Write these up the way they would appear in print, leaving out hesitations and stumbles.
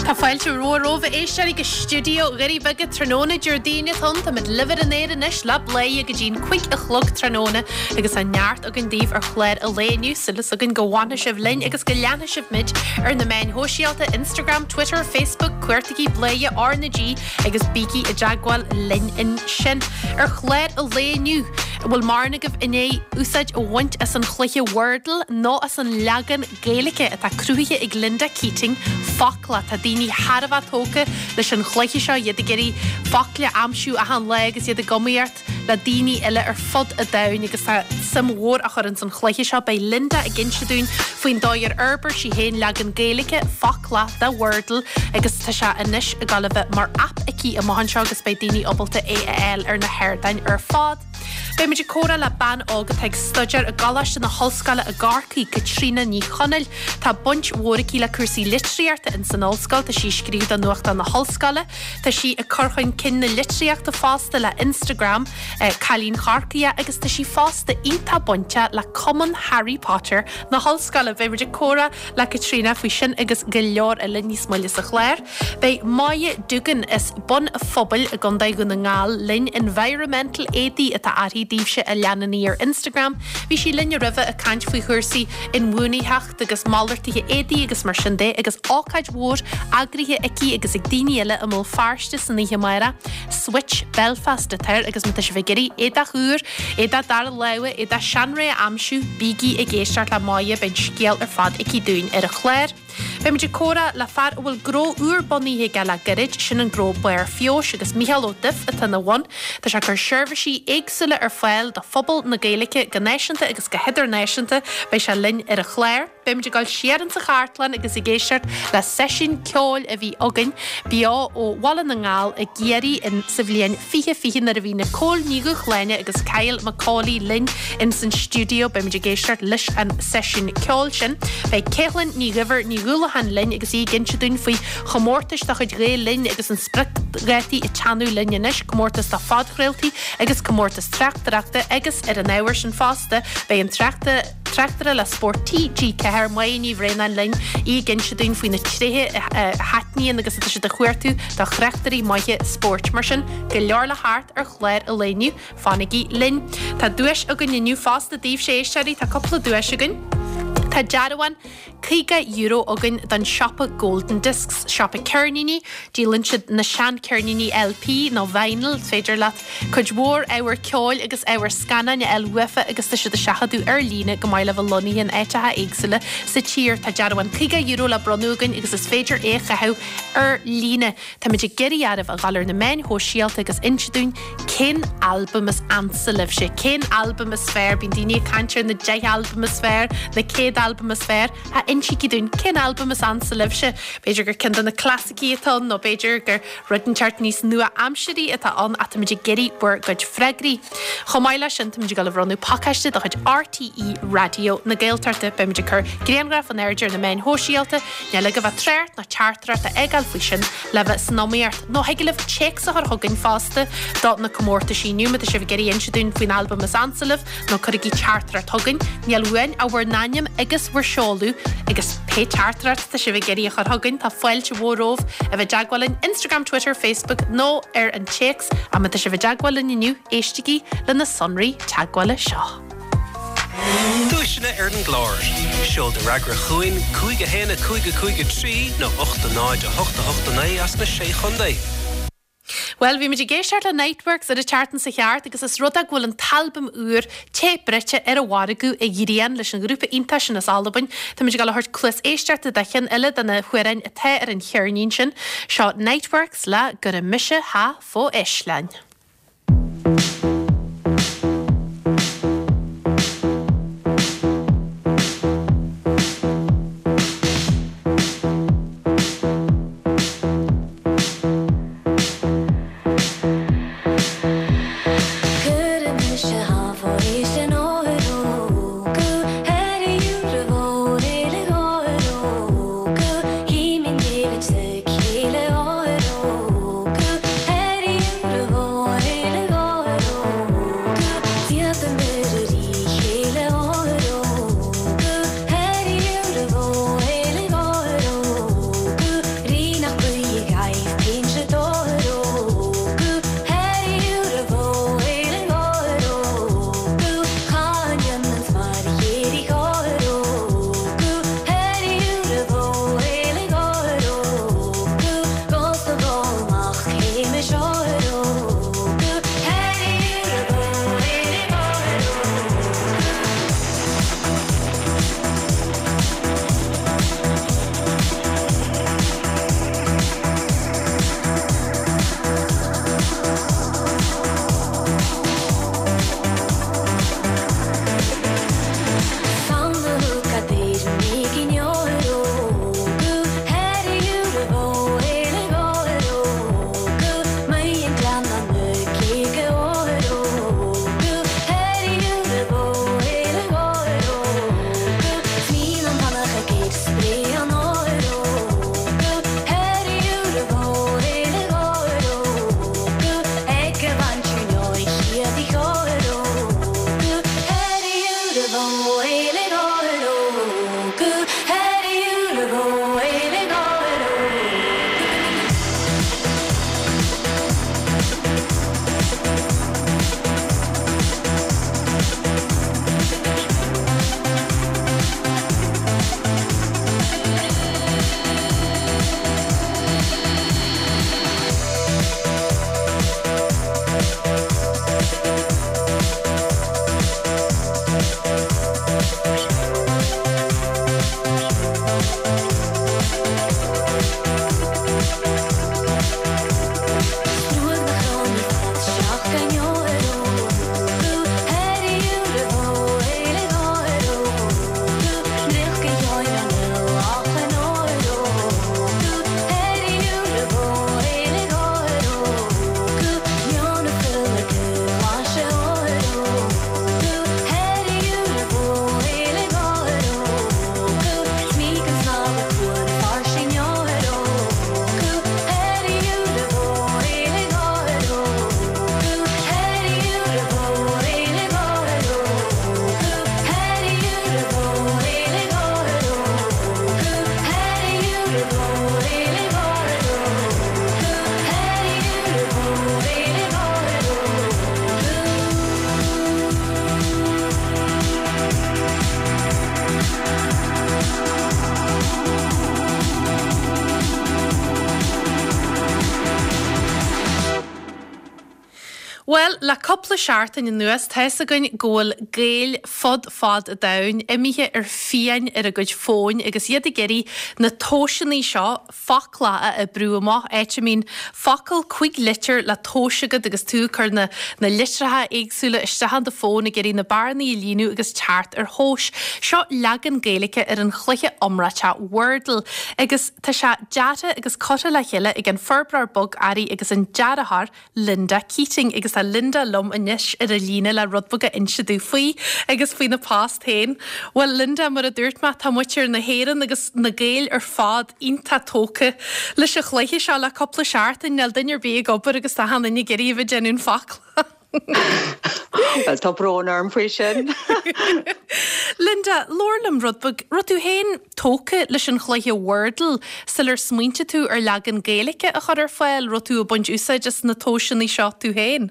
Tá fáilte mhór romhaibh a éisteoirí go stiúideo Dhoirí Beaga tráthnóna Déardaoin atá ann. Táimid libh ar an aer anois le Bladhaire go dtí'n 5 a chlog tráthnóna agus tá neart againn daoibh ar chlár an lae inniu. Súil againn go bhfanfaidh sibh linn agus go leanfaidh sibh muid ar na meáin shóisialta, Instagram, Twitter, Facebook, cuartaigí Bladhaire R na G agus bígí i dteagmháil linn ansin. Ar chlár an lae inniu, an bhfuil mórán agaibh i ndiaidh úsáid a bhaint as an chluiche Wordle nó as an leagan Gaeilge atá cruthaithe ag Linda Keating, Focla. Tá daoine thar a bheith tógtha leis an chluiche seo, iad ag iarraidh focla a aimsiú achan lá agus iad ag iomaíocht le daoine eile ar fud an domhain agus tá suim mhór á chur ins an chluiche seo. Beidh Linda ag inse dúinn faoin dóigh ar fhorbair sí féin leagan Gaeilge, Focla, de Wordle agus tá sé anois ag dul a bheith mar aip aici amach anseo agus beidh daoine ábalta é a fháil ar na hardáin ar fad. Beidh muid ag comhrá le bean óg atá ag staidéar i gColáiste na hOllscoile i gCorcaigh, Caitríona Ní Chonaill. Tá baint mhór aici le cúrsaí litríochta ins an ollscoil, tá sí ag scríobh do nuachtán na hollscoile, tá sí ag cur chun cinn na litríochta fosta le Instagram, Cailín Chorcaí agus tá sí fosta iontach bainteach le Cumann Harry Potter na hollscoile. Beidh muid ag comhrá le Caitríona faoi sin agus go leor eile níos moille sa chlár. Beidh Moya Duggan as Bun a' Phobail i gContae Dhún na nGall linn, Environmental Éadaí atá uirthi daoibhse a leanann í ar Instagram. Bhí sí linn roimhe ag caint faoi chúrsaí inbhuanaitheacht agus malartuithe éadaí agus mar sin de agus ócáid mhór eagraithe aici agus ag daoine eile i mBéal Feirste san oíche amárach. Switch Belfast atá air agus má tá sibh ag iarraidh éadach úr, éadach dara láimhe, éadach seanré a aimsiú, bígí ag éisteacht le Moya, beidh an scéal ar fad aici dúinn ar an chlár. Beidh muid ag comhrá le fear a bhfuil gnó úr bunaithe aige le gairid, sin an gnó Barr Feabhais agus Micheál Ó Duibh atá ina bhun. Tá sé ag cur seirbhísí éagsúla ar fáil do phobal na Gaeilge go náisiúnta agus go hidirnáisiúnta. Beidh sé linn ar an chlár. Beidh muid ag dul siar insa chartlann agus ag éisteacht le seisiún ceoil a bhí againn beo ó Bhaile na nGall i gCiarraí in sa bhliain 2020 nuair a bhí Nicole Ní Dhúshláine agus Kyle Macaulay linn ins an stiúideo. Beidh muid ag éisteacht leis an seisiún ceoil sin. Beidh Caitlín Ní Dhuibhir Ní Dhúlacháin linn agus í ag inse dúinn faoi chomórtais de chuid Ghael Linn agus an spriocdhátaí ag teannadh linn anois, comórtas do phodchraoltaí agus comórtas tráchtaireachta agus ar an ábhar sin fosta beidh an tráchtaire le Spórt TG4, Máire Ní Bhraonáin linn, í ag inse dúinn faoi na tréithe a thaitníonn agus atá siad a chuartú do thráchtairí maithe spóirt. Mar sin, go leor le theacht ar chlár an lae inniu. Fanaigí linn. Tá duais againn inniu fosta daoibhse a éisteoirí, tá cúpla duais againn. Tá dearbhán €50 againn don siopa Golden Discs, siopa ceirníní. Díolann siad na seancheirníní LP nó vinyl, is féidir leat cuid mhór ábhar ceoil agus ábhar scannáin a fháil uafa agus tá siad ag seachadadh ar líne go maith le bheith lonnaithe in áiteacha éagsúla sa tír. Tá dearbhán €50 le bronnadh againn agus is féidir é a chaitheamh ar líne. Táimid ag iarraidh oraibh a dhul ar na meáin shóisialta agus inse dúinn cén albam is ansa libhse, cén albam is fearr, bíonn daoine ag caint ar na 10 albam is fearr, na 100 albam is fearr, ach insígí dúinn cén albam is ansa libhse. B'fhéidir gur ceann de na clasaicí atá ann nó b'fhéidir gur rud inteacht níos nua-aimsirí atá ann ach táimid ag iarraidh bhur gcuid freagraí. Chomh maith leis sin táimid ag dul a bhronnadh pacáiste de chuid RTÉ Raidió na Gaeltachta. Beimid ag cur grianghraf in airde ar na meáin shóisialta. Níl agaibh ach trácht ná teachtaireacht a fhágáil faoi sin le bheith san iomaíocht. Nó thig libh téacs a chur chugainn fosta do na comórtaisí inniu má tá sibh ag iarraidh inse dúinn faoin albam is ansa libh nó cuirigí teachtaireacht chugainn. Níl uainn ach bhur n-ainm agus bhur seoladh agus pé teachtaireacht atá sibh ag iarraidh a chur chugainn tá fáilte mhór romhaibh a bheith i dteagmháil linn Instagram, Twitter, Facebook nó ar an téacs. Ach má tá sibh i dteagmháil linn inniu éistigí le na sonraí teagmhála seo. Duaiseanna ar an gclár. Seol do fhreagra chugainn 5 1 5 5 3 nó 8 0 8 8 9 as na Sé Chontae. Bhuel, bhí muid ag éisteacht le Niteworks ar an tseachtain seo chuaigh thart agus is rud é go bhfuil an t-albam úr Tae Bruite ar an mhargadh a ghrian leis an ghrúpa iontach sin as Albain. Tá muid ag dul a thabhairt cluas éisteachta do cheann eile de na hamhráin atá ar an cheirnín sin. Seo Niteworks le Gura Mise Tha Fo Eislean. Bhuel, le cúpla seachtain anuas, tá fhios againn go bhfuil Gaeil fud fad an domhain imithe ar fiáin ar a gcuid fóin agus iad ag iarraidh na tomhaiseanna seo, foclach a oibriú amach, áit a mbíonn focal 5 litir le tomhas agat agus tú ag cur na na litreacha éagsúla isteach in do fón ag iarraidh na bearnaí a líonadh agus teacht ar thomhas. Seo leagan Gaeilge ar an chluiche iomráiteach Wordle agus tá sé deartha agus curtha le chéile ag an forbróir bogearraí agus an dearthóir Linda Keating agus tá Linda liom anois ar an líne le rud beag a inse domh faoi agus faoina post féin. Bhuel Linda, mar a dúirt mé, tá muintir na hÉireann agus na Gaeil ar fad iontach tógtha leis an chluiche seo le cúpla seachtain, níl duine ar bith ag obair agus tá achan duine ag iarraidh a bheith ag déanamh an foclach. Bhuel, tá brón orm faoi sin. Linda, labhair liom rud beag, raibh tú féin tógtha leis an chluiche Wordle sular smaointigh tú ar leagan Gaeilge a chur ar fáil, raibh tú ag baint úsáid as na tomhaiseanna seo tú féin?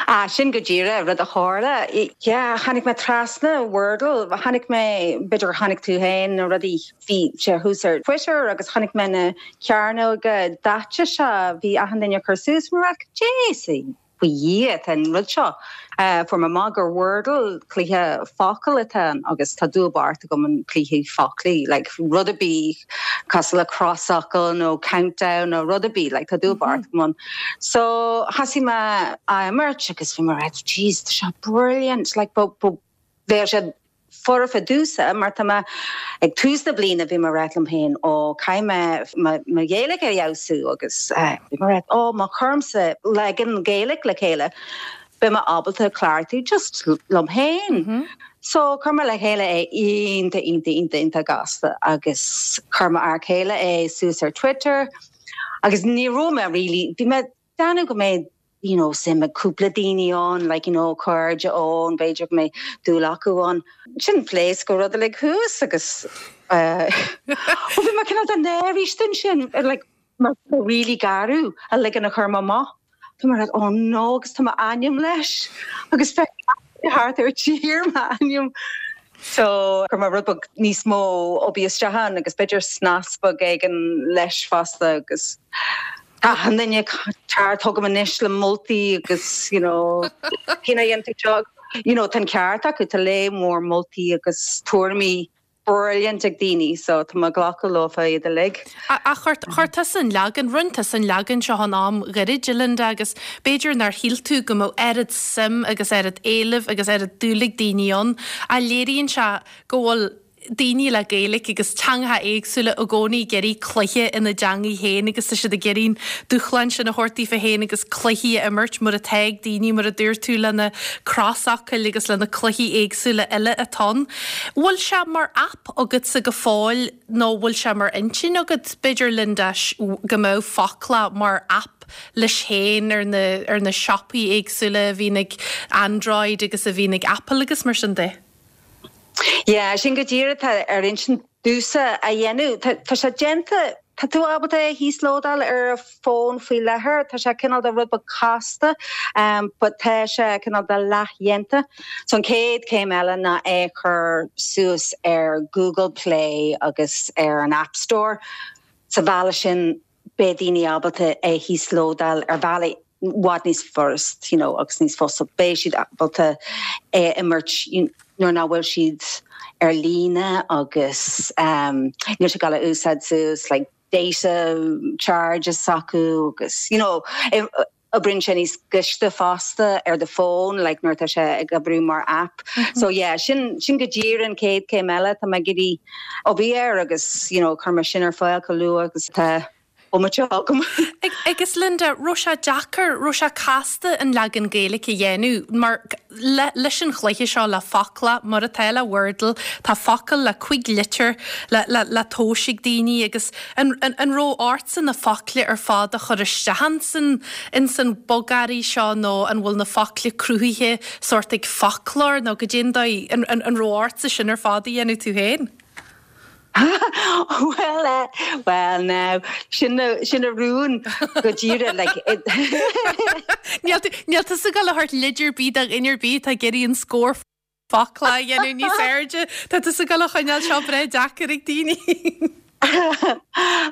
Ah, sin go díreach rud a tharla. Yeah, tháinig mé trasna Wordle, chonaic mé, b'fhéidir gur chonaic tú féin na rudaí, bhí sé thuas ar Twitter agus chonaic mé na cearnóga daite seo, bhí achan duine ag cur suas, bhí mé like, Jeez! Faoi Dhia atá an rud seo. Fuair mé amach gur Wordle, cluiche focal atá ann agus tá dúil bocht agam in cluichí foclaí, like rud ar bith cosúil le crosfhocal nó countdown nó rud ar bith, like tá dúil bocht agam ann. So thosaigh mé á imirt agus bhí mé like jeez tá seo brilliant, like bheadh sé foirfe domhsa mar tá mé ag tús na bliana bhí mé ag ráit liom féin ó caithfidh mé mo Ghaeilge a fheabhsú agus bhí mé ag ráit ó má chuirimse leagan Gaeilge le chéile beidh mé ábalta cleachtadh just liom féin. So chuir mé le chéile é iontach iontach iontach iontach gasta agus chuir m'fhear céile é suas ar Twitter agus ní raibh mé really bhí mé ag déanamh go mbeidh you know, suim ag cúpla daoine ann, like, you know, cairde ann, b'fhéidir go mbeidh dúil acu ann. Ansin phléasc an rud uilig thuas agus eh, ó bhí mé cineál de náirithe ansin, like, mar really garbh an leagan a chuir mé amach. Tá mé like, oh no, agus tá m'ainm leis agus feicim thart ar tír m'ainm. So chuir mé rud beag níos mó oibre isteach ann agus b'fhéidir snas beag éigin leis fosta agus tá achan duine ag teacht chugam anois le moltaí agus you know cén chaoi a dhéanann tú seo you know tá an ceart acu tá lear mór moltaí agus tuairimí brilliant ag daoine so tá mé ag glacadh leofa iad uilig. Ach chuir tusa an leagan, rinne tusa an leagan seo in am ghairid, a Linda, agus b'fhéidir nár shíl tú go mbeadh oiread suim agus oiread éilimh agus oiread dúil ag daoine ann, ach léiríonn sé go bhfuil daoine le Gaeilge agus teangacha éagsúla i gcónaí ag iarraidh cluiche ina dteangaidh féin agus tá siad ag iarraidh an dúshlán sin a thabhairt daofa féin agus cluichí a imirt mar atá ag daoine, mar a dúirt tú, le na crosfhocail agus le na cluichí éagsúla eile atá ann. Bhfuil sé mar aip agatsa go fóill nó bhfuil sé mar intinn agat, b'fhéidir, Linda, go mbeadh Foclach mar aip leis féin ar na, ar na siopaí éagsúla a bhíonn ag Android agus a bhíonn ag Apple agus mar sin de? Yeah, sin go díreach atá ar intinn domhsa a dhéanamh. Tá, tá sé déanta, tá tú ábalta é a híoslódáil ar an fón faoi láthair, tá sé cineál de rud beag casta, but tá sé cineál de leathdhéanta. So an chéad chéim eile ná é a chur suas ar Google Play agus ar an App Store. Sa bhealach sin beidh daoine ábalta é a híoslódáil ar bhealaí i bhfad níos furast you know agus níos fusa. Beidh siad ábalta é a imirt nuair nach bhfuil siad ar líne agus níl siad ag gabháil a úsáid suas like data charges s'acu agus you know oibríonn sé níos gaiste fosta ar do fón like nuair atá sé ag oibriú mar app. So yeah sin sin go díreach an chéad chéim eile tá mé ag iarraidh obair air agus you know cuirfidh mé sin ar fáil chomh luath agus atá bomaite agam. Agus Linda, raibh sé deacair, raibh sé casta an leagan Gaeilge a dhéanamh mar le, leis an chluiche seo, le Foclach, mar atá le Wordle, tá focal le cuig litir le, le, le tomhas ag daoine agus an, an, an raibh ortsa na focla ar fad a chur isteach insan, insan bogearraí seo nó an bhfuil na focla cruthaithe sórt ag foclóir nó goidé an dóigh, an, an, an raibh ortsa sin ar fad a dhéanamh tú féin? Bhuel eh, well now, sin sin an rún go díreach like it. Níl tú níl tusa ag dul a thabhairt leid ar bith do dhuine ar bith atá ag iarraidh an scór focla a dhéanamh níos airde. Tá tusa ag dul a choinneáil seo breá deacair ag daoine.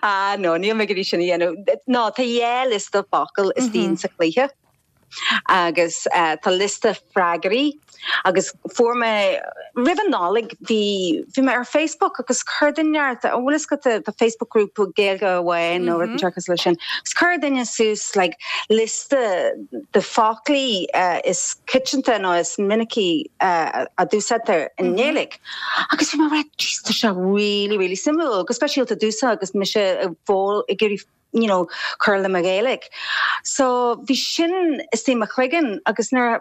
Ah no, níl mé ag iarraidh sin a dhéanamh. No, tá dhá liosta focal istigh sa chluiche. Agus tá liosta freagraí agus fuair mé, roimh an Nollaig bhí, bhí mé ar Facebook agus chuir duine inteacht, an bhfuil fhios agat tá Facebook group Gaeilge amháin nó rud inteacht cosúil leis sin, agus chuir duine suas like liosta de foclaí is coitianta nó is minicí a d'úsáidtear i nGaeilge. Agus bhí mé right, jeez, tá seo really, really suimiúil, go speisialta domhsa agus mise ag iarraidh you know, cur le mo Ghaeilge. So bhí sin istigh i mo chloigeann agus nuair a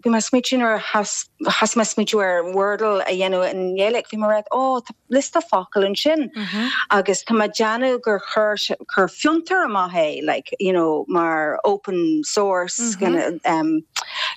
bhí mé ag smaoitiú nuair a thosaigh mé ag smaoitiú ar Wordle a dhéanamh i nGaeilge, bhí mé right, oh, tá liosta focal ansin agus tá mé ag déanamh gur chuir chuir Fiontar amach é, like, you know, mar open source kind of, um,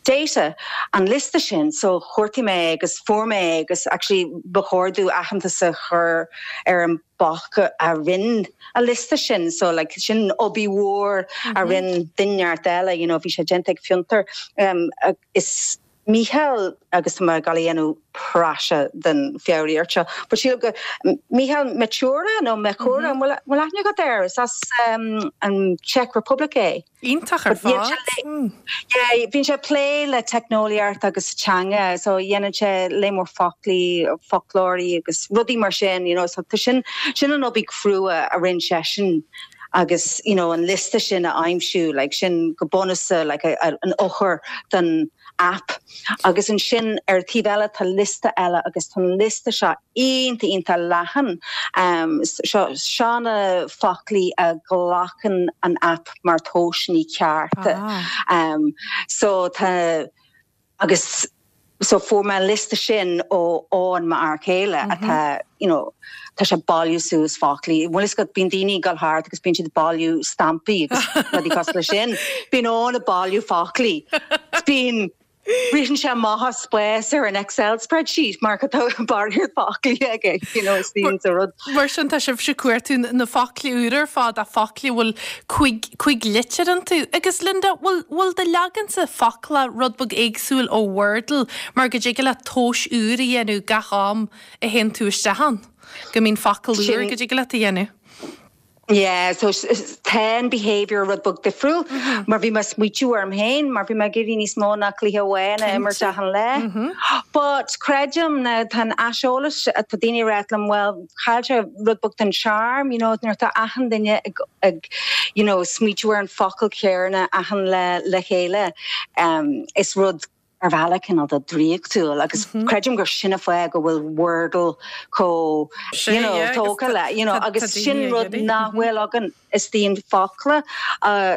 data, an liosta sin, so chuartaigh mé é agus fuair mé é agus actually ba chóir domh aitheantas a chur ar an boc a rinne an liosta sin so like sin obair mhór a rinne duine inteacht eile you know bhí sé déanta ag Fiontar um, is Mícheál agus tá mé ag dul a dhéanamh praiseach den foghraíocht seo but sílim go Mícheál Mechura nó Mechura an bhfuil aithne agat air is as um, an Czech Republic é. Iontach ar fad. Yeah, bíonn sé ag plé le teicneolaíocht agus teanga, so dhéanann sé léar mór foclaí, foclóirí agus rudaí mar sin, you know, so tá sin, sin an obair chrua a rinne seisean agus, you know, an liosta sin a aimsiú, like, sin go bunúsach, like, an eochair don app. Agus ansin ar an taobh eile tá liosta eile agus tá an liosta seo iontach iontach leathan. Seo seo na foclaí a ghlacann an aip mar tomhaiseanna cearta. So tá agus so fuair mé an liosta sin ó Eoin m'fhear céile atá you know tá sé ag bailiú suas foclaí. Bhfuil fhios agat bíonn daoine ag dul thart agus bíonn siad ag bailiú stampaí agus rudaí cosúil leis sin. Bíonn Eoin ag bailiú foclaí. Bíonn Ritheann sé amach as spás ar an Excel spreadsheet mar tá barraíocht foclaí aige, you know, is bíonn sa rud. Mar sin tá sibhse ag cuartú na foclaí úra ar fad, a foclaí a bhfuil cúig, cúig litir iontu. Agus Linda, bhfuil, bhfuil do leagansa focla rud beag éagsúil ó Wordle mar go dtig leat tomhais úr a dhéanamh gach am a théann tú isteach ann, go mbíonn focal úr go dtig leat a dhéanamh? Yeah, so tá an behaviour rud beag difriúil mar bhí mé ag smaoitiú orm féin mar bhí mé ag iarraidh níos mó ná cluiche amháin a imirt achan lá. But creidim na tá an aiseolas tá daoine ag ráit liom well chaill sé rud beag den charm, you know, nuair atá achan duine ag ag you know smaoitiú ar an focal céanna achan lá le chéile um, is rud ar bhealach cineál de draíochtúil agus creidim gur sin an fáth go bhfuil Wordle chomh you know tógtha le you know agus sin rud nach bhfuil againn istigh in Focla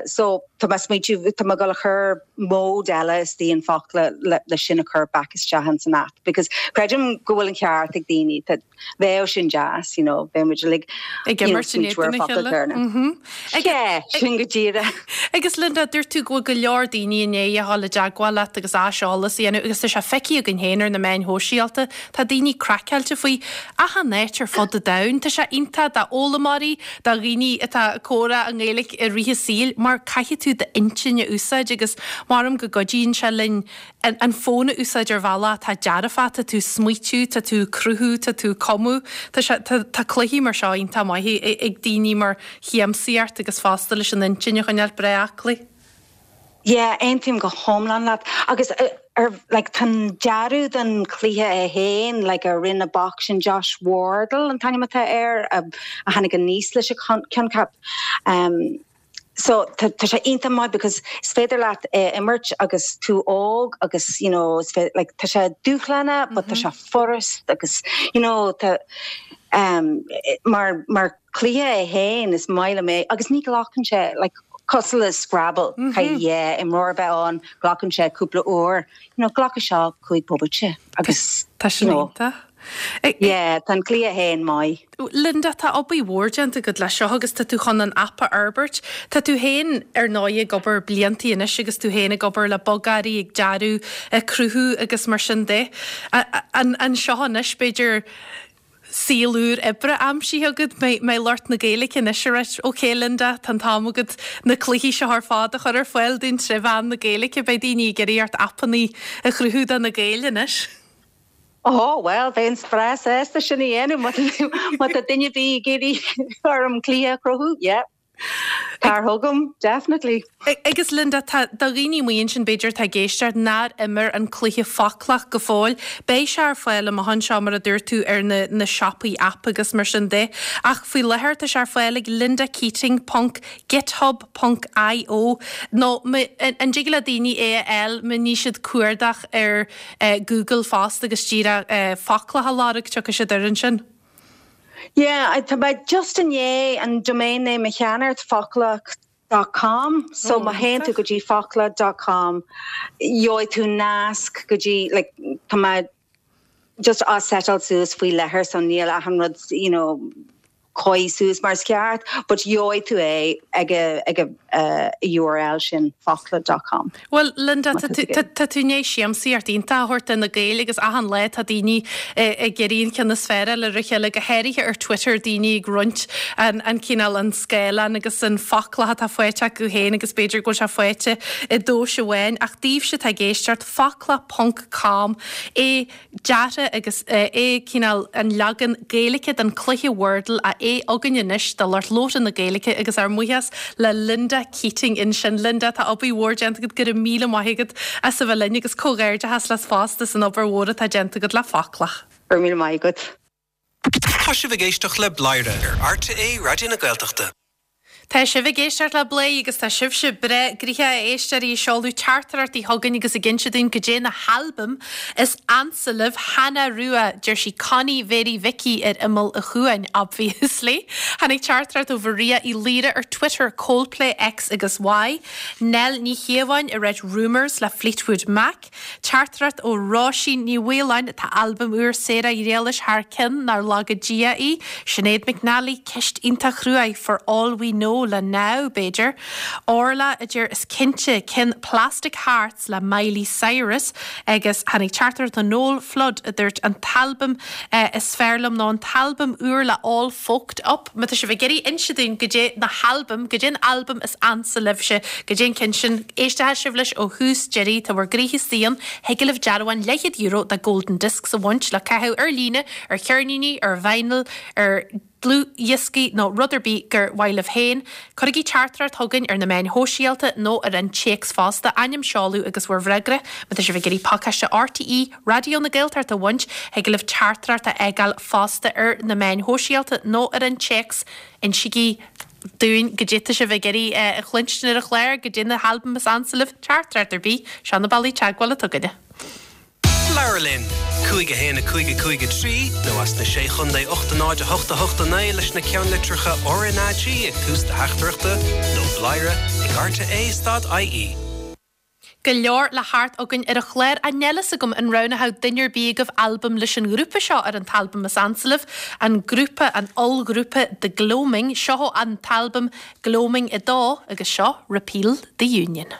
so tá mé ag smaoitiú tá mé ag dul a chur mode eile istigh in Focla le sin a chur back isteach ins an app because creidim go bhfuil an ceart ag daoine Bheadh sin deas, you know, bheadh muid uilig ag imirt in éadan a chéile. Yeah, sin go díreach. Agus Linda, dúirt tú go bhfuil go leor daoine i ndiaidh a dhul i dteagmháil leat agus aiseolas a dhéanamh agus tá sé feicthe againn féin ar na meáin shóisialta, tá daoine craiceáilte faoi achan áit ar fud an domhain. Tá sé iontach d'fhoghlaimeoirí, do dhaoine atá ag comhrá i nGaeilge i rith a saoil mar caithfidh tú d'intinn a úsáid agus maram go gcuidíonn sé linn an fón a úsáid ar bhealach atá dearfach, tá tú ag smaoitiú, tá tú ag cruthú, tá tú ag cumadh. Tá sé, tá, tá cluichí mar seo iontach maith ag daoine mar shiamsaíocht agus fosta leis an intinn a choinneáil breá aclaí. Yeah, aontaím go hiomlán leat. Agus ar, like, tá an dearadh den chluiche é féin, like, a rinne an boc sin Josh Wardle an t-ainm atá air, a tháinig aníos leis an coincheap. Um, So tá tá sé iontach maith because is féidir leat é a imirt agus tú óg agus you know is féidir like tá sé dúshlánach but tá sé furast agus you know tá um mar mar chluiche é féin is maith liom é agus ní ghlacann sé like cosúil le Scrabble caithfidh dhá imreoir a bheith ann glacann sé cúpla uair you know glacfaidh seo cúig bomaite agus Tá sin you know iontach. Yeah, tá an cluiche féin maith. Linda, tá obair mhór déanta agat leis seo agus tá tú chun an aip a fhorbairt. Tá tú féin, ar ndóigh, ag obair bliantaí anois agus tú féin ag obair le bogearraí, ag dearadh, ag cruthú agus mar sin de. An seo anois, b'fhéidir, saol úr oibre aimsithe agat, mbeidh lucht na Gaeilge anois ag ráit, OK Linda, tá an t-am agat na cluichí seo ar fad a chur ar fáil dúinn tré mheán na Gaeilge, beidh daoine ag iarraidh ort aipeanna a chruthú do na Gaeil anois. Ó, bhuel, bheinn breá sásta sin a dhéanamh má tá duine ar bith ag iarraidh orm cluiche a chruthú, yeah. Tar chugam, definitely. Agus Linda, tá do dhaoine amuigh ansin b'fhéidir atá ag éisteacht nár imir an cluiche Foclach go fóill, beidh sé ar fáil amach anseo mar a dúirt tú ar na na siopaí aip agus mar sin de. Ach faoi láthair tá sé ar fáil ag lindakeating ponc github ponc io nó an dtig le daoine é a fháil má ní siad cuardach ar Google fosta agus díreach Foclach a lorg tiocfaidh siad air ansin. Yeah, tá mé just i ndiaidh an domain name a cheannacht, foclach dot com, so má théann tú go dtí foclach dot com gheobhaidh tú nasc go dtí, like, tá mé just á setáil suas faoi láthair so níl achan rud, you know, cóirithe suas mar is ceart, but gheobhaidh tú é ag ag an URL sin, foclach dot com. Bhuel, Linda, tá tú i ndiaidh siamsaíocht iontach a thabhairt do na Gaeil agus achan lá tá daoine ag iarraidh an ceann is fearr a fháil ar a chéile, go háirithe ar Twitter, daoine ag roinnt an cineál, an scáileán agus an foclach atá faighte acu féin agus b'fhéidir go bhfuil sé faighte i dtomhas amháin. Ach daoibhse atá ag éisteacht, foclach ponc com é deartha agus é cineál an leagan Gaeilge den cluiche Wordle a é againn anois do lucht labhartha na Gaeilge agus ár mbuíochas le Linda Keating ansin. Linda, tá obair mhór déanta agat, go raibh míle maith agat as a bheith linn agus comhghairdeachas leat fosta as an obair mhór atá déanta agat le Foclach. Go raibh míle maith agat. Tá sibh ag éisteacht le Bladhaire ar RTÉ Raidió na Gaeltachta. Tá sibh ag éisteacht le Bladhaire agus tá sibhse breá gnoitheach a éisteoirí ag seoladh teachtaireachtaí chugainn agus ag inse dúinn goidé na halbaim is ansa libh. Hannah Rua, deir sí Connie Mhéirí Mhicí ar imeall an chuain, obviously. Tháinig teachtaireacht ó Mharia Uí Laoire ar Twitter, Coldplay X agus Y. Nell Ní Chiobháin ag ráit Rumours le Fleetwood Mac. Teachtaireacht ó Róisín Ní Mhaoláin, Tá albam úr Sarah Ghriallais thar cionn, nár laga Dia í. Sinéad McNally, Ceist iontach chruaidh, For All We Know le Now, b'fhéidir. Orla a deir Is cinnte, ceann Plastic Hearts le Miley Cyrus agus tháinig teachtaireacht ó Noel Flood a dúirt An t-albam is fearr liom nó an t-albam úr le All Folked Up. Má tá sibh ag iarraidh inse dúinn goidé na halbaim, goidé an albam is ansa libhse, goidé an ceann sin, éistfidh sibh leis ó thús deiridh, tá bhur gcroíthe istigh ann, thig libh dearbhán leathchéad euro de Golden Discs a bhaint le caitheamh ar líne, ar cheirníní, ar vinyl, ar dhlúthdhioscaí nó rud ar bith gur mhaith libh féin. Cuirigí teachtaireacht chugainn ar na meáin shóisialta nó ar an téacs fosta, ainm, seoladh agus bhur bhfreagra. Má tá sibh ag iarraidh pacáiste RTÉ Raidió na Gaeltachta a bhaint, thig libh teachtaireacht a fhágáil fosta ar na meáin shóisialta nó ar an téacs. Insígí dúinn goidé tá sibh ag iarraidh a chluinstin ar an chlár, goidé na halbaim is ansa libh, teachtaireacht ar bith, seo na bealaí teagmhála atá againne. Labhair linn! 5 1 5 5 3 nó as na Sé Chontae 8 0 8 8 9 leis na ceannlitreacha RnaG ag tús do theachtaireachta nó bladhaire ag rte stad ie. Go leor le theacht againn ar an chlár ach níl fhios agam an roghnódh duine ar bith agaibh albam leis an ngrúpa seo ar an t-albam is ansa libh, an grúpa, an ollghrúpa The Gloaming. Seo an t-albam Gloaming 2 agus seo Repeal the Union.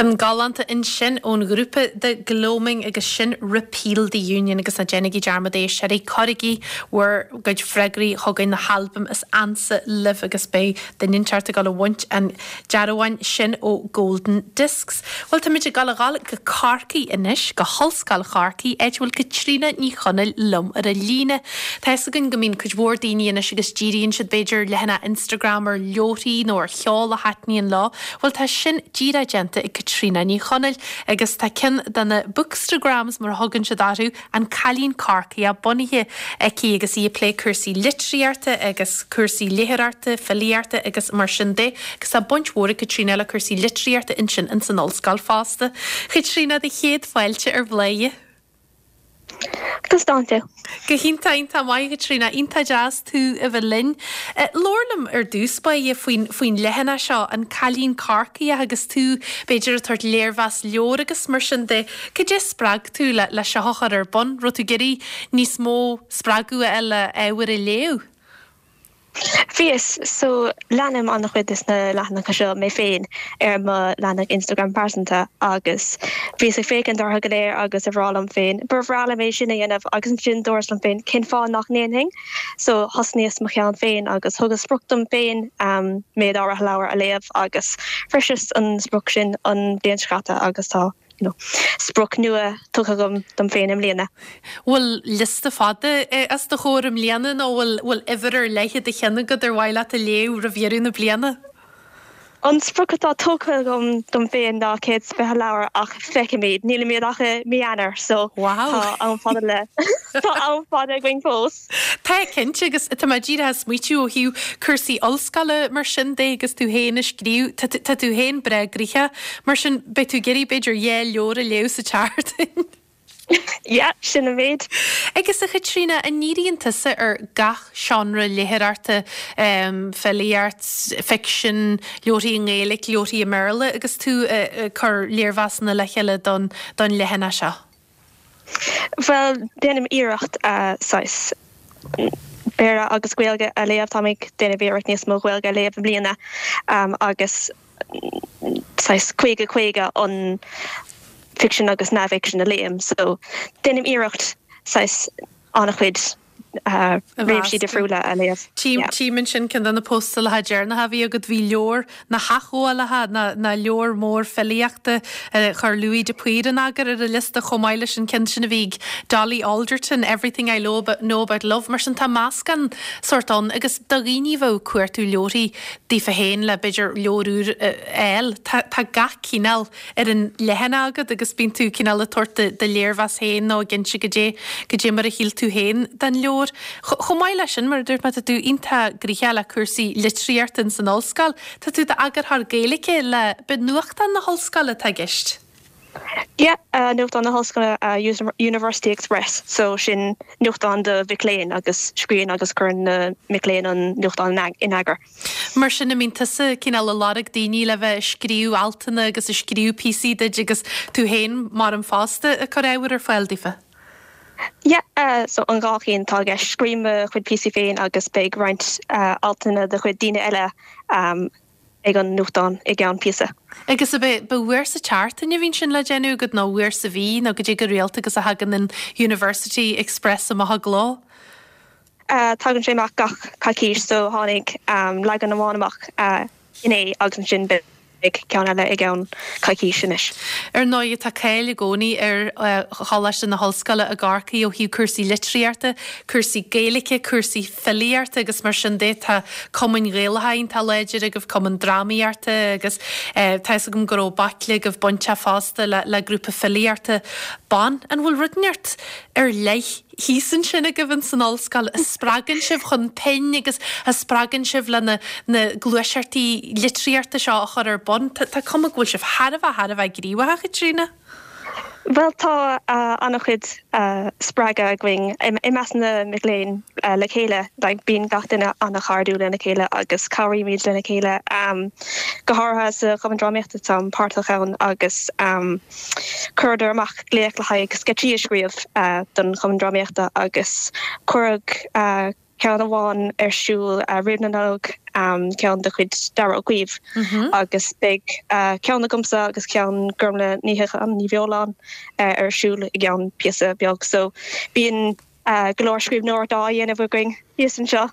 Ceann galánta ansin ón ghrúpa The Gloaming agus sin Repeal the Union agus ná déanaigí dearmad a éisteoirí, cuirigí bhur gcuid freagraí chugainn na halbaim is ansa libh agus beidh duine inteacht ag dul a bhaint an dearbháin sin ó Golden Discs. Bhuel táimid ag dul a dhul go Corcaigh anois, go hOllscoil Chorcaí, áit a bhfuil Caitríona Ní Chonaill liom ar an líne. Tá fhios againn go mbíonn cuid mhór daoine anois agus díríonn siad b'fhéidir ar leathanach Instagram ar leabharthaí nó ar cheol a thaitníonn leo. Bhuel tá sin díreach déanta ag Caitríona Ní Chonaill agus tá ceann de na bookstagrams mar a thugann siad orthu, An Cailín Corcaíoch, bunaithe aici agus í ag plé cúrsaí litríochta agus cúrsaí léitheoireachta, filíochta agus mar sin de agus tá baint mhór ag Caitríona le cúrsaí litríochta ansin ins an ollscoil fosta. Chaitríona, do chéad fáilte ar Bhladhaire. Conas tánn tú? Go hiontach, iontach maith, a Chaitríona. Iontach deas tú a bheith linn. Labhair liom ar dtús báire faoin, faoin leathanach seo, An Cailín Corcaíoch, agus tú, b'fhéidir, ag tabhairt léirmheas leabhar agus mar sin de. Cad é a spreag tú le, le seo a chur ar bun? Raibh tú ag iarraidh níos mó spreagadh a fháil le ábhar a léamh? Bhíos, so leanaim an-chuid des na leathanacha seo mé féin ar mo leathanach Instagram pearsanta agus bhíos ag féachaint orthu go léir agus ag rá liom féin, ba bhreá liom é sin a dhéanamh agus ansin dúras liom féin, cén fáth nach ndéanfainn? So thosnaíos mo cheann féin agus thugas sprioc dom féin méid áirithe leabhar a léamh agus shroiseas an sprioc sin an bhliain seo caite agus tá you know, sprioc nua tugtha agam dom féin i mbliana. Bhfuil liosta fada os do chomhair i mbliana nó bhfuil bhfuil uimhir ar leith i do cheann agat ar mhaith leat a léamh roimh dheireadh na bliana? An sprioc atá tugtha agam dom féin ná 120 leabhar ach feicfimid, nílimid ach i mí Eanáir so tá am fada le tá am fada againn fós. Tá, cinnte, agus tá mé díreach ag smaoitiú ó thaobh cúrsaí ollscoile mar sin de agus tú féin ag scríobh, tá tá tú féin breá gnoitheach, mar sin beidh tú ag iarraidh b'fhéidir dhá leabhar a léamh sa tseachtain. Yeah, sin an méid. Agus a Chaitríona, an ndíríonn tusa ar gach seánra léitheoireachta, filíocht, ficsean, leabharthaí i nGaeilge, leabharthaí i mBéarla agus tú ag cur léirmheasanna le chéile don don leathanach seo? Bhuel, déanaim iarracht saghas Béarla agus Gaeilge a léamh. Táim ag déanamh iarracht níos mó Gaeilge a léamh i mbliana agus saghas 50 50 an ficsean agus neamhfhicsean a léim. So, déanaim iarracht saghas an-chuid réimsí difriúla a léamh. Tchím ansin ceann de na póstálacha deireanacha a bhí agat, bhí leabhar na hAthghabhálacha, ná leabhar mór filíochta a chuir Louis de Paor in eagar ar an liosta chomh maith leis an ceann sin a bhí ag Dolly Alderton, Everything I Know About Love. Mar sin tá meascán sórt ann agus do dhaoine a bheadh ag cuartú leabharthaí daofa féin le b'fhéidir leabhar úr a fháil, tá gach cineál ar an leathanach agat agus bíonn tú cineál ag tabhairt do léirmheas féin nó ag inse goidé, goidé mar a shíl tú féin den leabhar. Chomh maith leis sin, mar a dúirt mé, tá tú iontach gnoitheach le cúrsaí litríochta ins an ollscoil. Tá tú i d'eagarthóir Gaeilge le, b'é nuachtán na hollscoile atá i gceist? Yeah, nuachtán na hollscoile, University Express, so sin nuachtán do mhic léinn agus scríobhann agus cuireann na mic léinn an nuachtán in eagar. Mar sin, an mbíonn tusa cineál ag lorg daoine le bheith ag scríobh altanna agus ag scríobh píosaí duit agus tú féin mar an fosta ag cur ábhair ar fáil daofa? Yeah, so an dhá cheann atá i gceist. Scríobhaim mo chuid píosaí féin agus beidh roinnt altanna de chuid daoine eile ag an nuachtán i gceann píosa. Agus ab é, ba uair sa tseachtain a bhíonn sin le déanamh agat nó uair sa mhí nó goidé go rialta agus a thagann an University Express amach i gcló? Tagann sé amach gach coicís so tháinig leagan amháin amach inné agus ansin beidh ceann eile i gceann coicís anois. Ar ndóigh tá cáil i gcónaí ar Choláiste na hOllscoile i gCorcaigh ó thaobh cúrsaí litríochta, cúrsaí Gaeilge, cúrsaí filíochta agus mar sin de. Tá cumainn Ghaelacha iontach láidir agaibh, cumann drámaíochta agus tá fhios agam go raibh baicle agaibh bainteach fosta le grúpa filíochta ban. An bhfuil rud inteacht ar leith thíos ansin agaibh ins an ollscoil a spreagann sibh chun pinn agus a spreagann sibh le na na gluaiseachtaí litríochta seo a chur ar bun. Tá tá cuma go bhfuil sibh thar a bheith thar a bheith gníomhach, a Chaitríona. Bhuel tá an-chuid spreagadh againn i measc na mic léinn le chéile. Like bíonn gach duine an-chairdiúil lena chéile agus cabhraímid lena chéile. Go háirithe sa Chumann Drámaíochta táim páirteach ann agus Chuireadar amach glaoch le haghaidh sceitsí a scríobh don Chumann Drámaíochta agus cuireadh. ceann amháin ar siúl roimh na Nollag, ceann de chuid Darragh Ó Caoimh agus beidh ceann agamsa agus ceann Gormlaith Ní Shíocháin, Ní Bheoláin ar siúl i gceann píosa beag. So bíonn go leor scríbhneoireacht á dhéanamh againn thíos anseo.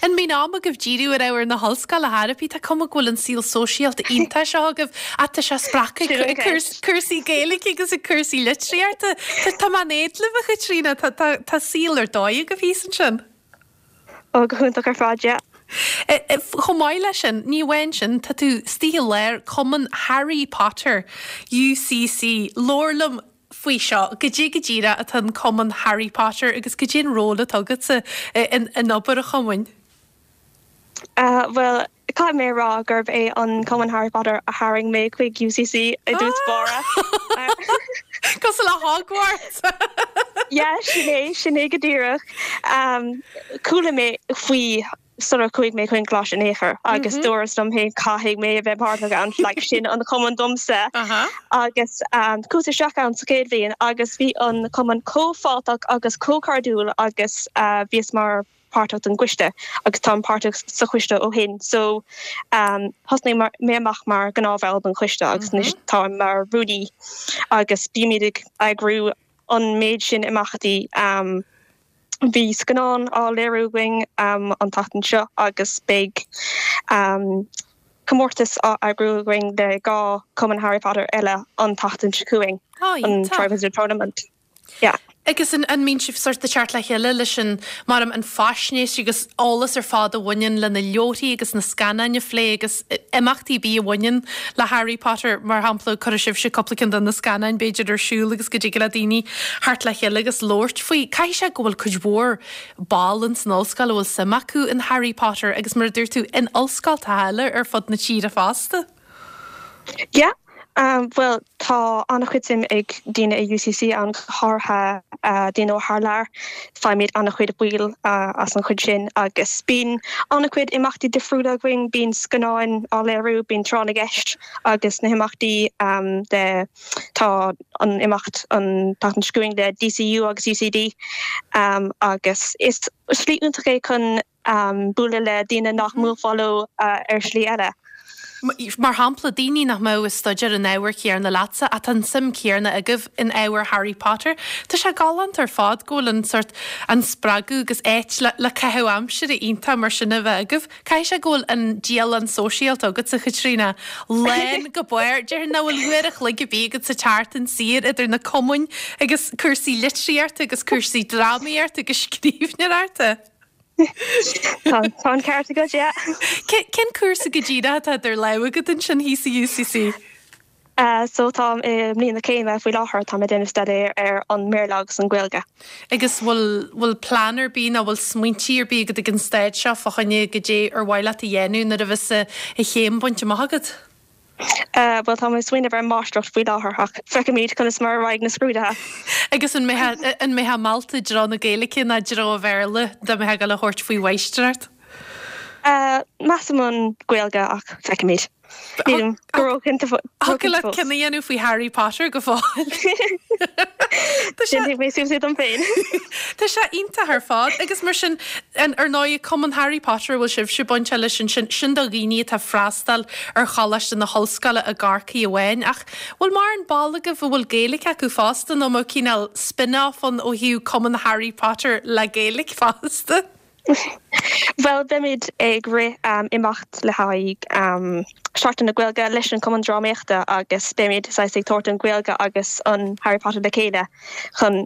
An mbíonn am agaibh díriú ar ábhar na hollscoile ar chor ar bith? Tá cuma go bhfuil an saol sóisialta iontach seo agaibh ach tá sé spreagtha ag cúrsaí Gaeilge agus ag cúrsaí litríochta. Tá mé in éad libh, a Chaitríona, tá saol ar dóigh agaibh thíos ansin. Ó, go hiontach ar fad, yeah. Chomh maith leis sin, ní amháin sin, tá tú istigh i lár Cumann Harry Potter, UCC. Labhair liom faoi seo. Goidé go díreach atá an Cumann Harry Potter agus goidé an ról atá agatsa in obair an chumainn? Bhuel, caithfidh mé a rá gurb é an Cumann Harry Potter a tharraing mé chuig UCC i dtús báire. Cosúil le Hogwarts! Yeah, sin é, sin é go díreach. Chuala mé faoi sular chuaigh mé chuig an gcoláiste in aon chor agus dúras liom féin caithfidh mé a bheith páirteach ann, like sin an cumann domsa. Agus chuas isteach ann sa chéad bhliain agus bhí an cumann chomh fáilteach agus chomh cairdiúil agus bhíos mar páirteach den gcoiste agus táim páirteach sa choiste ó shin. So thosnaigh mé amach mar ghnáthbhall den choiste agus anois táim mar rúnaí agus bímid ag eagrú an méid sin imeachtaí. Bhí scannán á léiriú againn an tseachtain seo agus beidh comórtas á eagrú againn le 2 Cumann Harry Potter eile an tseachtain seo chugainn, an Triwizard Tournament. Yeah. Agus an mbíonn sibh sort ag teacht le chéile leis an, mar an faisnéis agus eolas ar fad a bhaineann le na leabharthaí agus na scannáin a phlé agus imeachtaí ar bith a bhaineann le Harry Potter, mar shampla, cuirfidh sibhse cúpla ceann de na scannáin b'fhéidir ar siúl agus go dtig le daoine theacht le chéile agus labhairt faoi. Caithfidh sé go bhfuil cuid mhór ball ins an ollscoil a bhfuil suim acu in Harry Potter agus mar a dúirt tú, in ollscoltacha eile ar fud na tíre fosta. Yeah, bhuel tá an-chuid suim ag daoine i UCC ann, go háirithe daoine ó thar lear. Faighimid an-chuid baill as an chuid sin agus bíonn an-chuid imeachtaí difriúla againn, bíonn scannáin á léiriú, bíonn tráth na gceist agus na himeachtaí de, tá an imeacht an tseachtain seo chugainn le DCU agus UCD agus is slí iontach é chun bualadh le daoine nach mbuailfeá leo ar shlí eile. Mar shampla, daoine nach mbeadh ag staidéar an ábhair chéarna leatsa ach tá an suim chéarna agaibh in ábhar Harry Potter. Tá sé galánta ar fad go bhfuil an sórt, an spreagadh agus áit le le caitheamh aimsire iontach mar sin a bheith agaibh. Caithfidh sé go bhfuil an dialann sóisialta agatsa, Chaitríona, lán go barr. Déarfainn nach bhfuil uair a chloig ar bith agat sa tseachtain saor idir na cumainn agus cúrsaí litríochta agus cúrsaí drámaíochta agus scríbhneoireachta. Tá an ceart agat, yeah. Cén cúrsa go díreach atá idir lámha agat ansin thíos i UCC? So táim i mbliain na céime faoi láthair, táim ag déanamh staidéir ar an mBéarla agus an Ghaeilge. Agus bhfuil, bhfuil plean ar bith nó bhfuil smaointí ar bith agat ag an staid seo fá choinne goidé ar mhaith leat a dhéanamh nuair a bheas an chéim bainte amach agat? Bhuel, táim ag smaoineamh ar máistreacht faoi láthair ach feicfimid conas mar a raghaidh na scrúduithe. Agus an mbeifeá, an mbeifeá meallta i dtreo na Gaeilge ná i dtreo an Bhéarla dá mbeifeá ag dul a thabhairt faoi mháistreacht? Measaim an Ghaeilge ach feicfimid. Nílim go róchinnte fós. Thiocfadh leat cinneadh a dhéanamh faoi Harry Potter go fóill. Déanfaidh mé suas é dom féin. Tá sé iontach ar fad agus mar sin, ar ndóigh, Cumann Harry Potter a bhfuil sibhse bainteach leis ansin, sin do dhaoine atá ag freastal ar Choláiste na hOllscoile i gCorcaigh amháin ach bhfuil mórán ball agaibh a bhfuil Gaeilge acu fosta nó an mbeadh cineál spin-off ann ó thaobh Cumann Harry Potter le Gaeilge fosta? Bhuel, beimid ag rith imeacht le haghaidh Seachtain na Gaeilge leis an Cumann Drámaíochta agus beimid saghas ag tabhairt an Ghaeilge agus an Harry Potter le chéile chun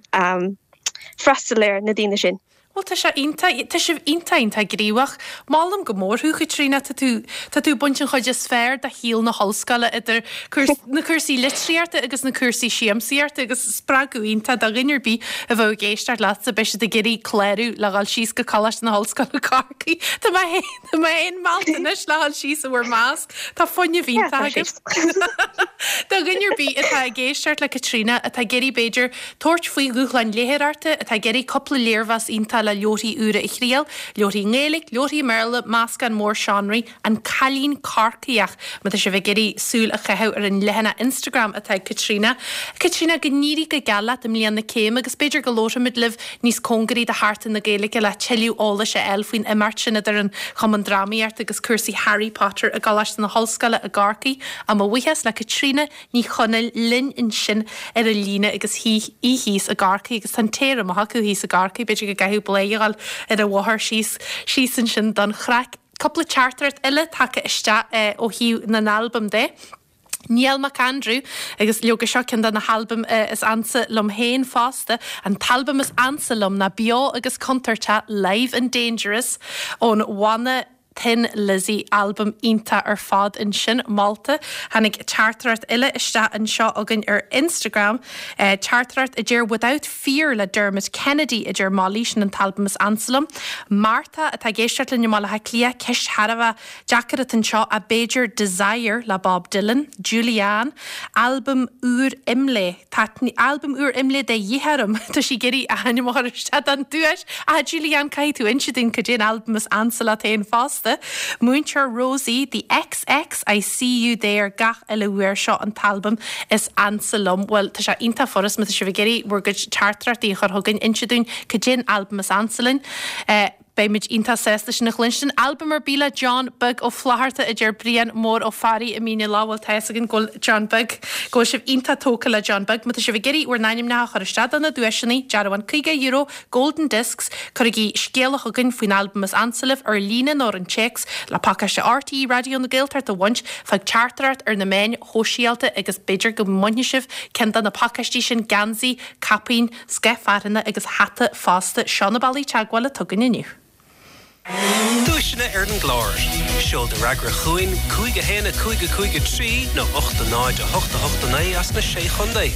freastal ar na daoine sin. Bhuel, tá sé iontach, tá sibh iontach, iontach gníomhach. Molaim go mór thú, Chaitríona, tá tú, tá tú ag baint an chuid is fearr de shaol na hollscoile idir na cúrsaí litríochta agus na cúrsaí siamsaíochta agus spreagadh iontach do dhuine ar bith a bheadh ag éisteacht leatsa, beidh siad ag iarraidh clárú le dhul síos go Coláiste na hOllscoile Corcaigh. Tá mé féin, tá mé féin meallta anois le dhul síos i bhur measc. Tá fuinneamh iontach agaibh. Do dhuine ar bith atá ag éisteacht le Caitríona, atá ag iarraidh b'fhéidir tabhairt faoi dhúshlán léitheoireachta, atá ag iarraidh cúpla léirmheas iontach. atá le leabharthaí úra a thriail, leabharthaí i nGaeilge, leabharthaí i mBéarla, meascán mór seánraí, An Cailín Corcaíoch, má tá sibh ag iarraidh súil a chaitheamh ar an leathanach Instagram atá ag Caitríona. Caitríona, go n-éirí go geal leat i mbliain na céime agus b'fhéidir go labharfaimid libh níos cóngaraí do Sheachtain na Gaeilge le tuilleadh eolais a fháil faoin imeacht sin idir an Chumann Drámaíochta agus cúrsaí Harry Potter i gColáiste na hOllscoile i gCorcaigh. Á mo bhuíochas le Caitríona Ní Chonaill linn ansin ar an líne agus í thíos i gCorcaigh agus tá an t-aer amach acu thíos i gCorcaigh, b'fhéidir go gcaithfidh Bladhaire a dhul ar an bhóthar síos síos ansin don chraic. Cúpla teachtaireacht eile tagtha isteach ó thaobh na n-albam de. Niall Mac Aindriú, agus leoga seo ceann de na halbaim is ansa liom féin fosta, an t-albam is ansa liom ná Beo agus Contúirteach, Live and Dangerous ón bhanna Thin Lizzy, albam iontach ar fad ansin, molta. Tháinig teachtaireacht eile isteach anseo againn ar Instagram, teachtaireacht a deir Without Fear le Dermot Kennedy, a deir Molly, sin an t-albam is ansa liom. Martha atá ag éisteacht linn i mBaile Átha Cliath, ceist thar a bheith deacair atá anseo ach b'fhéidir Desire le Bob Dylan, Julianne, albam úr Imlé. Tá albam úr Imlé de dhíth orm. Tá sí ag iarraidh a hainm a chur isteach don duais. Ah, Julianne, caithfidh tú inse dúinn cad é an albam is ansa leat féin fosta. Múinteoir Rosie, The XX, I See You There gach uile uair seo an t-albam is ansa liom. Bhuel, tá sé iontach furast má tá sibh ag iarraidh bhur gcuid teachtaireachtaí a chur chugainn, inse dúinn cad é an albam is ansa linn. Beimid iontach sásta sin a chluinstin. Albam ar bith le John Beag Ó Flatharta, a deir Brian Mór Ó Fearraigh i Mín an Leá. Bhuel, tá fhios againn go bhfuil John Beag, go bhfuil sibh iontach tógtha le John Beag. Má tá sibh ag iarraidh bhur n-ainmneacha a chur isteach do na duaiseanna, dearbhán €50, Golden Discs, cuirigí scéala chugainn faoin albam is ansa libh, ar líne nó ar an téacs, le pacáiste RTÉ Raidió na Gaeltachta a bhaint, fág teachtaireacht ar na meáin shóisialta agus b'fhéidir go mbainfidh sibh ceann de na pacáistí sin, geansaí, caipín, Scoth fearthainne agus hata fosta. Seo na bealaí teagmhála atá againn inniu. Duaiseanna ar an gclár. Seol do fhreagra chugainn, 5 1 5 5 3 nó 8 0 8 8 9 as na Sé Chontae.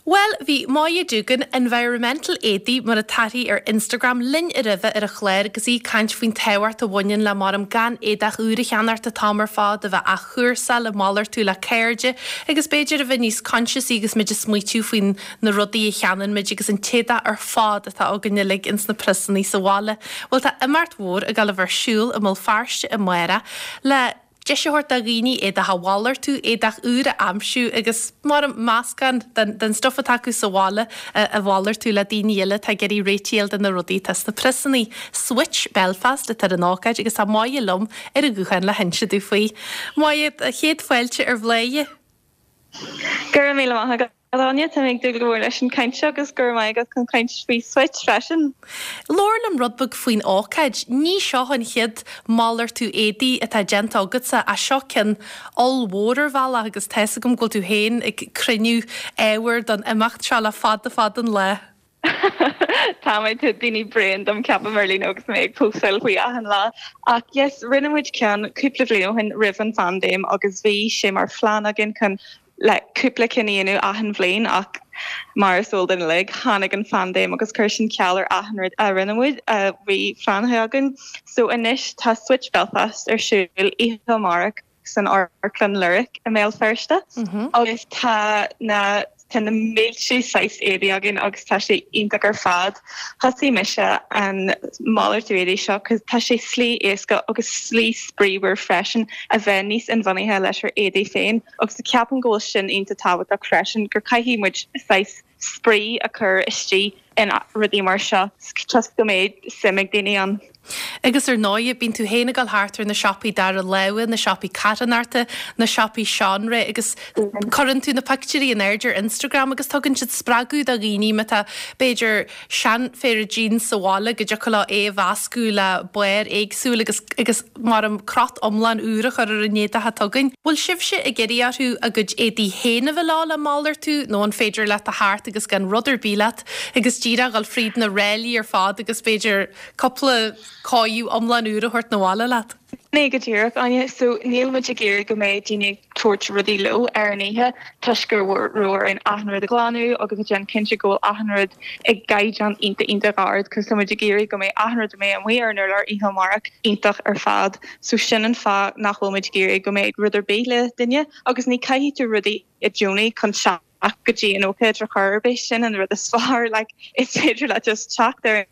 Bhuel, bhí Moya Doogan, Environmental Éadaí mar atá uirthi ar Instagram, linn roimhe ar an chlár agus í ag caint faoin tábhacht a bhaineann le maram gan éadach úr a cheannacht an t-am ar fad, a bheith á athchúrsáil, ag malartú le cairde agus b'fhéidir a bheith níos coinsiasaí agus muid ag smaoitiú faoin na rudaí a cheannaíonn muid agus an t-éadach ar fad atá againn uilig ins na priosannaí sa bhaile. Bhuel tá imeacht mhór ag dul a bheith ar siúl i mBéal Feirste amárach le deis a thabhairt do dhaoine éadach a mhalartú, éadach úr a aimsiú agus mar meascán den den stuif atá acu sa bhaile a mhalartú le daoine eile atá ag iarraidh réitigh a fháil do na rudaí atá sna priosannaí. Switch Belfast atá ar an ócáid agus tá Moya liom ar an ghuthán le hinse domh faoi. Moya, chéad fáilte ar Bhladhaire. Go raibh míle maith agat, Áine. Tá mé ag dúil go mór leis an chaint seo agus go raibh maith agat chun caint faoi Switch freisin. Labhair liom rud beag faoin ócáid. Ní seo an chéad malartú éadaí atá déanta agatsa ach seo ceann ollmhór ar bhealach agus tá fhios agam go bhfuil tú féin ag cruinniú ábhair don imeacht seo le fada fada an lá. Tá mé, tá daoine bréan dom ceapaim ar líne agus mé ag postáil faoi achan lá. Ach yes, rinne muid ceann cúpla bliain ó shin roimh an phaindéim agus bhí sé mar phlean againn chun le cúpla cinn a dhéanamh achan bhliain ach mar is eol duinn uilig, tháinig an phaindéim agus chuir sin ceal ar achan rud a rinne muid, a bhí pleanáilte againn. So anois tá Switch Belfast ar siúl oíche amárach. san Amharclann Lyric i mBéal Feirste agus tá na tá na mílte saghas éadaí againn agus tá sé iontach ar fad. Thosaigh mise an malartú éadaí seo cos tá sé slí éasca agus slí spraíúil freisin a bheith níos inbhuanaithe leis ár éadaí féin agus ceapaim go bhfuil sin iontach tábhachtach freisin gur caithfidh muid saghas spraoi a chur istigh in rudaí mar seo toisc go mbeidh suim ag daoine ann. Agus ar ndóigh, bíonn tú féin ag dul thart ar na siopaí dara láimhe, na siopaí carthanachta, na siopaí seanré agus cuireann tú na pictiúirí in airde ar Instagram agus tugann siad spreagadh do dhaoine má tá, b'fhéidir, seanphéire jeans sa bhaile go dtiocfadh leo é a mheascadh le barr éagsúil agus agus mar an crot iomlán úr a chur ar an éadach atá againn. Bhfuil sibhse ag iarraidh orthu a gcuid éadaí féin a bheith leo le malartú nó an féidir leat a theacht agus gan rud ar bith leat agus díreach dhul fríd na ráillí ar fad agus b'fhéidir cúpla cóireáil iomlán úr a thabhairt 'na bhaile leat? Ní go díreach, Áine. So, níl muid ag iarraidh go mbeidh daoine ag tabhairt rudaí leo ar an oíche toisc go raibh orainn achan rud a ghlanadh agus a déanamh cinnte go bhfuil achan rud i gcaighdeán iontach iontach ard cos tá muid ag iarraidh go mbeidh achan rud a mbeidh amuigh ar an urlár oíche amárach iontach ar fad. So sin an fáth nach bhfuil muid ag iarraidh go mbeidh rud ar bith le duine agus ní caithfidh tú rudaí i gcónaí chun. go dtí an ócáid ar chor ar bith, sin an rud is fearr, like is féidir leat just teacht ar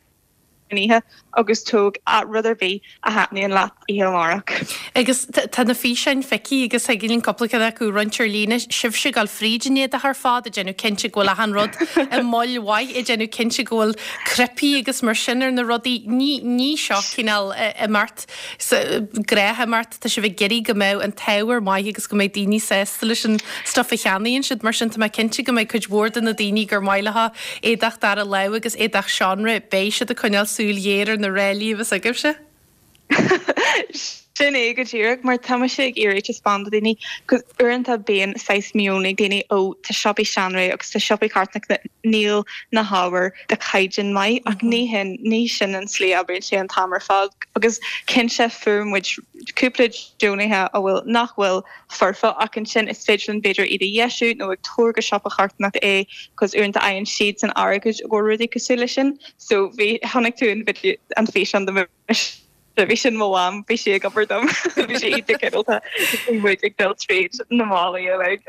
an oíche agus tóg rud ar bith a thaitníonn leat oíche amárach. Agus tá na físeáin feicthe agus thig linn cúpla ceann acu a roinnt ar líne, sibhse ag dul fríd an éadach ar fad, ag déanamh cinnte go bhfuil achan rud i mbail mhaith, ag déanamh cinnte go bhfuil cnaipí agus mar sin ar na rudaí. Ní, ní seo cineál imeacht, gnáthimeacht, tá sibh ag iarraidh go mbeadh an t-ábhar maith agus go mbeidh daoine sásta leis an stuif a cheannaíonn siad. Mar sin tá mé cinnte go mbeidh cuid mhór de na daoine gur maith leo éadach dara lámh agus éadach seánra, beidh siad ag coinneáil súil ghéar ar na ráillí a bheas agaibhse. Sin é go díreach, mar tá mise ag iarraidh taispeáint do dhaoine, 'cause uaireanta bíonn saghas meon ag daoine, ó tá siopaí seanré agus tá siopaí carthanachta, níl na hábhair de chaighdeán maith ach ní hin, ní sin an tslí a oibríonn sé an t-am ar fad agus cinnte fuair muid cúpla deonaithe a bhfuil, nach bhfuil foirfe ach ansin is féidir linn b'fhéidir iad a dheisiú nó ag tabhair go siopa carthanachta é 'cause uaireanta fhaigheann siadsan airgead i gcomhair rudaí cosúil leis sin so bhí, chonaic tú an video, an físeán de mise. Bhí sin mo mham, bhí sí ag obair dom, bhí sí iontach cineálta, bhí muid ag dul tríd na málaí uilig.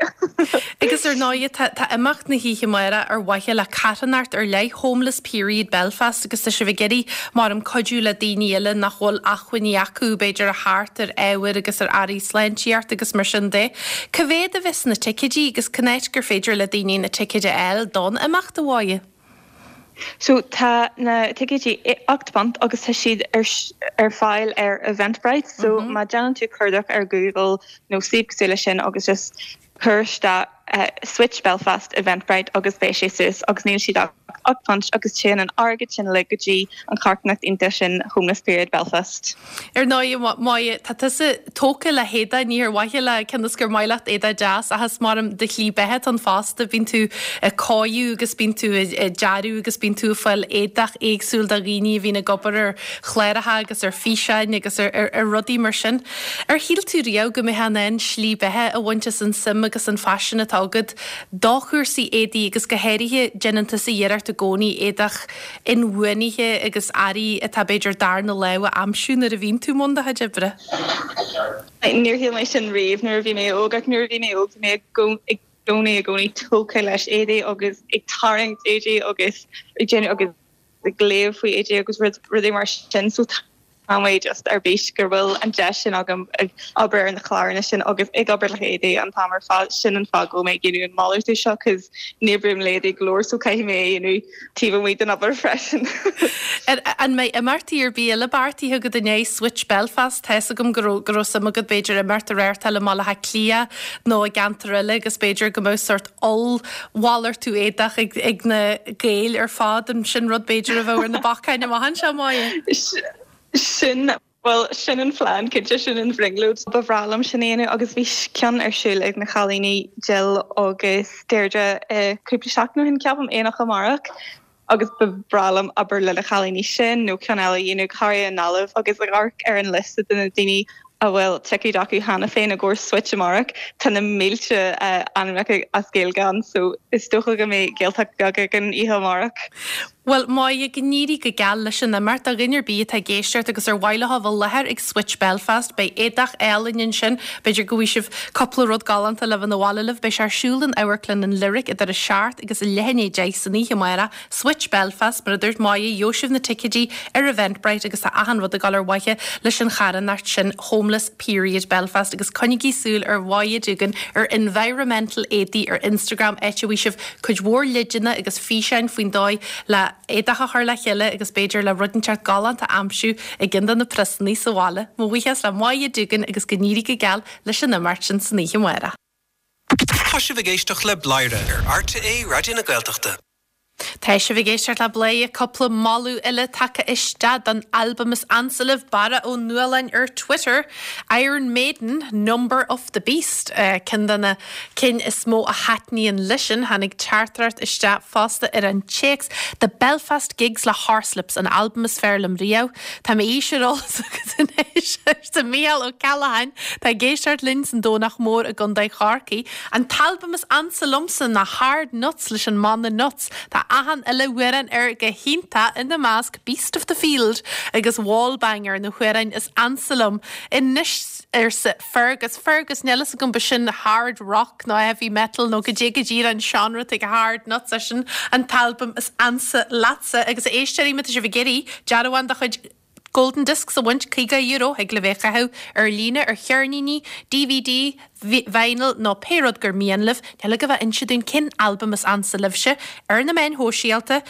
Agus ar ndóigh, tá tá imeacht na hoíche amárach ar mhaithe le carthanacht ar leith, Homeless Period Belfast, agus tá sibh ag iarraidh, maram, cuidiú le daoine eile nach bhfuil acmhainní acu, b'fhéidir, a theacht ar ábhair agus ar earraí sláintíochta agus mar sin de. Cá mhéad a bheas na ticéidí agus cén áit gur féidir le daoine na ticéid a fháil don imeacht, a Mháire? So tá na ticéidí £8 agus tá siad ar ar fáil ar Eventbrite so má déanann tú cuardach ar Google nó suíomh cosúil leis sin agus just cuir isteach Switch Belfast Eventbrite agus beidh sé suas agus níl siad ach £8 agus téann an airgead sin uilig go dtí an charthanacht iontach sin Homeless Period Belfast. Ar ndóigh, Máire, tá tusa tógtha le héadach, ní ar mhaithe le cionn is gur maith leat éadach deas ach is maram do shlí beatha atá ann fosta, bíonn tú ag cóiriú agus bíonn tú ag dearadh agus bíonn tú ag fáil éadach éagsúil do dhaoine a bhíonn ag obair ar chláracha agus ar físeáin agus ar rudaí mar sin. Ar shíl tú riamh go mbeifeá in ann slí beatha a bhaint as an suim agus an phaisean atá agat do chúrsaí éadaí agus go háirithe déanann tusa iarracht i gcónaí éadach inbhuanaithe agus earraí atá b'fhéidir darna lámh a aimsiú nuair a bhíonn tú i mbun do chuid oibre. Níor shíl mé sin riamh nuair a bhí mé óg ach nuair a bhí mé óg bhí mé i gcónaí i gcónaí tógtha leis éadaí agus ag tarraingt éadaí agus ag déanamh agus ag léamh faoi éadaí agus rudaí mar sin so Tá mé just ar bís go bhfuil an deis sin agam ag obair ar na cláranna sin agus ag obair le héadaí an t-am ar fad. Sin an fáth go bhfuil mé ag déanamh an malartú seo cos ní oibrím le éadaí go leor so caithfidh mé é a dhéanamh taobh amuigh den obair freisin. An mbeidh imeachtaí ar bith eile beartaithe agat i ndiaidh Switch Belfast? Tá's agam go raibh go raibh suim agat b'fhéidir imeacht a reáchtáil i mBaile Átha Cliath nó i gceantar eile agus b'fhéidir go mbeadh sórt ollmhalartú éadach ag na Gaeil ar fad, an sin rud b'fhéidir a bheadh ar na bacáin amach anseo, Máire? Sin, bhuel, sin an phlean, cinnte, sin an bhrionglóid. Ba bhreá liom sin a dhéanamh agus bhí ceann ar siúl ag na cailíní Jill agus Deirdre cúpla seachtain ó shin, ceapaim, Aonach Amárach. agus ba bhreá liom obair le na cailíní sin nó ceann eile a dhéanamh, go háirithe i nGaillimh agus ag amharc ar an liosta de na daoine a bhfuil ticéid acu cheana féin i gcomhair Switch amárach, tá na mílte ainmneacha as Gaeilge ann so is dócha go mbeidh Gaeltacht bheag againn oíche amárach. Bhuel, Máire, go n-éirí go geal leis an imeacht. Do dhuine ar bith atá ag éisteacht agus ar mhaith leo a bheith i láthair ag Switch Belfast, beidh éadach álainn ansin, b'fhéidir go bhfaighidh sibh cúpla rud galánta le bheith 'na bhaile libh. Beidh sé ar siúl in Amharclann an Lyric idir a seacht agus a leath i ndiaidh 10 san oíche amárach, Switch Belfast, mar a dúirt Máire, gheobhaidh sibh na ticéidí ar Eventbrite agus tá achan rud ag dul ar mhaithe leis an charthanacht sin, Homeless Period Belfast agus coinnigí súil ar Mháire Doogan ar Environmental Éadaí ar Instagram áit a bhfaighidh sibh cuid mhór leideanna agus físeáin faoin dóigh le éadach a chur le chéile agus b'fhéidir le rud inteacht galánta a aimsiú i gceann de na priosannaí sa bhaile. Mo bhuíochas le Máire Doogan agus go n-éirí go geal leis an imeacht sin san oíche amárach. Tá sibh ag éisteacht le Bladhaire ar RTÉ Raidió na Gaeltachta. Tá sibh ag éisteacht le Bladhaire, cúpla moladh eile tagtha isteach don albam is ansa libh, Barra Ó Nualláin ar Twitter, Iron Maiden, Number of the Beast, ceann de na cinn is mó a thaitníonn leisean. Tháinig teachtaireacht isteach fosta ar an téacs, The Belfast Gigs le Horslips, an albam is fearr liom riamh. Tá m'aois ar eolas agat anois. Arsa Mícheál Ó Ceallacháin, atá ag éisteacht linn san Domhnach Mór i gContae Chorcaí, An t-albam is ansa liomsa ná Hard Nuts leis an mbanna Nuts. Tá achan uile amhrán air go hiontach, ina measc Beast of the Field agus Wallbanger, na hamhráin is ansa liom anois, arsa Fergus. Fergus, níl fhios agam, b'shin hard rock nó heavy metal nó goidé go díreach an seánra atá ag Hard Nuts, é sin an t-albam is ansa leatsa. Agus a éisteoirí, má tá sibh ag iarraidh dearbhán de chuid Golden Discs a bhaint, €50, thig libh é a chaitheamh ar líne, ar cheirníní, DVD, vinyl nó pé rud gur mian libh. Níl agaibh ach inse dúinn cén albam is ansa libhse ar na meáin shóisialta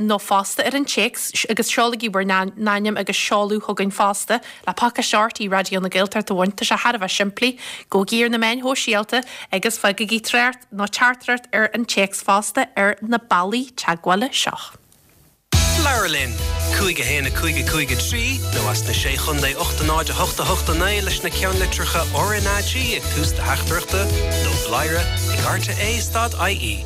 nó fosta ar an téacs agus seolaigí bhur n-ainm agus seoladh chugainn fosta le pacáiste RTÉ Raidió na Gaeltachta a bhaint. Tá sé thar a bheith simplí. Gabhaigí ar na meáin shóisialta agus fágaigí trácht nó teachtaireacht ar an téacs fosta ar na bealaí teagmhála seo. Labhair linn! 5 1 5 5 3 nó as na Sé Chontae 8 0 8 8 9 leis na ceannlitreacha RnaG ag tús do theachtaireachta nó bladhaire ag rte stad ie.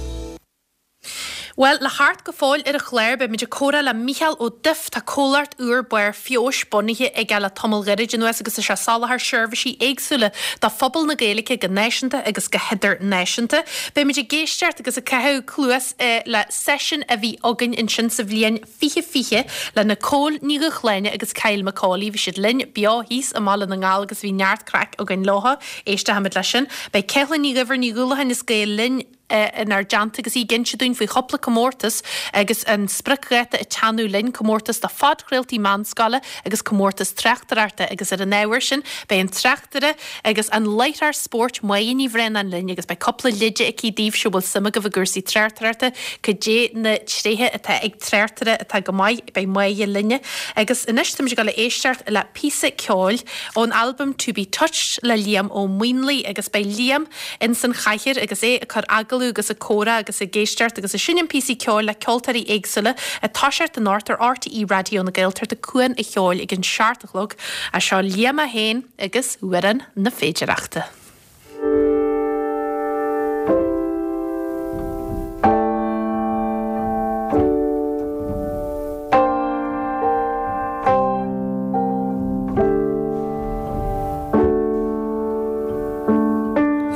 Bhuel, le theacht go fóill ar an chlár, beimid ag comhrá le Mícheál Ó Duif. Tá comhlacht úr Barr Feabhais bunaithe aige le tamall gairid anuas agus tá sé ag soláthar seirbhísí éagsúla do phobal na Gaeilge go náisiúnta agus go hidirnáisiúnta. Beimid ag éisteacht agus ag caitheamh cluas le seisiún a bhí againn ansin sa bhliain 2020 le Nicole Ní Dhúshláine agus Kyle McCauley. Bhí siad linn beo thíos i mBaile na nGall agus bhí neart craic againn leo. Éistfimid leis sin. Beidh Ceithleann Ní Dhuibhir Ní Dhúlacháin as Gael Linn inár dteannta agus í ag inse dúinn faoi chúpla comórtas agus an spriocdháta ag teannadh linn, comórtas do phodchraoltaí meánscoile agus comórtas tráchtaireachta agus ar an ábhar sin beidh an tráchtaire agus an láithreoir spóirt Máire Ní Bhraonáin linn agus beidh cúpla leide aici daoibhse a bhfuil suim agaibh i gcúrsaí tráchtaireachta, cad é na tréithe atá ag tráchtaire atá go maith, beidh Máire linne. Agus anois táimid ag dul a éisteacht le píosa ceoil ón albam To Be Touched le Liam Ó Maonlaí agus beidh Liam ins an chathaoir agus é ag cur agallamh agus ag comhrá agus ag éisteacht agus ag seinm píosaí ceoil le ceoltóirí éagsúla ag toiseacht anocht ar RTÉ Raidió na Gaeltachta Cuan a' Cheoil ag an 7 a chlog. Seo Liam é féin agus Amhrán na Féidireachta. A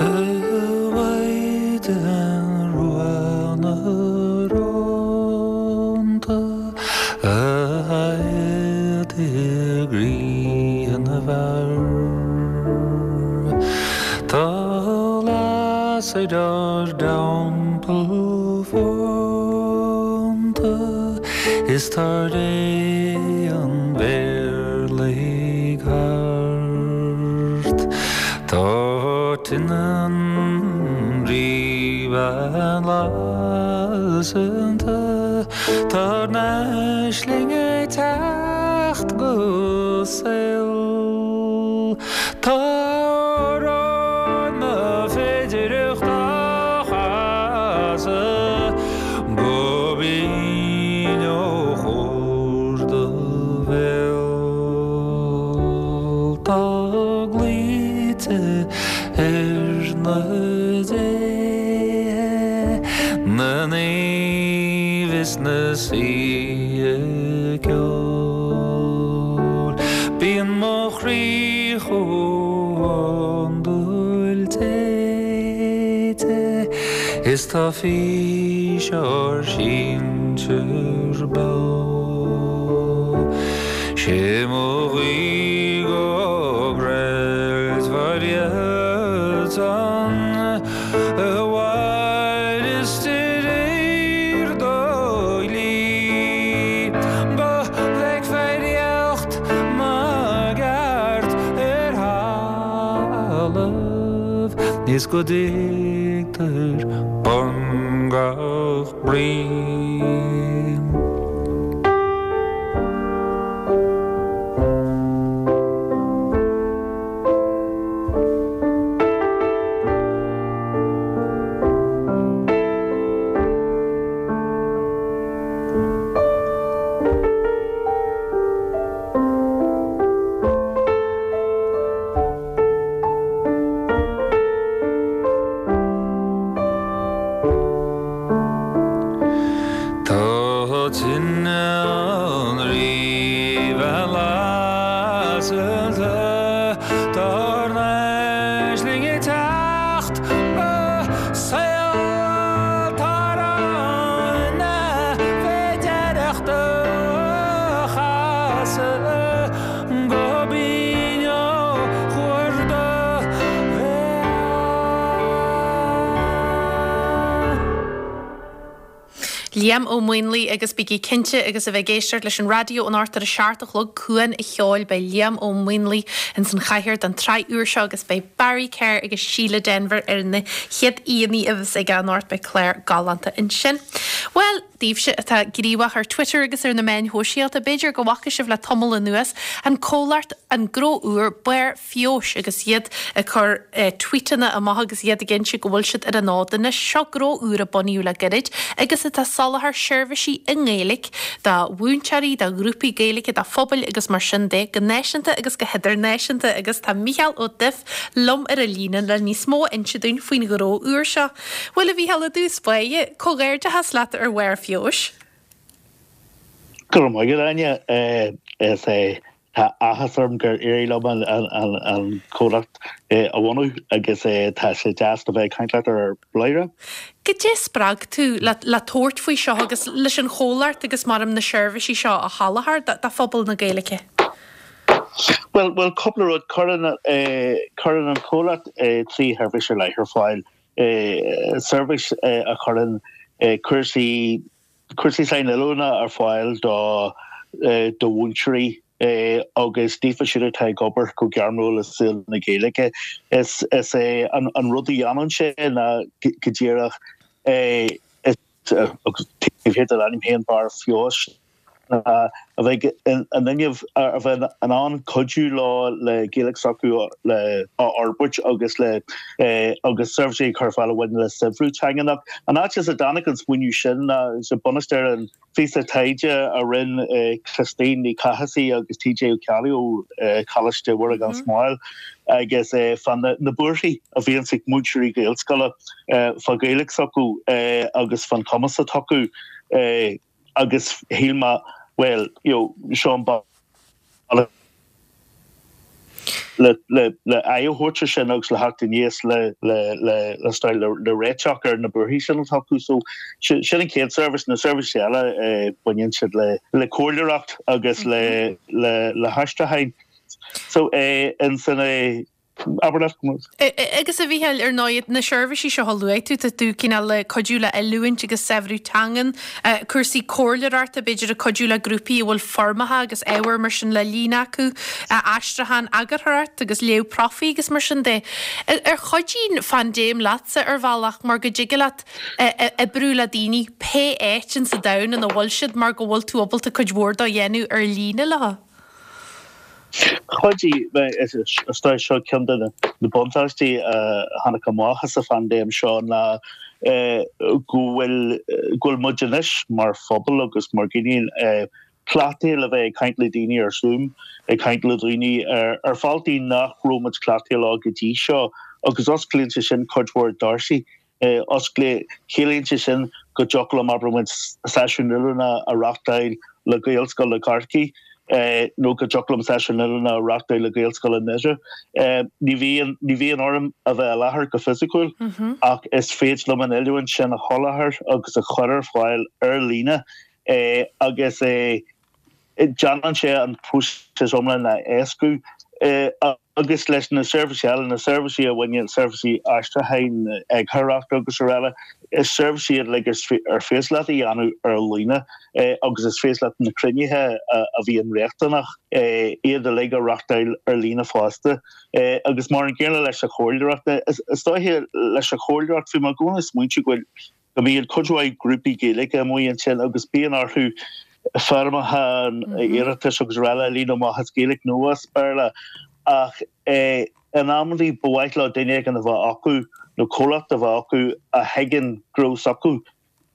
Mhaighdean Rua na Rónta, a adhad i gcroí na bhfear, Tá lasair ár dteampall fónta, Is tá ré an mhéirligh thart. Tá tine an Rí-Bhean lasanta, Tá ár n-aisling ag teacht go saol. Tá amhrán na féidireachta á chasadh go binn ó chóir do bhéil. Tá glaoite ar na déithe, na naoimh is na saoithe ceoil. Bíonn mo chroí chomh hiondúil téite is tá fís ár sinsear beo. Sé mo ghuí go gcreidfear iadsan a mhaireas de réir do dhlí, go bhfeicfear éacht na gceart ar thalamh is go dtuigtear bun gach brí. Tá tine an Rí-Bhean lasanta. Tá ár n-aisling ag teacht go saol atá ann na féidearthachta a chasadh go binn ó chuar do bhéal. Liam Ó Maonlaí agus bígí cinnte agus a bheith ag éisteacht leis an raidió anocht ar a 7 a chlog Cuan a' Cheoil beidh Liam Ó Maonlaí ins an chathaoir don tsraith úr seo agus beidh Barry Kerr agus Síle Denvir ar na chéad aíonna a bheas aige anocht beidh clár galánta ansin. Bhuel, daoibhse atá gníomhach ar Twitter agus ar na meáin shóisialta b'fhéidir go bhfaca sibh le tamall anuas an comhlacht an gnó úr Barr Feabhais agus iad ag cur tweetanna amach agus iad ag inse go bhfuil siad ar an fhód anois. Seo gnó úr a bunaíodh le gairid agus atá ag soláthar seirbhísí i nGaeilge do mhúinteoirí, do ghrúpaí Gaeilge, do phobail agus mar sin de, go náisiúnta agus go hidirnáisiúnta agus tá Mícheál Ó Duibh liom ar an líne le níos mó a inse dúinn faoin ghnó úr seo. Bhuel a Mhícheáil, i dtús báire, comhghairdeachas leat ar Bharr Feabhais. Go raibh maith agat, Áine. Is é Tá áthas orm gur éirigh liom an comhlacht a bhunú agus tá sé deas a bheith ag caint leat ar Bladhaire. Goidé a spreag tú le tabhairt faoi seo agus leis an chomhlacht agus mar na seirbhísí seo a sholáthar do phobal na Gaeilge? Bhuel, bhuel cúpla rud. Cuireann cuireann an comhlacht 3 sheirbhís ar leith ar fáil. Seirbhís a chuireann cúrsaí cúrsaí sainoiliúna ar fáil do do mhúinteoirí agus daofa siúd atá ag obair go gairmiúil i saol na Gaeilge. Is is é an an rud a dhéanann sé ná go díreach agus taobh thiar den ainm féin Barr Feabhais ná a bheith in inmhe a bheith in ann cuidiú leo le Gaeilge s'acu le a fhorbairt agus le agus seirbhísí a chur ar fáil a bhaineann le saibhriú teangan. An áit as a dtáinig an smaoineamh sin ná sa bunús ar an phíosa taighde a rinne Christine Ní Chathasaigh agus TJ Ó Ceallaigh ó Choláiste Mhuire gan Smál agus fá na buarthaí a bhíonns ag múinteoirí Gaelscoile fá Ghaeilge s'acu agus fán chumas atá acu agus shíl mé bhuel you know seo an bealach le le le aghaidh a thabhairt ar sin agus le theacht aníos le le le le style le le réiteach ar na buarthaí sin atá acu. So sin sin an chéad seirbhís. Na seirbhísí eile eh baineann siad le le comhairleoireacht agus le le le haistriúcháin. So eh ansin eh Abair leat go mbeadh. Agus a Mhícheáil, ar ndóigh, na seirbhísí seo a luaigh tú, tá tú cineál ag cuidiú le oiliúint agus saibhriú teangan, cúrsaí comhairleoireachta, b'fhéidir ag cuidiú le grúpaí a bhfuil foirmeacha agus ábhar mar sin le líonadh acu, aistriúchán, eagarthóireacht agus léamh profaí agus mar sin de. Ar chuidigh an phaindéim leatsa ar bhealach mar go dtig leat oibriú le daoine pé áit insa domhan ina bhfuil siad mar go bhfuil tú ábalta cuid mhór dó a dhéanamh ar líne leo? Chuidigh, is dóigh seo ceann de na buntáistí a tháinig amach as an phaindéim seo ná go bhfuil go bhfuil muid anois mar phobal agus mar dhaoine cleachtaithe le bheith ag caint le daoine ar Zoom, ag caint le daoine ar bhealtaí nach raibh muid cleachtaithe leo go dtí seo agus osclaíonn sé sin cuid mhór doirse Osclaíonn, ciallaíonn sé sin go dtiocfadh liom, abair muid, seisiún oiliúna a reáchtáil le Gaelscoil i gCorcaigh nó go dtiocfadh liom seisiún oiliúna a reáchtáil le Gaelscoil i nDoire. Ní bhíonn, ní bhíonn orm a bheith i láthair go fisiciúil ach is féidir liom an oiliúint sin a sholáthar agus a chur ar fáil ar líne agus déanann sé an próiseas iomlán a éascú. Agus leis na seirbhísí eile, na seirbhísí a bhaineann, seirbhísí aistriúcháin, eagarthóireachta agus araile, is seirbhísí iad uilig ar féidir leat a dhéanamh ar líne agus is féidir leat na cruinnithe a bhíonn riachtanach, iad uilig a reáchtáil ar líne fosta. Agus mar an gcéanna leis an chomhairleoireacht. Is dóiche leis an chomhairleoireacht, bhí mé i gcónaí ag smaointiú go bhfuil, go mbíonn cuid mhaith grúpaí Gaeilge amuigh ansin agus bíonn orthu foirmeacha iarratais agus araile a líonadh amach as Gaeilge nó as Béarla ach in amantaí ba mhaith leo duine éigin a bheith acu nó comhlacht a bheith acu a thuigeann gnó s'acu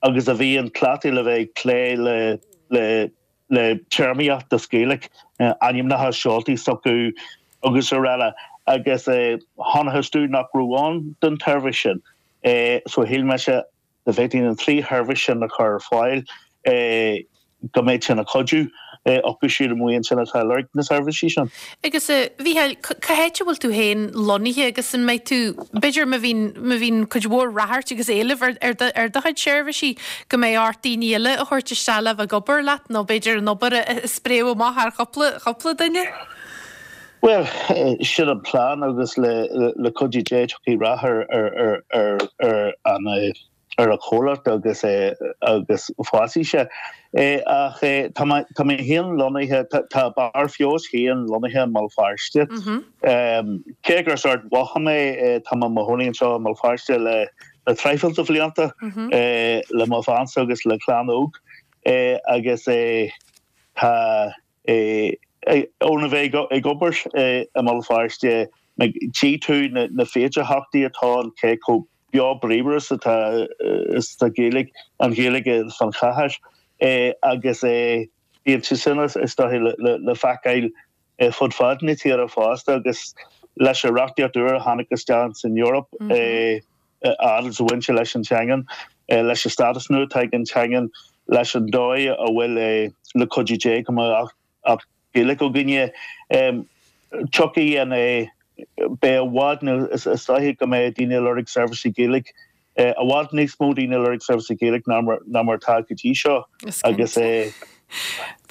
agus a bhíonn cleachtaithe le bheith ag plé le le le téarmaíocht as Gaeilge, ainmneacha seoltaí s'acu agus araile agus chonacthas domh nach raibh ann don tseirbhís sin. So shíl mise dá bhféadfainn an trí sheirbhís sin a chur ar fáil go mbeadh sin ag cuidiú. acu siúd amuigh ansin atá ag lorg na seirbhísí sin. Agus a Mhícheáil, cá háit a bhfuil tú féin lonnaithe agus an mbeidh tú, b'fhéidir má bhíonn, má bhíonn cuid mhór ráchairt agus éileamh ar, ar do, ar do chuid seirbhísí, go mbeidh ort daoine eile a thabhairt isteach le bheith ag obair leat nó b'fhéidir an obair a, a spréadh amach thar chúpla, chúpla duine? Bhuel, sin an plean agus le, le cuidiú Dé tiocfaidh rath ar, ar, ar, ar, ar an, ar an chomhlacht agus agus fásfaidh sé. Ach tá mé tá mé féin lonnaithe, tá Barr Feabhais féin lonnaithe i mBéal Feirste. Cé gur as Ard Mhacha mé, tá mé i mo chónaí anseo i mBéal Feirste le le traidhfil de bhlianta le mo bheansa agus le clann óg agus tá Óna bheith ag obair i mBéal Feirste, tchí tú na féidearthachtaí atá ann, cé chomh beo bríomhar is atá is atá Gaeilge, an Ghaeilge fan chathair agus bíonn sé sin is dóiche le feiceáil fud fad na tíre fosta agus leis an reachtaíocht úr a tháinig isteach san Eoraip a fhad is a bhain sé leis an teangain, leis an stádas nua atá ag an teangain, leis an dóigh a bhfuil le cuidiú Dé go mbeidh Acht Gaeilge againne. Tiocfaidh an beidh i bhfad nó is dóiche go mbeidh daoine ag lorg seirbhísí Gaeilge, i bhfad níos mó daoine ag lorg seirbhísí Gaeilge ná mar atá go dtí seo agus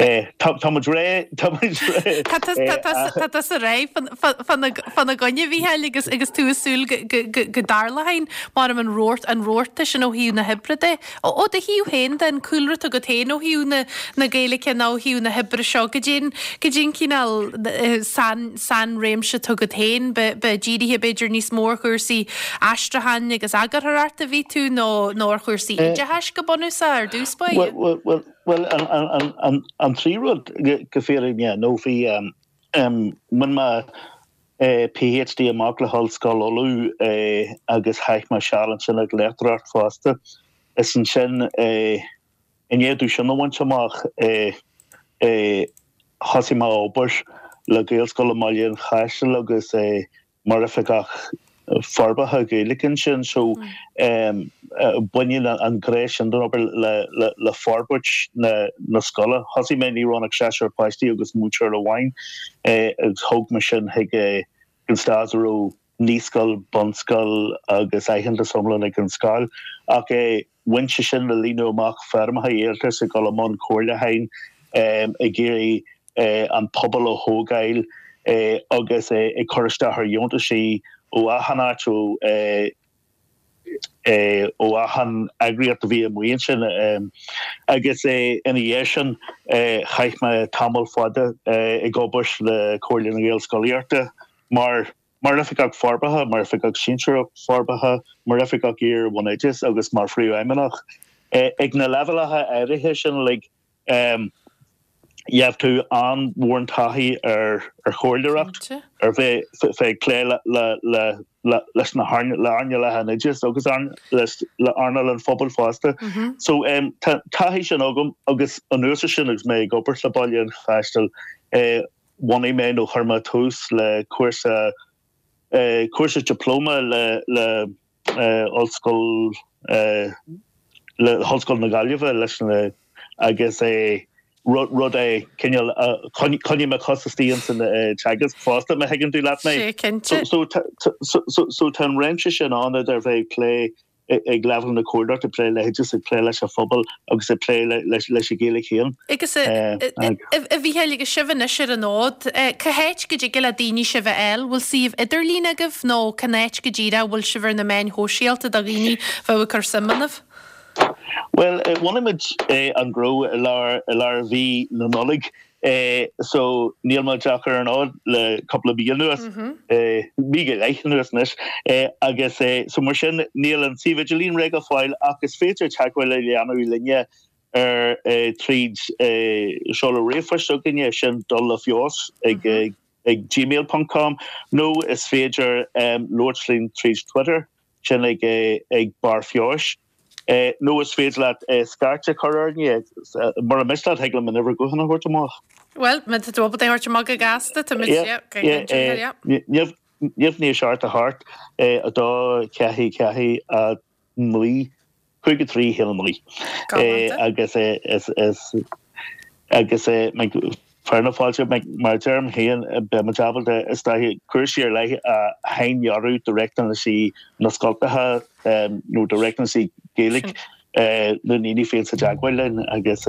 Tá muid réidh, tá muid réidh. Tá tusa réidh fána gcoinne, a Mhícheáil, agus agus tú ag súil go dtarlóidh mar an rabharta an rabharta sin ó thaobh na hoibre de. Ó do thaobh féin de, an cúlra atá agat féin ó thaobh na na Gaeilge nó ó thaobh na hoibre seo, goidé an goidé an cineál sain sainréimse atá agat féin, ba ba dírithe b'fhéidir níos mó ar chúrsaí aistriúcháin agus eagarthóireachta a bhí tú nó nó ar chúrsaí oideachais go bunúsach ar dtús báire? Bhuel, Bhuel, an trí rud go fírinne nó bhí, bhain mé PhD amach le hOllscoil Uladh agus chaith mé seal ansin ag léachtóireacht fosta. Is ansin, i ndiaidh domh sin a bhaint amach, thosaigh mé ag obair le Gaelscoil i mBaile an Chaisil agus mar oifigeach forbartha Gaeilge ansin so baineann an ghné sin den obair le forbairt na scoile. Thosaigh mé ní raibh ann ach seisear páistí agus múinteoir amháin agus thóg mé sin chuig an stáid a raibh naíscoil, bunscoil agus aitheantas iomlán ag an scoil ach bhain sé sin le líonadh amach foirmeacha iarratais, ag dul i mbun comhairliúcháin, ag iarraidh an pobal a thógáil agus ag cur isteach ar dheontaisí ó achan áit, ó achan eagraíocht a bhí amuigh ansin. Agus ina dhiaidh sin chaith mé tamall fada ag obair le Comhairle na Gaelscolaíochta mar mar Oifigeach Forbartha, mar Oifigeach Sinsearach Forbartha, mar Oifigeach Iar-Bhunoideachais agus mar Phríomhfheidhmeannach. Ag na leibhéalacha áirithe sin uilig, Gheobhaidh tú an-mhór taithí ar chomhairleoireacht, ar bheith ag plé leis na hearnálacha an oideachais agus le earnáil an phobail fosta. So tá taithí sin agam agus anuas air sin agus mé ag obair le Baile an Chaisil, bhunaigh mé nó chuir mé tús le cúrsa cúrsa dioplóma le le Ollscoil le hOllscoil na Gaillimhe leis na agus é rud rud é cineál choinnigh mo chos istigh ins an teagasc fosta má thuigeann tú leat mé. Sé cinnte. So so so tá an réimse sin ann idir bheith ag plé ag leibhéal na comhairleoireachta, ag plé le hoideachas, ag plé leis an phobal agus ag plé leis an Ghaeilge féin. Agus a Mhícheáil, agus sibh anois ar an fhód, cá háit go dtig le daoine sibh a fháil? Bhfuil suíomh idirlín agaibh nó cén áit go díreach a bhfuil sibh ar na meáin shóisialta do dhaoine a bheadh ag cur suim ionaibh? Bhuel, bhunaigh muid an gnó i lár i lár mhí na Nollag So níl muid ach ar an fhód le cúpla mí anuas, mí go leith anuas anois, agus so mar sin níl an suíomh idirlín réidh go fóill ach is féidir teagmháil a dhéanamh linne ar tríd seoladh ríomhphoist s'againne, sin dul le feabhas ag ag gmail ponc com nó is féidir labhairt linn tríd Twitter, sin ag ag Barr Feabhais. Nó is féidir leat scairt a chur orainne. Mura miste leat, thig liom an uimhir gutháin a thabhairt amach. Bhuel, má tá tú ábalta é a thabhairt amach go gasta, tá muid, yeah, go yeah. 0 9 7 8 2 4 4 9 5 3 1 9. Agus is. Agus fear na fáilte, mar a deirim féin, beidh muid ábalta is dóiche cúrsaí ar leith a shaindearadh do riachtanaisí na scoltacha nó do riachtanaisí Gaeilge na ndaoine a bhíonns i dteagmháil linn agus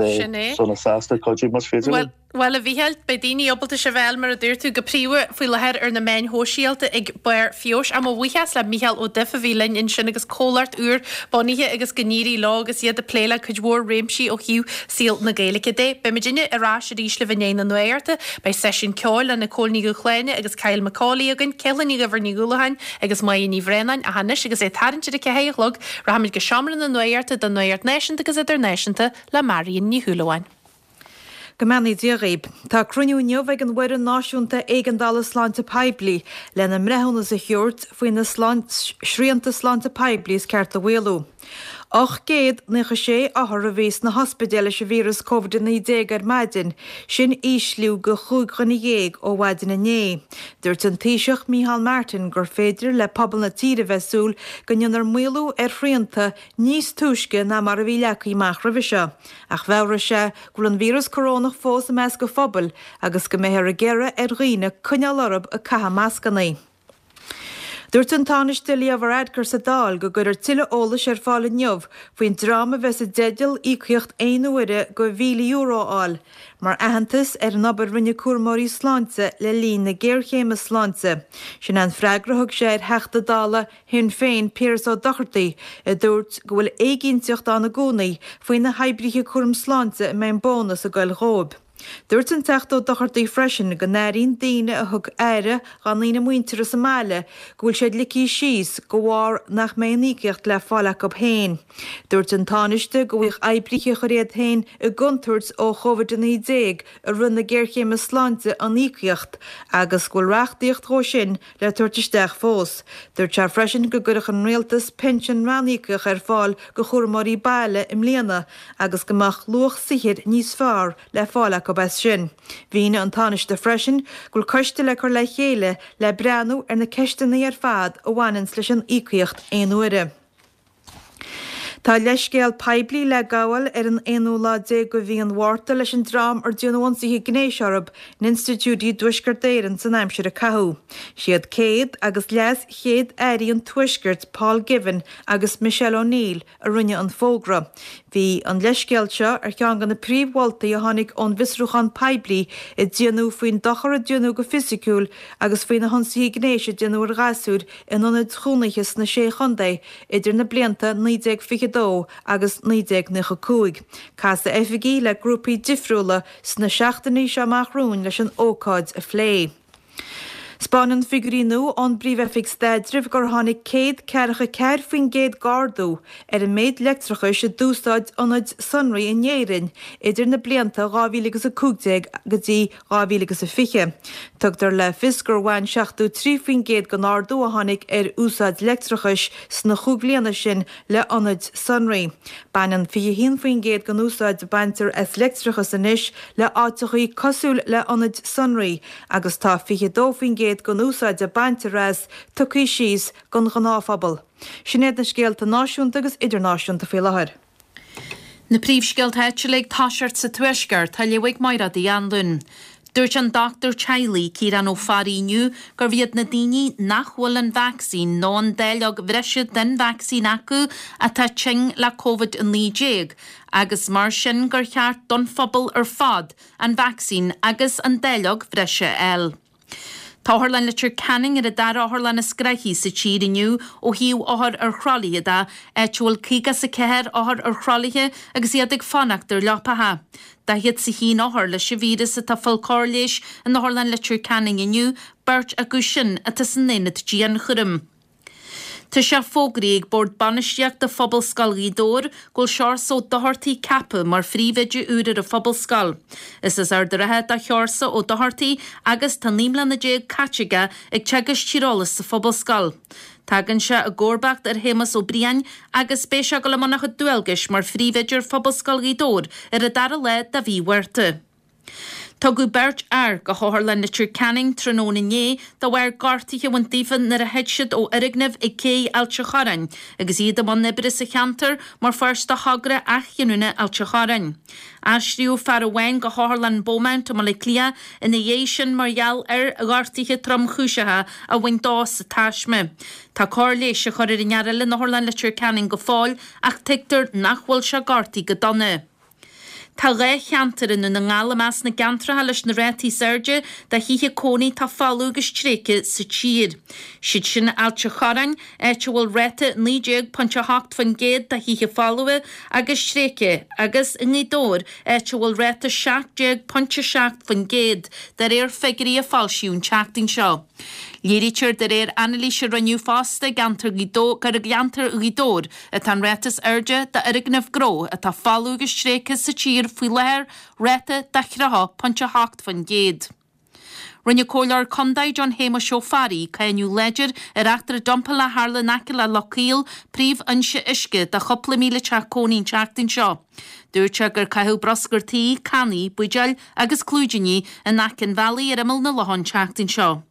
sona sásta cuidiú más féidir linn. Bhuel, a Mhícheáil, beidh daoine ábalta sibh a fháil, mar a dúirt tú, go príomha faoi láthair ar na meáin shóisialta ag Barr Feabhais. Ach mo bhuíochas le Mícheál Ó Duif a bhí linn ansin agus comhlacht úr bunaithe agus go n-éirí leo agus iad ag plé le cuid mhór réimsí ó thaobh saol na Gaeilge de. Beidh muidinne ar ais arís libh i ndiaidh na nuachta. Beidh seisiún ceoil le Nicole Ní Dhúshláine agus Kyle McCauley againn, Céallainn Ní Dhuibhir Ní Dhúlacháin agus Máire Ní Bhraonáin. Ach anois agus é ag tarraingt ar a 4 a chlog, rachaimid go seomra na nuachta don nuacht náisiúnta agus idirnáisiúnta le Marion Ní Shúilleabháin. Go mbeannaí Dia dhaoib. Tá cruinniú inniu ag an bhFoireann Náisiúnta Éigeandála Sláinte Poiblí lena mbreithiúnas a thabhairt faoi na srianta sláinte poiblí is ceart a mhaolú. 896 othar a bhí sna hospidéil leis an víreas Covid-19 ar maidin, sin ísliú de chúig dhuine dhéag ó mhaidin inné. Dúirt an Taoiseach Micheál Martin gur féidir le pobal na tíre bheith ag súil go ndéanfar maolú ar shrianta níos túisce ná mar a bhí leagtha amach roimhe seo. Ach mheabhraigh sé go bhfuil an víreas corónach fós i measc an phobail agus go mbeifear ag iarraidh ar dhaoine coinneáil orthu ag caitheamh mascanna. Dúirt an Tánaiste Leo Varadkar sa Dáil go gcuirfear tuilleadh eolais ar fáil inniu faoin dream a bheas i dteideal íocaíocht aon uaire de €1,000 a fháil mar aitheantas ar an obair a rinne cúramóirí sláinte le linn na géarchéime sláinte. Sin é an freagra a thug sé ar Theachta Dála Shinn Féin, Piaras Ó Dochartaigh, a dúirt go bhfuil éiginnteacht ann i gcónaí faoi na hoibrithe cúram sláinte a mbeidh an bónas ag goil dhóibh. Dúirt an Teachta Ó Dochartaigh freisin go n-airíonn daoine a thug aire dhá ndaoine muinteartha sa mbaile go bhfuil siad ligthe síos de bharr nach mbeidh an íocaíocht le fáil acu féin. Dúirt an Tánaiste go bhfaigheadh oibrithe a chuir iad féin i gcontúirt ó Chovid-19 i rith na géarchéime sláinte an íocaíocht agus go bhfuil reachtaíocht dhó sin le tabhairt isteach fós. Dúirt sé freisin go gcuirfeadh an Rialtas pinsean ranníocaíoch ar fáil go chúramóirí baile i mbliana agus go mbeadh luach saothair níos fearr le fáil acu as sin. Mhínigh an Tánaiste freisin go bhfuil coiste le cur le chéile le breathnú ar na ceisteanna ar fad a bhaineanns leis an íocaíocht aon uaire. Tá leithscéal poiblí le gabháil ar an aonú lá déag de mhí an Mhárta leis an dream ar déanadh ionsaithe gnéis orthu in institiúidí i dTuaisceart Éireann san aimsir a caitheadh. Siad céad agus leas Chéad Airí an Tuaiscirt Paul Givan agus Michelle O'Neill a rinne an fógra. Bhí an leithscéal seo ar cheann de na príomh-mholtaí a tháinig ón bhfiosrúchán poiblí a déanadh faoin dochar a déanadh go fisiciúil agus faoi na hionsaithe gnéis a déanadh ar ghasúir in ionaid chónaithe sna Sé Chontae idir na blianta 1922 agus 1995. Casfaidh oifigigh le grúpaí difriúla sna seachtainí seo amach romhainn leis an ócáid a phlé. 'Spáineann figiúirí nua ón bPríomh-Oifig Staidrimh gur tháinig 144% d'ardú ar an méid leictreachais a d'úsáid ionaid sonraí in Éirinn idir na blianta 2015 go dtí 2020. Tugtar le fios gur bhain 73% den ardú a tháinig ar úsáid leictreachais sna chúig bhliana sin le hionaid sonraí. Baineann 21% den úsáid a baintear as leictreachas anois le áiteachaí cosúil le hionaid sonraí agus tá 22% den úsáid a baintear as tugtha síos don ghnáthphobal. Sin iad na scéalta náisiúnta agus idirnáisiúnta faoi láthair. Na príomhscéalta áitiúla ag toiseacht sa Tuaisceart, á léamh ag Mairéad Uí Anluain. Dúirt an dochtúir teaghlaigh, Ciarán Ó Fearraigh inniu gurbh iad na daoine nach bhfuil an vacsaín nó an dáileog bhreise den vacsaín acu atá tinn le Covid-19 agus mar sin gur cheart don phobal ar fad an vacsaín agus an dáileog bhreise a fháil. Tá Otharlann Leitir Ceanainn ar an dara otharlann is gnoithí sa tír inniu ó thaobh othair ar throlaithe de, áit a bhfuil 54 othar ar throlaithe agus iad ag fanacht ar leapacha. 41 othar leis an víreas atá ag fáil cóir leighis in Otharlann Leitir Ceanainn inniu, beirt acu sin atá san aonad dianchúraim. Tá sé fógraithe ag Bord Bainistíochta Phobalscoil Ghaoth Dobhair go bhfuil Seorsa Ó Dochartaigh ceaptha mar phríomhoide úr ar an Phobalscoil. Is as Ard a' Rátha do Sheorsa Ó Dochartaigh agus tá 19 mbliana caite aige ag teagasc tíreolais sa Phobalscoil. Tagann sé i gcomharbacht ar Shéamus Ó Briain agus beidh sé ag dul i mbun a chuid dualgais mar phríomhoide ar Phobalscoil Ghaoth Dobhair ar an dara lá de mhí Mhárta. Tugadh beirt fhear go hOtharlann Leitir Ceanainn tráthnóna inné de bharr gortuithe a bhaint daofa nuair a thit siad ó fhoirgneamh ag cé Ailt a' Chorráin agus iad i mbun oibre sa cheantar mar pháirt de thogra athghiniúna Ailt a' Chorráin. Aistríodh fear amháin go hOtharlann Beaumont i mBaile Átha Cliath ina dhiaidh sin mar gheall ar ghortuithe tromchúiseacha a bhain dó sa taisme. Tá cóir leighis á cur ar an fhear eile in Otharlann Leitir Ceanainn go fóill ach tuigtear nach bhfuil sé gortaithe go dona. Tá 2 cheantar i nDún na nGall i measc na gceantracha leis na rátaí is airde de thithe cónaí atá folamh agus tréigthe sa tír. Siad sin Ailt a' Chorráin, áit a bhfuil ráta 19.8% de thithe folmha agus tréigthe, agus i nGaoth Dobhair, áit a bhfuil ráta 17.7%, de réir figiúirí a foilsíodh an tseachtain seo. Léirítear de réir anailís a rinneadh fosta i gceantar Ghaoth Dobhair gur i gceantar Ghaoth Dobhair atá an ráta is airde d'fhoirgnimh gnó atá folamh agus tréigthe sa tír faoi láthair, ráta de 30.8%. Rinne Comhairleoir Contae John Shéamuis Ó Fearraigh cáineadh láidir ar eachtra dumpála a tharla in aice le Loch Caol, príomhfhoinse uisce do chúpla 1,000 teach cónaí an tseachtain seo. Dúirt sé gur caitheadh bruscar tí, cannaí, buidéil agus clúidíní in aice an bhealaigh ar imeall na locha an tseachtain seo.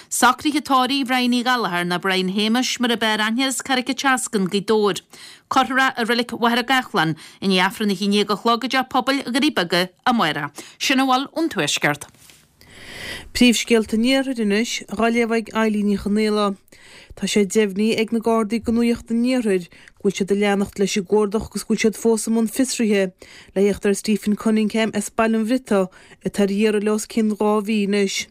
Socruithe tórraimh Bhrian Uí Ghallchóir nó Brian Shéamuis mar ab fhearr aithne as Carraig an tSeascann, Gaoth Dobhair. Cuirfear é i Reilig Mhachaire Gathlán i ndiaidh Aifreann 11 a chlog i dTeach Pobail Dhoirí Beaga amárach. Sin a bhfuil ón Tuaisceart. Príomhscéalta an Iarthair anois, dhá léamh ag Eilín Ní Chonaola. Tá sé deimhnithe ag na Gardaí do Nuacht an Iarthair go bhfuil siad ag leanacht leis an gcuardach agus go bhfuil siad fós i mbun fiosraithe le theacht ar Stephen Cunningham as Baile an Bhriotaigh atá ar iarraidh le os cionn 2 mhí anois.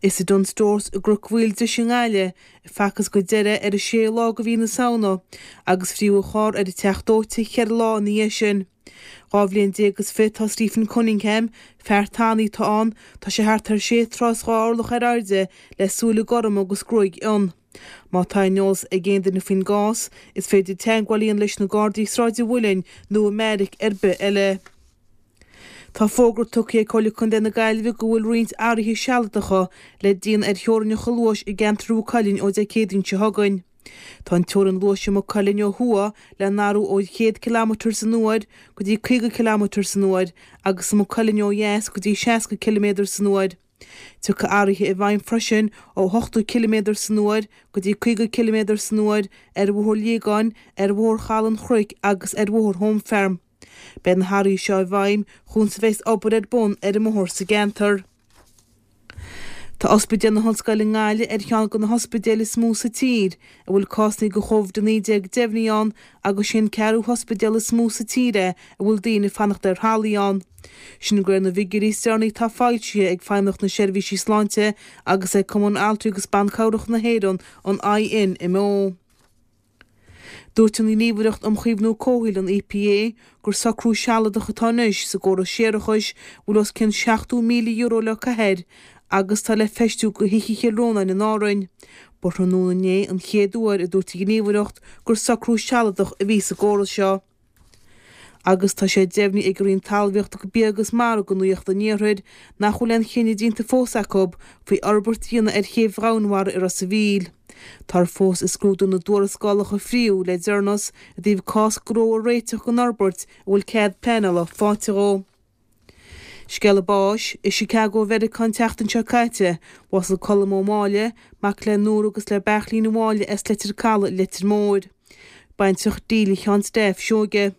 Is i Dunnes Stores i gCnoc Mhaoildrois i nGaillimh a facthas go deireadh ar an séú lá de mhí na Samhna agus fríodh a charr ar an Teach Dóite cheithre lá ina dhiaidh sin. 12 bhliain is fiche atá Stephen Cunningham, fear tanaí atá ann, tá sé thart ar sé troigh is 2 orlach ar airde le súile gorma agus gruaig fhionn. Má tá aon eolas ag aon duine faoin gcás, is féidir teagmháil a dhéanamh leis na Gardaí i Sráid an Mhuilinn nó i mbeairic ar bith eile. Tá fógra tugtha ag Comhairle Contae na Gaillimhe go bhfuil roinnt athruithe sealadacha le déanamh ar theorainneacha luais i gceantar Mhaigh Cuilinn ó Dé Céadaoin seo chugainn. Tá an teorainn luais i Maigh Cuilinn ó thuaidh le n-athrú ó 100 ciliméadar san uair go dtí 50 ciliméadar san uair agus i Maigh Cuilinn ó dheas go dtí 60 ciliméadar san uair. Tiocfaidh athruithe i bhfeidhm freisin ó 80 ciliméadar san uair go dtí 50 ciliméadar san uair ar Bhóthar Liagáin, ar Bhóthar Chaladh an Chnoic agus ar Bhóthar Home Farm. Beidh na hathruithe seo i bhfeidhm chun is a bheas obair ar bun ar an mbóthar sa gceantar. Tá Ospidéal na hOllscoile i nGaillimh ar cheann de na hospidéil is mó sa tír a bhfuil cásanna de Chóvid-19 deimhnithe ann agus sé an ceathrú hospidéal is mó sa tír é a bhfuil daoine ag fanacht ar thralaí ann. Sin de réir na bhfigiúirí is deireanaí atá foilsithe ag Feidhmeannacht na Seirbhísí Sláinte agus ag Cumann Altraí agus Ban Cabhrach na hÉireann, an INMO. Dúirt an Ghníomhaireacht um Chaomhnú Comhshaoil, an EPA, gur socrú sealadach atá anois sa gcóras séarachais a bhfuil os cionn €70,000 le caitheamh air agus atá le feistiú do thithe Chill Rónáin in Árainn. Ba thráthnóna inné an chéad uair a dúirt an Ghníomhaireacht gur socrú sealadach a bhí sa gcóras seo. Agus tá sé deimhnithe ag an Roinn Talmhaíochta, Bia agus Mara do Nuacht an Iarthair nach bhfuil aon chinneadh déanta fós acu faoi fhorbairt a dhéanamh ar chéibh Dhomhanmhara i Ros a' Mhíl. Táthar fós ag scrúdú na dtuarascálacha a fríodh le deireanas i dtaobh cás gnó a réiteach don fhorbairt a bhfuil cead pleanála faighte dhó. Scéala báis, I Chicago Mheiriceá an tseachtain seo caite, bhásaigh Colm Ó Máille, mac le Nóra agus le Beairtlín Ó Máille as Leitir Calaidh, Leitir Móir. Baintreach Delia Sheáin Steph Seoige.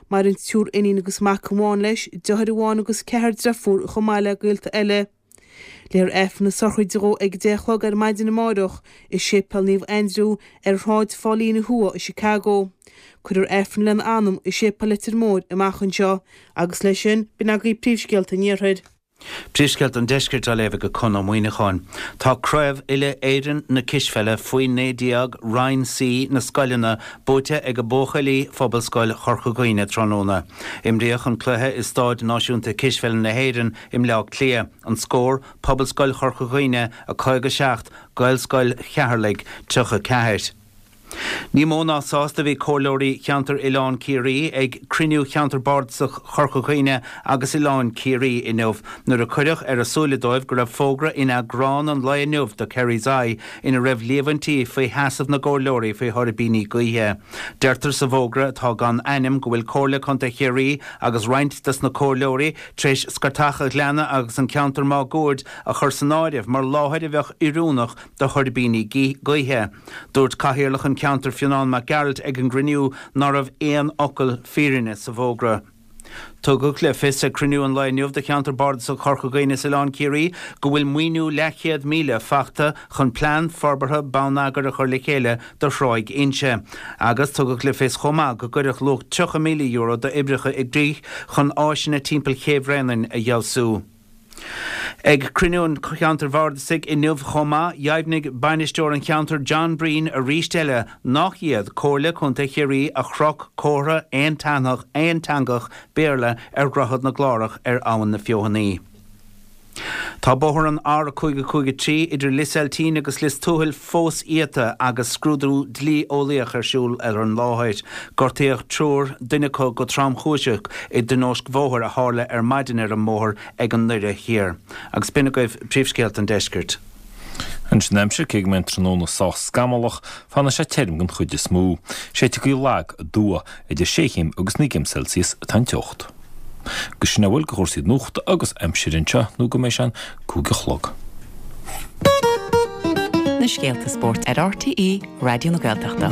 Maireann triúr iníon agus mac amháin leis, deartháir amháin agus ceathrar deirfiúr chomh maith le gaolta eile. Léifear Aifreann na sochraide dhó ag a 10 a chlog ar maidin amáireach i Séipéal Naomh Aindriú ar Shráid Phaulina Thuaidh i Chicago. Cuirfear Aifreann lena anam i Séipéal Leitir Móir amach anseo. Agus leis sin, b'in agaibh príomhscéalta an Iarthair. Príomhscéalta an Deiscirt á léamh ag Conn Ó Muíneacháin. Tá Craobh Uile-Éireann na Cispheile faoi 19 Roinn C na scoileanna buaite ag buachaillí Phobalscoil Chorca Dhuibhne tráthnóna. Imríodh an cluiche i Stáid Náisiúnta Cispheile na hÉireann i mBleá Cliath. An scór, Pobalscoil Chorca Dhuibhne 57, Gaelscoil Cheatharlaigh 34. Ní mó ná sásta a bhí comhairleoirí Cheantar Oileán Ciarraí ag cruinniú Cheantar Bardasach Chorca Dhuibhne agus Oileán Ciarraí inniu nuair a cuireadh ar a súile dóibh go raibh fógra in eagrán an lae inniu de Kerry's Eye ina raibh líomhaintí faoi sheasamh na gcomhairleoirí faoi thuirbíní gaoithe. Deirtear sa bhfógra atá gan ainm go bhfuil Comhairle Contae Chiarraí agus roinnt des na comhairleoirí tar éis scairteach a' Ghleanna agus an ceantar máguaird a chur san áireamh mar láthair a bheadh oiriúnach do thuirbíní gaoithe. Dúirt Cathaoirleach an cheantair Fionán Mac Gearailt ag an gcruinniú ná raibh aon fhocal fírinne sa bhfógra. Tugadh le fios ag cruinniú an lae inniu de Cheantar Bardasach Chorca Dhuibhne is Oileán Ciarraí go bhfuil maoiniú leathchéad míle fachta chun plean forbartha bonneagair a chur le chéile do Thráigh Inse. Agus tugadh le fios chomh maith go gcuirfeadh luach €30,000 d'oibreacha i gcrích chun áiseanna timpeall Ché Bhréanainn a fheabhsú. Ag cruinniú an Cheantair Bhardasaigh inniu chomh maith, dheimhnigh bainisteoir an cheantair John Breen arís eile nach iad Comhairle Contae Chiarraí a chroch comhartha aonteangach Béarla ar Dhroichead na gClárach ar Abhainn na Feothanaí. Tá bóthar an R553 idir Lios Eiltín agus Lios Tuathail fós iata agus scrúdú dlí-eolaíoch ar siúl ar an láthair. Gortaíodh triúr, duine acu go tromchúiseach, i dtionóisc bhóthair a tharla ar maidin ar an mbóthar ag an nDoire Thiar. Agus b'in agaibh príomhscéalta an deiscirt. Anois an aimsir, cé go mbeidh an tráthnóna sách scamallach, fanfaidh sé tirim den chuid is mó. Séidfidh gaoth lag aduaidh. Idir sé chéim agus 9 gcéim Celsius atá an teocht. Agus sin a bhfuil de chúrsaí nuachta agus aimsire anseo nó go mbeidh sé an 5 a chlog. Na scéalta spóirt ar RTÉ Raidió na Gaeltachta.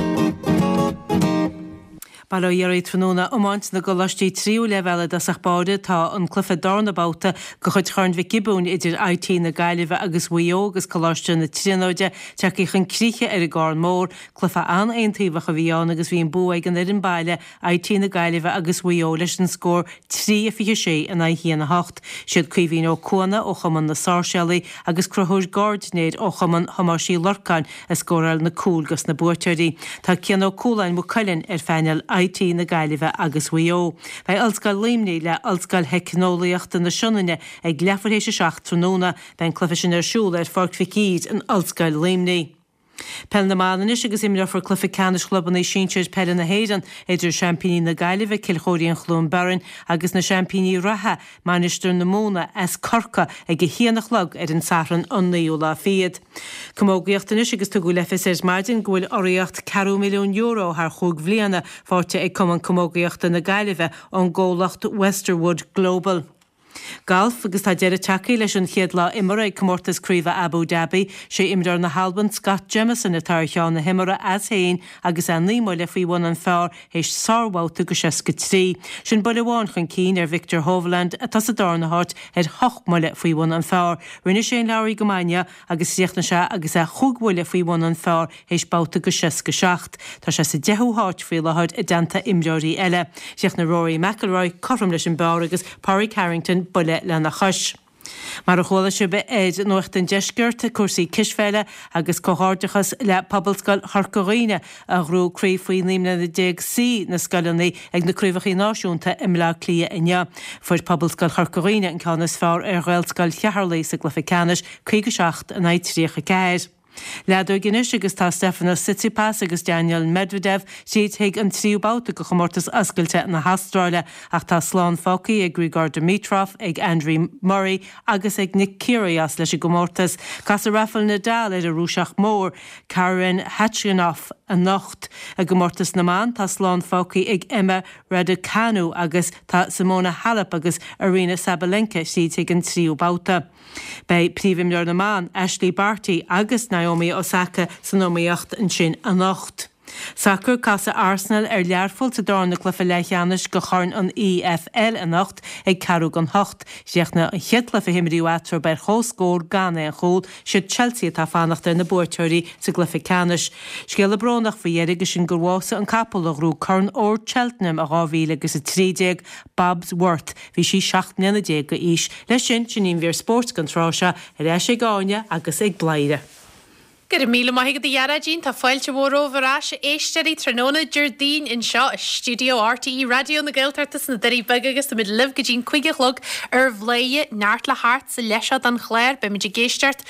Bail ó Dhia oraibh tráthnóna iomáint na gcoláistí tríú leibhéal i dtosach báire tá an cluiche darna babhta de chuid Chorn Mhic Giobúin idir IT na Gaillimhe agus Mhaigh Eo agus Coláiste na Tríonóide tagtha chun críche ar an gCarn Mór. Cluiche an-aontaobhach a bhí ann agus bhí an bua ag an fhoireann baile IT na Gaillimhe agus Mhaigh Eo leis an scór 3, 26 in aghaidh 1, 8. Siad Caoimhín Ó Cuana ó Chumann na Sáirséalaí agus Conchúr Gairdinéir ó Chumann Thomáis Uí Lorcáin a scóráil na cúil dos na buaiteoirí. Tá Cian Ó Cualáin Maigh Cuilinn ar phainéal IT na Gaillimhe agus Mhaigh Eo. Beidh Ollscoil Luimnigh le Ollscoil Theicneolaíochta na Sionainne ag leathuair théis a 7 tráthnóna. Beidh an cluiche sin ar siúl ar Pháirc Mhic Íre in Ollscoil Luimnigh. Peil na mBan anois agus imreofar cluiche ceannais chlubanna sinsir peile na hÉireann idir seaimpíní na Gaillimhe, Cill Chóirín Chluain Bheirn agus na seaimpíní reatha, Mainistir na Móna as Corcaigh ag a haon a chlog ar an Satharn an naoú lá fichead. Camógaíocht anois agus tugadh le fios ar maidin go bhfuil urraíocht ceathrú milliún euro thar chúig bhliana faighte ag Cumann Camógaíochta na Gaillimhe ón gcomhlacht Westerwood Global. Galf agus tá deireadh tagtha leis an chéad lá imeartha ag Comórtas Craoibhe Abu Dhabi. Sé imreoir na hAlban Scott Jamieson atá ar cheann na himeartha as féin agus é 9 mbuille faoi bhun an phar théis sárbhabhta go 63. Sin buille amháin chun cinn ar Viktor Hovland atá sa darna háit ar hocht mbuille faoi bhun an phar. Rinne Shane Lowry go maith inniu agus chríochnaigh sé agus é chúig bhuille faoi bhun an phar théis babhta go 67. Tá sé sa deichiú háit faoi láthair i dteannta imreoirí eile. Chríochnaigh Rory McIlroy cothrom leis an bpar agus Pádraig Harrington buille lena chois. Mar a chuala sibh ar Nuacht an Deiscirt, cúrsaí cispheile agus comhghairdeachas le Pobalscoil Chorca Dhuibhne a ghnóthaigh craobh faoi 19 mbliana C na scoileanna ag na Craobhacha Náisiúnta i mBleá Cliath inniu. Fuair Pobalscoil Chorca Dhuibhne an ceann is fearr ar Ghaelscoil Cheatharlaigh sa gcluiche ceannais, 57 in aghaidh 34. Leadóg anois agus tá Stefanos Tsitsipas agus Daniil Medvedev tríd chuig an tríú babhta de chomórtas oscailte na hAstráile ach tá slán fágtha ag Grigor Dimitrov, ag Andy Murray agus ag Nick Kyrgios leis an gcomórtas. Casfaidh Rafael Nadal ar an Rúiseach mór, Karen Khachanov anocht. I gcomórtas na mban tá slán fágtha ag Emma Raducanu agus tá Simona Halep agus Aryna Sabalenka tríd chuig an tríú babhta. Beidh príomhimreoir na mban, Ashleigh Barty agus Naomi Osaka san iomaíocht ansin anocht. Sacar, Casfaidh Arsenal ar Learpholl sa darna cluiche leathcheannais de Chorn an EFL anocht ag ceathrú don hocht. Chríochnaigh an chéad cluiche a himríodh eatarthu ar comhscór gan aon chúl. Siad Chelsea atá ag fanacht ar na buaiteoirí sa gcluiche ceannais. Scéala brónach faoi dheireadh agus sin gur bhásaigh an capall a ghnóthaigh Corn Óir Cheltenham i 2013, Bobs Worth. Bhí sí 17 mbliana d'aois. Leis sin, sin í an mhír spóirt don tráth seo, ar ais ag Áine agus ag Bladhaire. Go raibh míle maith agat a Ghearóidín, tá fáilte mhór romhaibh ar ais a éisteoirí tráthnóna Déardaoin anseo i stiúideo RTÉ Raidió na Gaeltachta sna Doirí Beaga agus táimid libh go dtí'n 5 a chlog ar Bhladhaire, neart le theacht sa leath seo den chlár, beimid ag éisteacht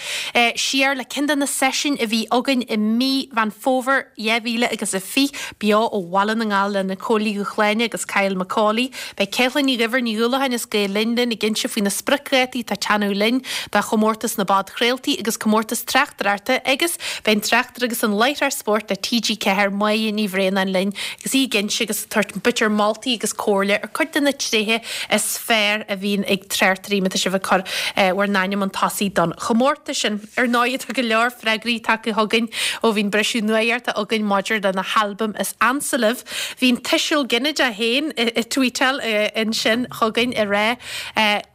siar le ceann de na seisiúin a bhí againn i mí Mheán Fómhair 2000 agus a 20, beo ó Bhaile na nGall le Nicole Ní Dhúshláine agus Kyle Macaulay. Beidh Ceithlinn Ní Dhuibhir Ní Dhúlacháin as Gael Linn linn ag inse faoi na spriocdhátaí atá ag teannadh linn do chomórtas na bpodchraoltaí agus comórtas tráchtaireachta agus beidh an tráchtaire agus an láithreoir spóirt le TG4 Máire Ní Bhraonáin linn agus í ag inse agus ag tabhairt b'fhéidir moltaí agus comhairle ar cuid de na tréithe is fearr a bhíonn ag tráchtairí má tá sibh ag cur bhur n-ainm chun tosaigh don chomórtas sin. Ar ndóigh tá go leor freagraí tagtha chugainn ó bhí an briseadh nuachta againn maidir le na halbaim is ansa libh. Bhí an tuiseal ginideach féin ag tweetáil ansin chugainn ag rá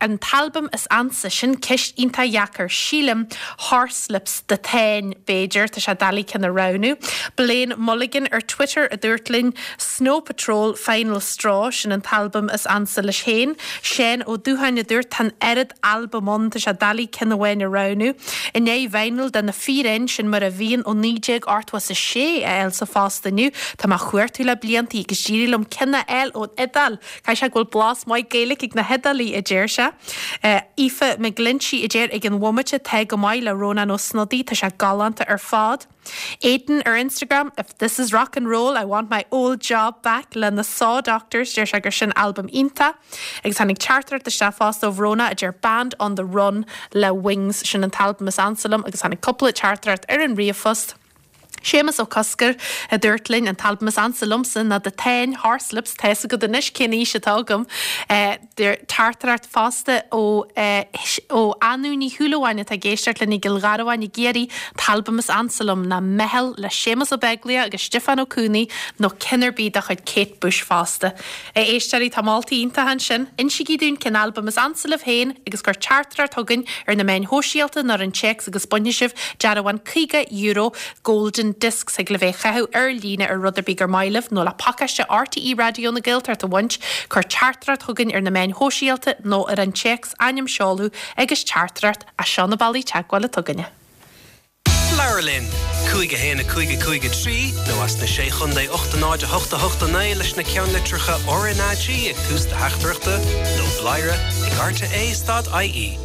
An t-albam is ansa, sin ceist iontach dheacair. Sílim Horslips The Táin, b'fhéidir, tá sé doiligh ceann a roghnú. Blaine Mulligan ar Twitter a dúirt linn Snow Patrol, Final Straw, sin an t-albam is ansa leis féin. Seán Ó Dúcháin a dúirt Tá an oiread albam ann, tá sé doiligh ceann amháin a roghnú. I ndiaidh vinyl de Na Fíréin, sin mar a bhíonn ó 1986 a fháil sa phost inniu. Tá mé á chuartú le bliantaí agus d'éirigh liom ceann a fháil ón Iodáil. Caithfidh sé go bhfuil blas maith Gaeilge ag na hIodálaigh, a deir sé. Aoife McGlinchey a deir ag an bhomaite tá go maith le Rónán Ó Snodaigh, tá sé galánta ar fad. Aidan ar Instagram, If this is rock and roll, I want my old job back le na Saw Doctors, deir sé gur sin albam iontach. Agus tháinig teachtaireacht isteach fosta ó Bhrónagh a deir Band on the Run le Wings, sin an t-albam is ansa liom agus tháinig cúpla teachtaireacht ar an ríomhphost. Séamus Ó Cosgair a dúirt linn, an t-albam is ansa liomsa ná The Táin, Horslips, tá's agat anois cén aois atá agam. Teachtaireacht fosta ó ó Anú Ní Shúilleabháin atá ag éisteacht linn i gCill Gharbháin i gCiarraí, an t-albam is ansa liom ná Meitheal le Séamus Ó Beaglaoich agus Stiofán Ó Cuanaigh nó ceann ar bith de chuid Kate Bush fosta. A éisteoirí, tá moltaí iontacha ansin. Insígí dúinn cén albam is ansa libh féin agus cuir teachtaireacht chugainn ar na meáin shóisialta nó ar an téacs agus bainfidh sibh dearbhán €50 Golden Discs thig libh é a chaitheamh ar líne ar rud ar bith gur maith libh nó le pacáiste RTÉ Raidió na Gaeltachta a bhaint, cuir teachtaireacht chugainn ar na meáin shóisialta nó ar an téacs, ainm, seoladh agus teachtaireacht, as seo na bealaí teagmhála atá againne. Labhair linn! 5 1 5 5 3 nó as na Sé Chontae 8 0 8 8 9 leis na ceannlitreacha RnaG ag tús do theachtaireachta nó bladhaire ag rte stad ie.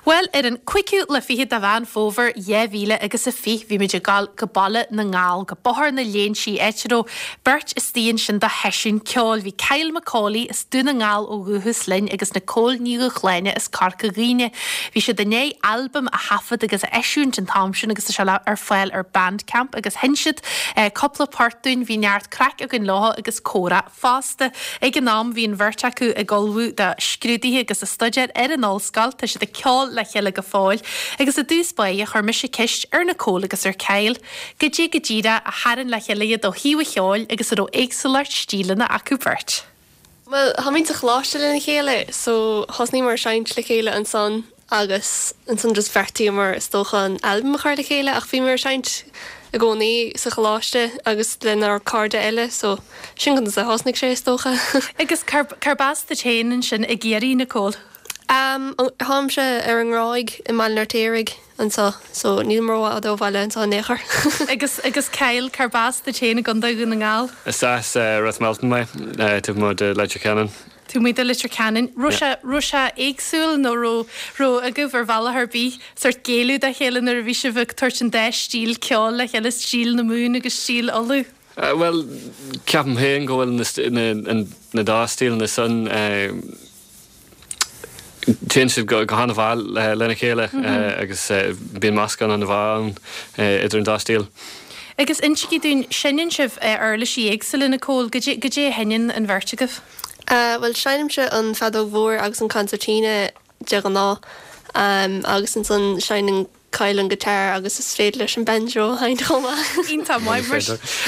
Bhuel, ar an cúigiú lá fichead de Mheán Fómhair 2000 agus a 20, bhí muid ag dul go Baile na nGall, go Bóthar na Léinsí, áit a raibh beirt istigh ansin do sheisiún ceoil. Bhí Kyle Macaulay as Dún na nGall ó dhúchas linn agus Nicole Ní Dhúshláine as Corca Dhuibhne. Bhí siad i ndiaidh albam a thaifead agus a eisiúint an t-am sin agus tá sé ar fáil ar Bandcamp agus sheinn siad cúpla port dúinn. Bhí neart craic againn leo agus comhrá. fosta. Ag an am bhí an bheirt acu ag ullmhú do scrúduithe agus ag staidéar ar an ollscoil. Tá siad ag ceol le chéile go fóill. Agus i dtús báire chuir mise ceist ar Nicole agus ar Kyle goidé go díreach a tharraing le chéile iad ó thaobh an cheoil agus an raibh éagsúlacht stíleanna acu beirt. Bhuel, táimid sa choláiste lena chéile so thosnaíomar ag seinnt le chéile ansan agus ansan just bheartaíomar is dócha an albam a chur le chéile ach bhíomar ag seinnt i gcónaí sa choláiste agus lenár cairde eile so sin conas a thosnaigh sé is dócha. Agus cárb as duit féin ansin i gCiarraí, Nicole? Am, táimse ar an nGráig i mBaile an Fheirtéaraigh anseo so nílim rófhada ó bhaile anseo in aon chor. Agus, agus Kyle, cárb as duit féin i gContae Dhún na nGall? Is as Ros Milton mé, taobh amuigh de Leitir Ceanainn. Taobh amuigh de Leitir Ceanainn. Raibh sé, raibh sé éagsúil nó raibh, raibh agaibh ar bhealach ar bith sórt géilleadh dá chéile nuair a bhí sibh ag tabhairt an dá stíl ceoil le chéile, stíl na Mumhan agus stíl Uladh? Bhuel, ceapaim féin go bhfuil na, na, na dá stíleanna san, téann siad go han-mhaith lena chéile agus bíonn meascán an-mhaith ann idir an dá stíl. Agus insígí dúinn, seinneann sibh uirlisí éagsúla, Nicole, goidé, goidé a sheinneann an bheirt agaibh? Bhuel, seinnimse an feadóg mhór agus an concertina de ghnáth agus ansan seinneann Kyle an guitar agus is féidir leis an banjo a sheinnt chomh maith. Iontach maith.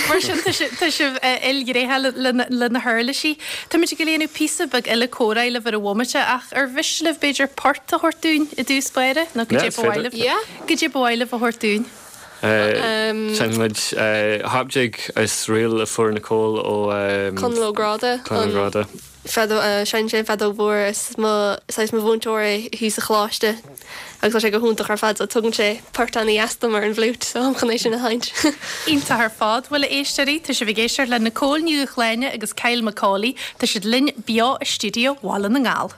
Mar sin tá sibh ilghnéitheach le na huirlisí. Táimid ag déanamh píosa beag eile comhrá libh ar an bhomaite ach ar mhiste libh b'fhéidir port a thabhairt dúinn i dtús báire nó goidé ba mhaith libh? Goidé ba mhaith libh a thabhairt dúinn? Seinnfidh muid Hop Jig is ríl a fuair Nicole ó Conall Ó Gráda. Conall Ó Gráda. Feadóg, seinneann sé an feadóg mhór is mo, saghas mo mhúinteoir é thíos sa choláiste agus tá sé go hiontach ar fad so tugann sé port ana-dheas dom ar an bhfliúit so táim chun é sin a sheinnt. Iontach ar fad. Bhuel a éisteoirí, tá sibh ag éisteacht le Nicole Ní Dhúshláine agus Kyle McAuley. Tá siad linn beo i stiúideo Bhaile na nGall.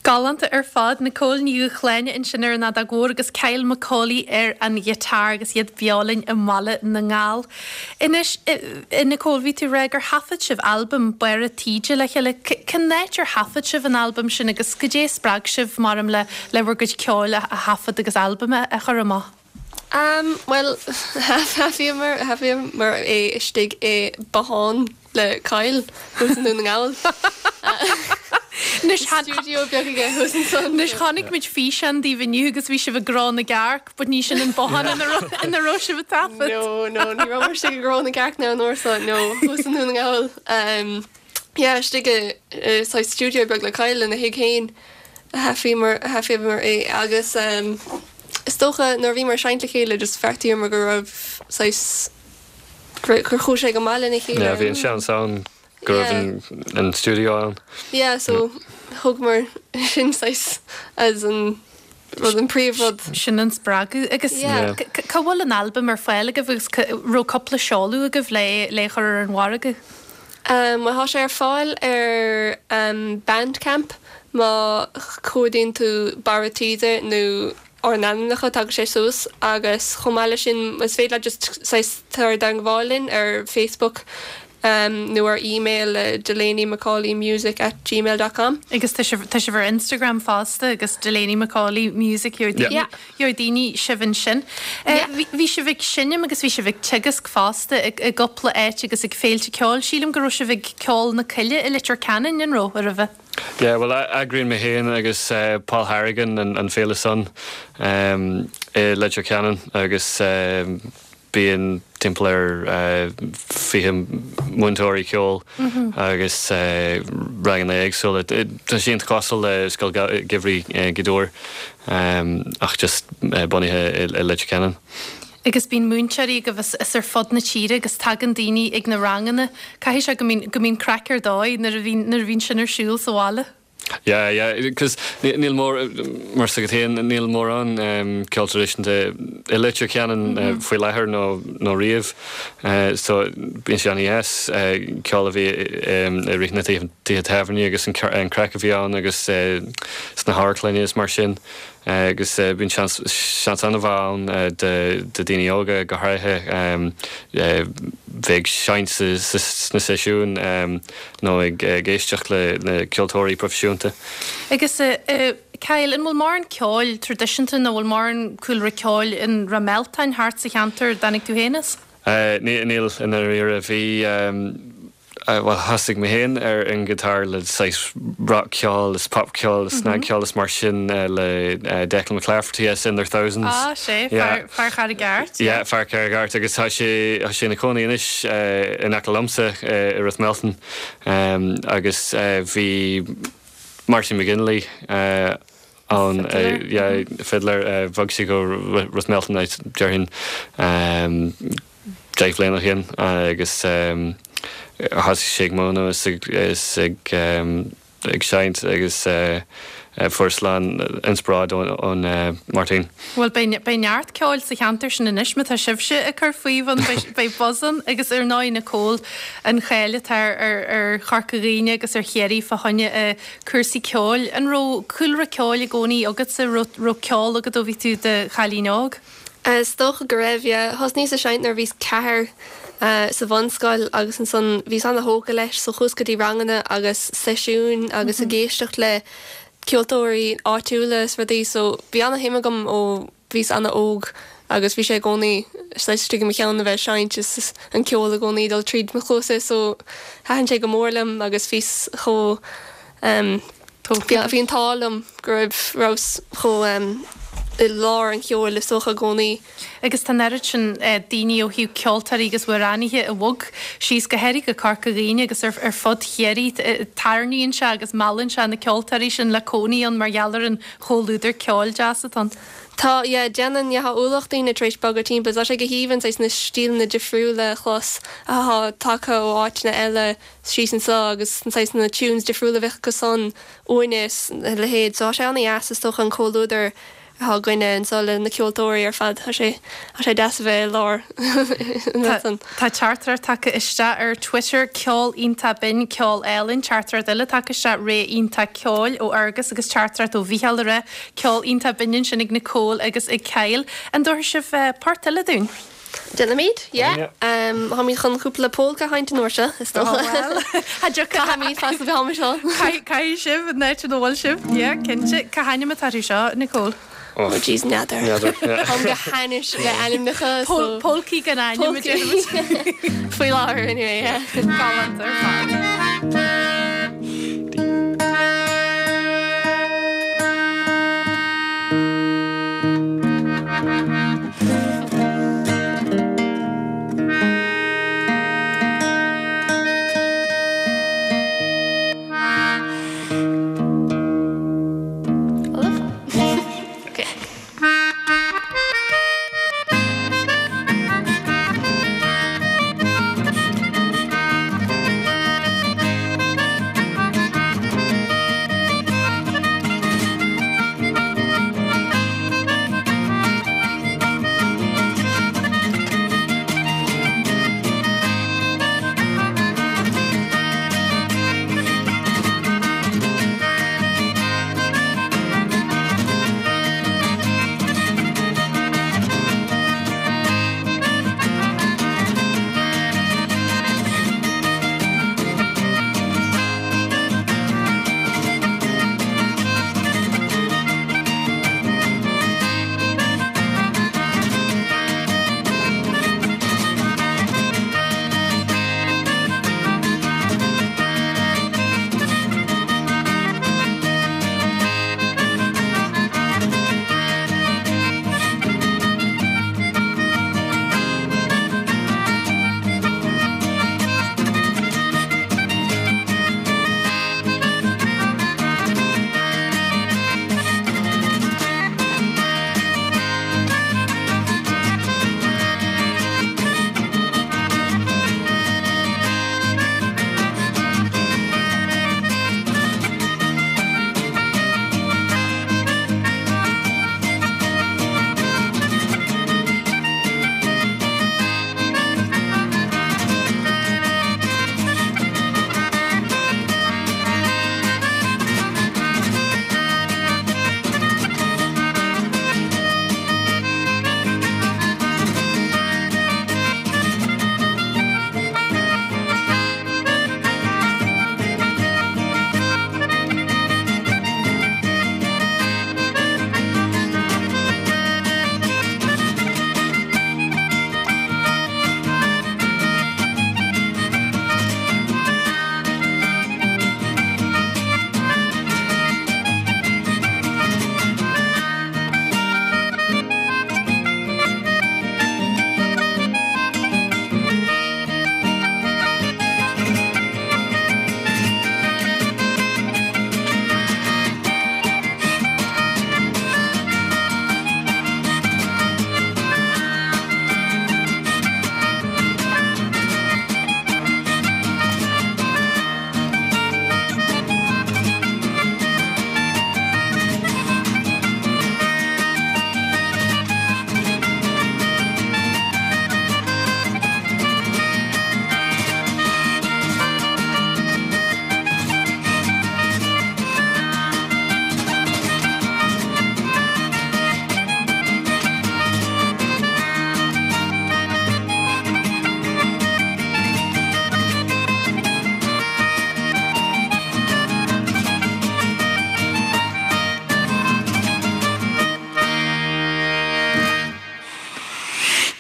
Galánta ar fad, Nicole Ní Dhúshláine ansin ar an fheadóg mhór agus Kyle McAuley ar an ghiotár agus iad beo linn i mBaile na nGall. Anois, a Nicole, bhí tú ag rá gur thaifead sibh albam Barra Taoide le chéile. Cén áit ar thaifead sibh an albam sin agus goidé a spreag sibh, mar le le bhur gcuid ceoil a thaifead agus albam a chur amach? Am, bhuel, thaifeadamar, thaifeadamar é istigh i bothán le Kyle thuas i nDún na nGall. Anois, Stiúideo beag aige thuas ansan. Anois, chonaic muid físeán daoibh inniu agus bhí sibh i gCró na gCearc, but ní sin an bothán ina raibh, ina raibh sibh ag taifead. No, no, ní rabhamar istigh i gCró na gCearc now an uair so, no, thuas i nDún na nGall. Am, yeah, istigh i, i saghas stiúideo beag le Kyle ina thigh féin a thaifeadamar, a thaifeadamar é agus, am, Is dócha nuair a bhíomar ag seinnt le chéile just bheartaíomar go raibh saghas, gur chuaigh sé go maith lena chéile. Yeah, bhí an seans ann go raibh an stiúideo ann. Yeah, so thógamar sin saghas as an rud, an príomhrud. Sin an spreagadh. Agus cá bhfuil an albam ar fáil agaibh agus raibh cúpla seoladh agaibh le é a chur ar an mhargadh? Bhuel tá sé ar fáil ar Bandcamp má chuardaíonn tú Barra Taoide nó ár n-ainmneacha tagann sé suas agus chomh maith leis sin is féidir leat just saghas tar i dteangmháil linn ar Facebook. Nó ar email le DelaneyMcAuleyMusic at gmail dot com. Agus tá sibh, tá sibh ar Instagram fosta agus Delaney McAuley Music, gheobhaidh daoine, Yeah. gheobhaidh daoine sibh ansin. Yeah. Bhí, bhí sibh ag seinm agus bhí sibh ag teagasc fosta i, i gcúpla áit agus ag féilte ceoil. Sílim go raibh sibh ag Ceol na Coille i Leitir Ceanainn, an raibh, roimhe? Yeah, bhuel, eagraíonn mé féin agus Paul Harrigan an, an féile san i Leitir Ceanainn agus Bíonn timpeall ar 20 múinteoirí ceoil agus ranganna éagsúla. Tá sé iontach cosúil le Scoil Gheimhridh Ghaoth Dobhair ach just bunaithe i Leitir Ceanainn. Agus bíonn múinteoirí agaibh as ar fud na tíre agus tagann daoine ag na ranganna. Caithfidh sé go mbíonn go mbíonn craic ar dóigh nuair a bhíonn nuair a bhíonn sin ar siúl sa bhaile. Yeah, yeah, cos níl mór, mar is agat féin, níl mórán ceol traidisiúnta i Leitir Ceanainn faoi láthair nó nó riamh so bíonn sé an-dheas ceol a bhí i rith na tithe tábhairne agus an craic a bhí ann agus sna hamharclanna is mar sin. Agus bíonn seans, seans an-mhaith ann do daoine óga go háirithe bheith ag seinnt sna seisiúin nó ag éisteacht le na ceoltóirí proifisiúnta. Agus Kyle, an bhfuil mórán ceoil traidisiúnta nó bhfuil mórán cúlra ceoil in Ráth Mealtain thart sa cheantar a dtáinig tú féin as? Níl, i ndáiríre. Bhí. Bhuel, thosaigh mé féin ar an ngiotár le saghas rock-cheol is pop-cheol is snagcheol is mar sin le Declan McClafferty as In Their Thousands. Ah, sé, fear, fear Charraig Airt. Yeah, fear Charraig Airt agus tá sé, tá sé ina chónaí anois in aice liomsa i Ráth Mealtain agus bhí Martin McGinley ann, yeah, fiddler, bhog sé go Ráth Mealtain déarfainn. 10 bhliain ó shin agus thosaigh sé ag múineadh is ag ag seinnt agus fuaireas a lán inspioráid ón Martin. Bhuel beidh beidh neart ceoil sa cheantar sin anois má tá sibhse ag cur faoi ann beidh beidh buzz ann agus ar ndóigh Nicole an cháil atá ar ar ar Chorca Dhuibhne agus ar Chiarraí fá choinne cúrsaí ceoil. An raibh cúlra ceoil i gcónaí agatsa, raibh raibh ceol agat ó bhí tú i do chailín óg? Is dócha go raibh, yeah. Thosnaíos ag seinnt nuair a bhíos ceathair sa bhunscoil agus ansan bhíos ana-thógtha leis so chuas go dtí ranganna agus seisiúin agus ag éisteacht le ceoltóirí áitiúla is rudaí so bhí ana-shuim agam ó bhíos ana-óg agus bhí sé i gcónaí saghas istigh i mo cheann a bheith ag seinnt is an ceol i gcónaí ag dul tríd mo chluasa so thaitin sé go mór liom agus bhíos chomh Bhí an t-ádh liom go raibh rabhas chomh i lár an cheoil is dócha i gcónaí. Agus tá an oiread sin daoine ó thaobh ceoltóirí agus amhránaithe a bhog síos, go háirithe go Corca Dhuibhne agus ar fud Chiarraí. Tarraingíonn sé agus meallann sé na ceoltóirí sin le cónaí ann mar gheall ar an chomhluadar ceoil deas atá ann. Tá, yeah, déanann, yeah, tá ualach daoine tar éis bogadh timpeall. Tá sé go haoibhinn saghas na stíleanna difriúla a chlos atá tagtha ó áiteanna eile. síos anseo agus na saghas na tunes difriúla a bheadh acu san uainne is a leithéid. So tá sé ana-dheas is dócha an comhluadar atá againne anseo le na ceoltóirí ar fad. Tá sé, tá sé deas a bheith i lár an rud san. Tá teachtaireacht tagtha isteach ar Twitter, ceol iontach binn, ceol álainn, teachtaireacht eile tagtha isteach, ré iontach ceoil ó Fhergus agus teachtaireacht ó Mhícheál ag rá, ceol iontach binn ansin ag Nicole agus ag Kyle. An dtabharfaidh sibh port eile dúinn? Déanfaimid, yeah. Táimid chun cúpla polca a sheinnt an uair seo, is dócha. Caithfimid feasta bheith am seo. Caithfidh sibh, an áit ina bhfuil sibh, yeah, cinnte. Cá hainm atá orthu seo, Nicole? Oh jeez, n'fheadar. N'fheadar, yeah. Táim go hainnis le ainmneacha, so. Polcaí gan ainm, a déarfaimid. Faoi láthair, anyway, yeah. Galánta ar fad.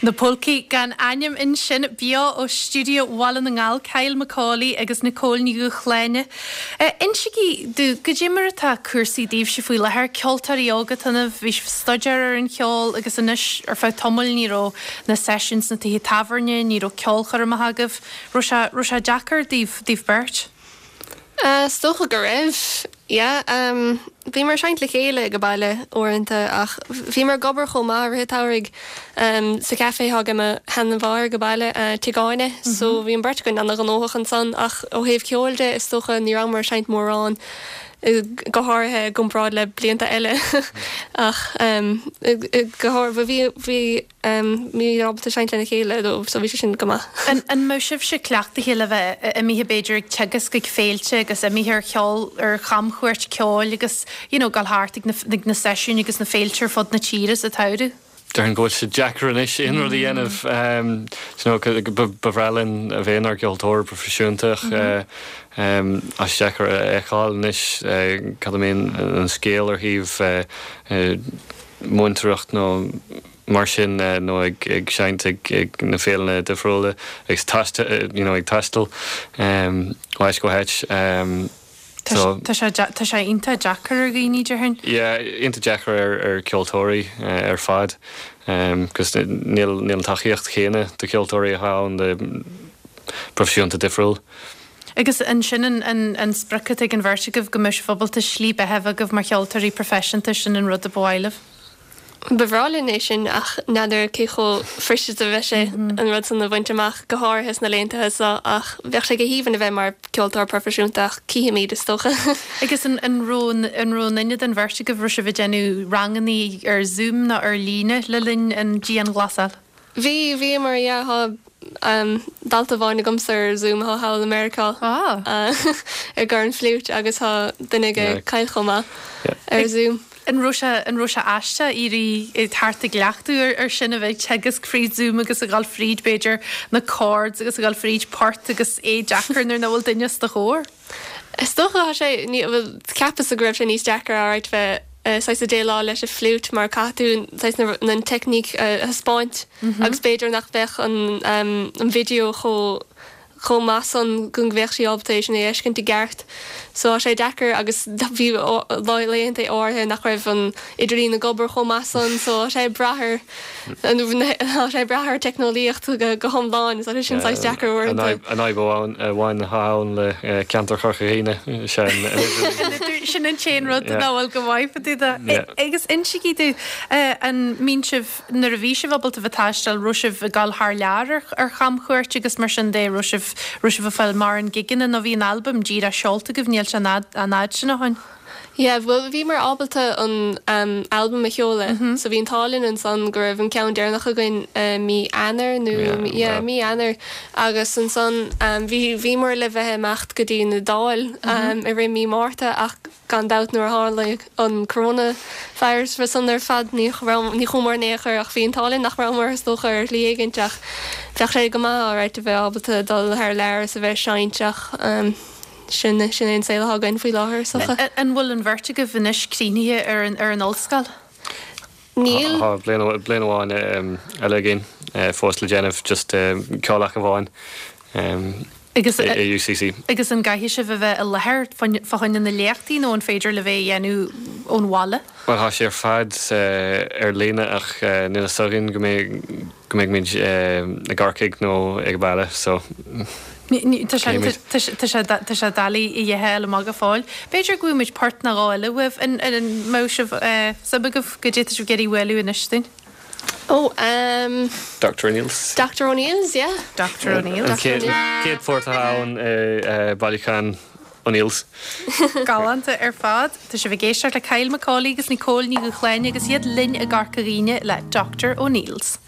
Na Polcaí gan Ainm ansin, beo ó stiúideo Bhaile na nGall, Kyle McAuley agus Nicole Ní Dhúshláine. Insígí domh, goidé mar atá cúrsaí daoibhse faoi láthair, ceoltóirí óga atá ionaibh, bhí sibh ag staidéar ar an cheol agus anois ar feadh tamaill ní raibh na seisiúin sna tithe tábhairne, ní raibh ceolchoirmeacha agaibh. Raibh sé, raibh sé deacair daoibh, daoibh beirt? Is dócha go raibh, yeah. Bhíomar ag seinnt le chéile ag baile uaireanta ach bhíomar ag obair chomh maith i rith an tsamhraidh sa café atá ag mo sheanmháthair ag baile, Tigh Áine, so bhí an bheirt againn ana-ghnóthach ansan ach ó thaobh ceoil de is dócha ní rabhamar ag seinnt mórán, go háirithe i gcomparáid le blianta eile ach go háirithe bhí, bhí. Bhíomar ábalta seinnt lena chéile though so bhí sé sin go maith. An mbeadh sibhse cleachtaithe le bheith imithe b'fhéidir ag teagasc ag féilte agus imithe ar cheol ar chamchuairt ceoil agus you know dul thart ag na ag na seisiúin agus na féilte ar fud na tíre sa tsamhradh? Déarfainn go bhfuil sé deacair anois aon rud a dhéanamh. You know ba bhreá linn a bheith inár gceoltóir proifisiúnta ach tá sé deacair a fheiceáil anois cad a mbíonn an scéal ar thaobh múinteoireacht nó mar sin nó ag seinnt ag na féileanna difriúla agus you know ag taisteal ó áit go háit. So. Tá sé tá sé iontach deacair ar dhaoine déarfainn. Yeah, iontach deacair ar ar ceoltóirí ar fad 'cause níl níl an tacaíocht chéanna do cheoltóirí atá ann do proifisiúnta difriúil. Agus an sin an sprioc atá ag an bheirt agaibh, go mbeadh sibh ábalta slí beatha a bheith agaibh mar cheoltóirí proifisiúnta, sin an rud a ba mhaith libh? Ba bhreá linn é sin ach n'fheadar cé chomh fuirist is a bheidh sé an rud san a bhaint amach, go háirithe sna laethanta seo ach bheadh sé go haoibhinn a bheith mar cheoltóir proifisiúnta ach cífimid is dócha. Agus an raibh an raibh aon duine den bheirt agaibh, raibh sibh ag déanamh ranganna ar Zoom nó ar líne le linn an dianghlasáil? Bhí, bhíomar, yeah, tá dalta amháin agamsa ar Zoom atá thall i Meiriceá ar chornfhliúit agus tá duine ag Kyle chomh maith ar Zoom. An raibh sé, an raibh sé aisteach éirí thart ag cleachtadh ar ar sin a bheith ag teagasc fríd Zoom agus a dhul fríd b'fhéidir na chords agus a dhul fríd port agus é deacair nuair nach bhfuil duine os do chomhair? Is dócha tá sé, ní, bhuel, cheapas-sa go raibh sé níos deacra alright bheith saghas ag déileáil leis an fliúit mar caithfidh tú saghas na, an teicníc a thaispeáint agus b'fhéidir nach bheadh an, an video chomh, chomh maith san go mbeadh sí ábalta é sin a fheiscint i gceart. So tá sé deacair agus bhí laethanta áirithe nach raibh an idirlíon ag obair chomh maith san so tá sé ag brath ar, Tá sé ag brath ar teicneolaíocht go hiomlán, is é sin saghas deacair uaireanta. An fhadhb amháin atá ann le ceantar Chorca Dhuibhne is ea an idirlíon. Sin an t-aon rud nach bhfuil go maith fá dtaobh de. Agus insígí domh, an mbíonn sibh, nuair a bhí sibh ábalta bheith ag taisteal, raibh sibh ag dul thar lear ar chamchuairt agus mar sin de, raibh sibh, raibh sibh ag fáil mórán gigeanna nó bhí an albam díreach seolta agaibh, níl sé an fhad sin ó shin? Yeah, bhuel bhíomar ábalta an albam a sheoladh so bhí an t-ádh linn ansan go raibh an ceann deireanach againn mí Eanáir nó yeah mí Eanáir agus ansan bhí bhíomar le bheith ag imeacht go dtí an Iodáil i rith mí Márta ach gan dabht nuair a tharla an coronavirus san ar fad ní raibh ní chuamar in aon chor ach bhí an t-ádh linn nach rabhamar is dócha ar shlí éigint ach bheadh sé go maith alright a bheith ábalta dul thar lear is a bheith ag seinnt ach Sin, sin é an saol atá againn faoi láthair, is dócha. An bhfuil an bheirt agaibh anois críochnaithe ar an, ar an ollscoil? Níl. Tá bliain, bliain amháin eile againn fós le déanamh, just ceol ach amháin Agus, i UCC. Agus an gcaithfidh sibh a bheith i láthair fá choinne na léachtaí nó an féidir libh é a dhéanamh ón bhaile? Bhuel, tá sé ar fad ar líne ach níl fhios againn go mbeidh, go mbeidh muid i gCorcaigh nó ag baile so Tá sé tá sé doiligh a fháil amach go fóill. B'fhéidir go bhfaighidh muid port nó dhó eile uaibh. An mbeadh sibh suim agaibh goidé tá sibh ag iarraidh bualadh anois dúinn? Oh um. Doctor O'Neill's. Doctor O'Neill's, yeah. Doctor O'Neill's. An chéad phort atá ann i bailiúchán O'Neill's. Galánta ar fad. Tá sibh ag éisteacht le Kyle McAuley agus Nicole Ní Dhúshláine agus iad linn i gCorca Dhuibhne le Doctor O'Neill's.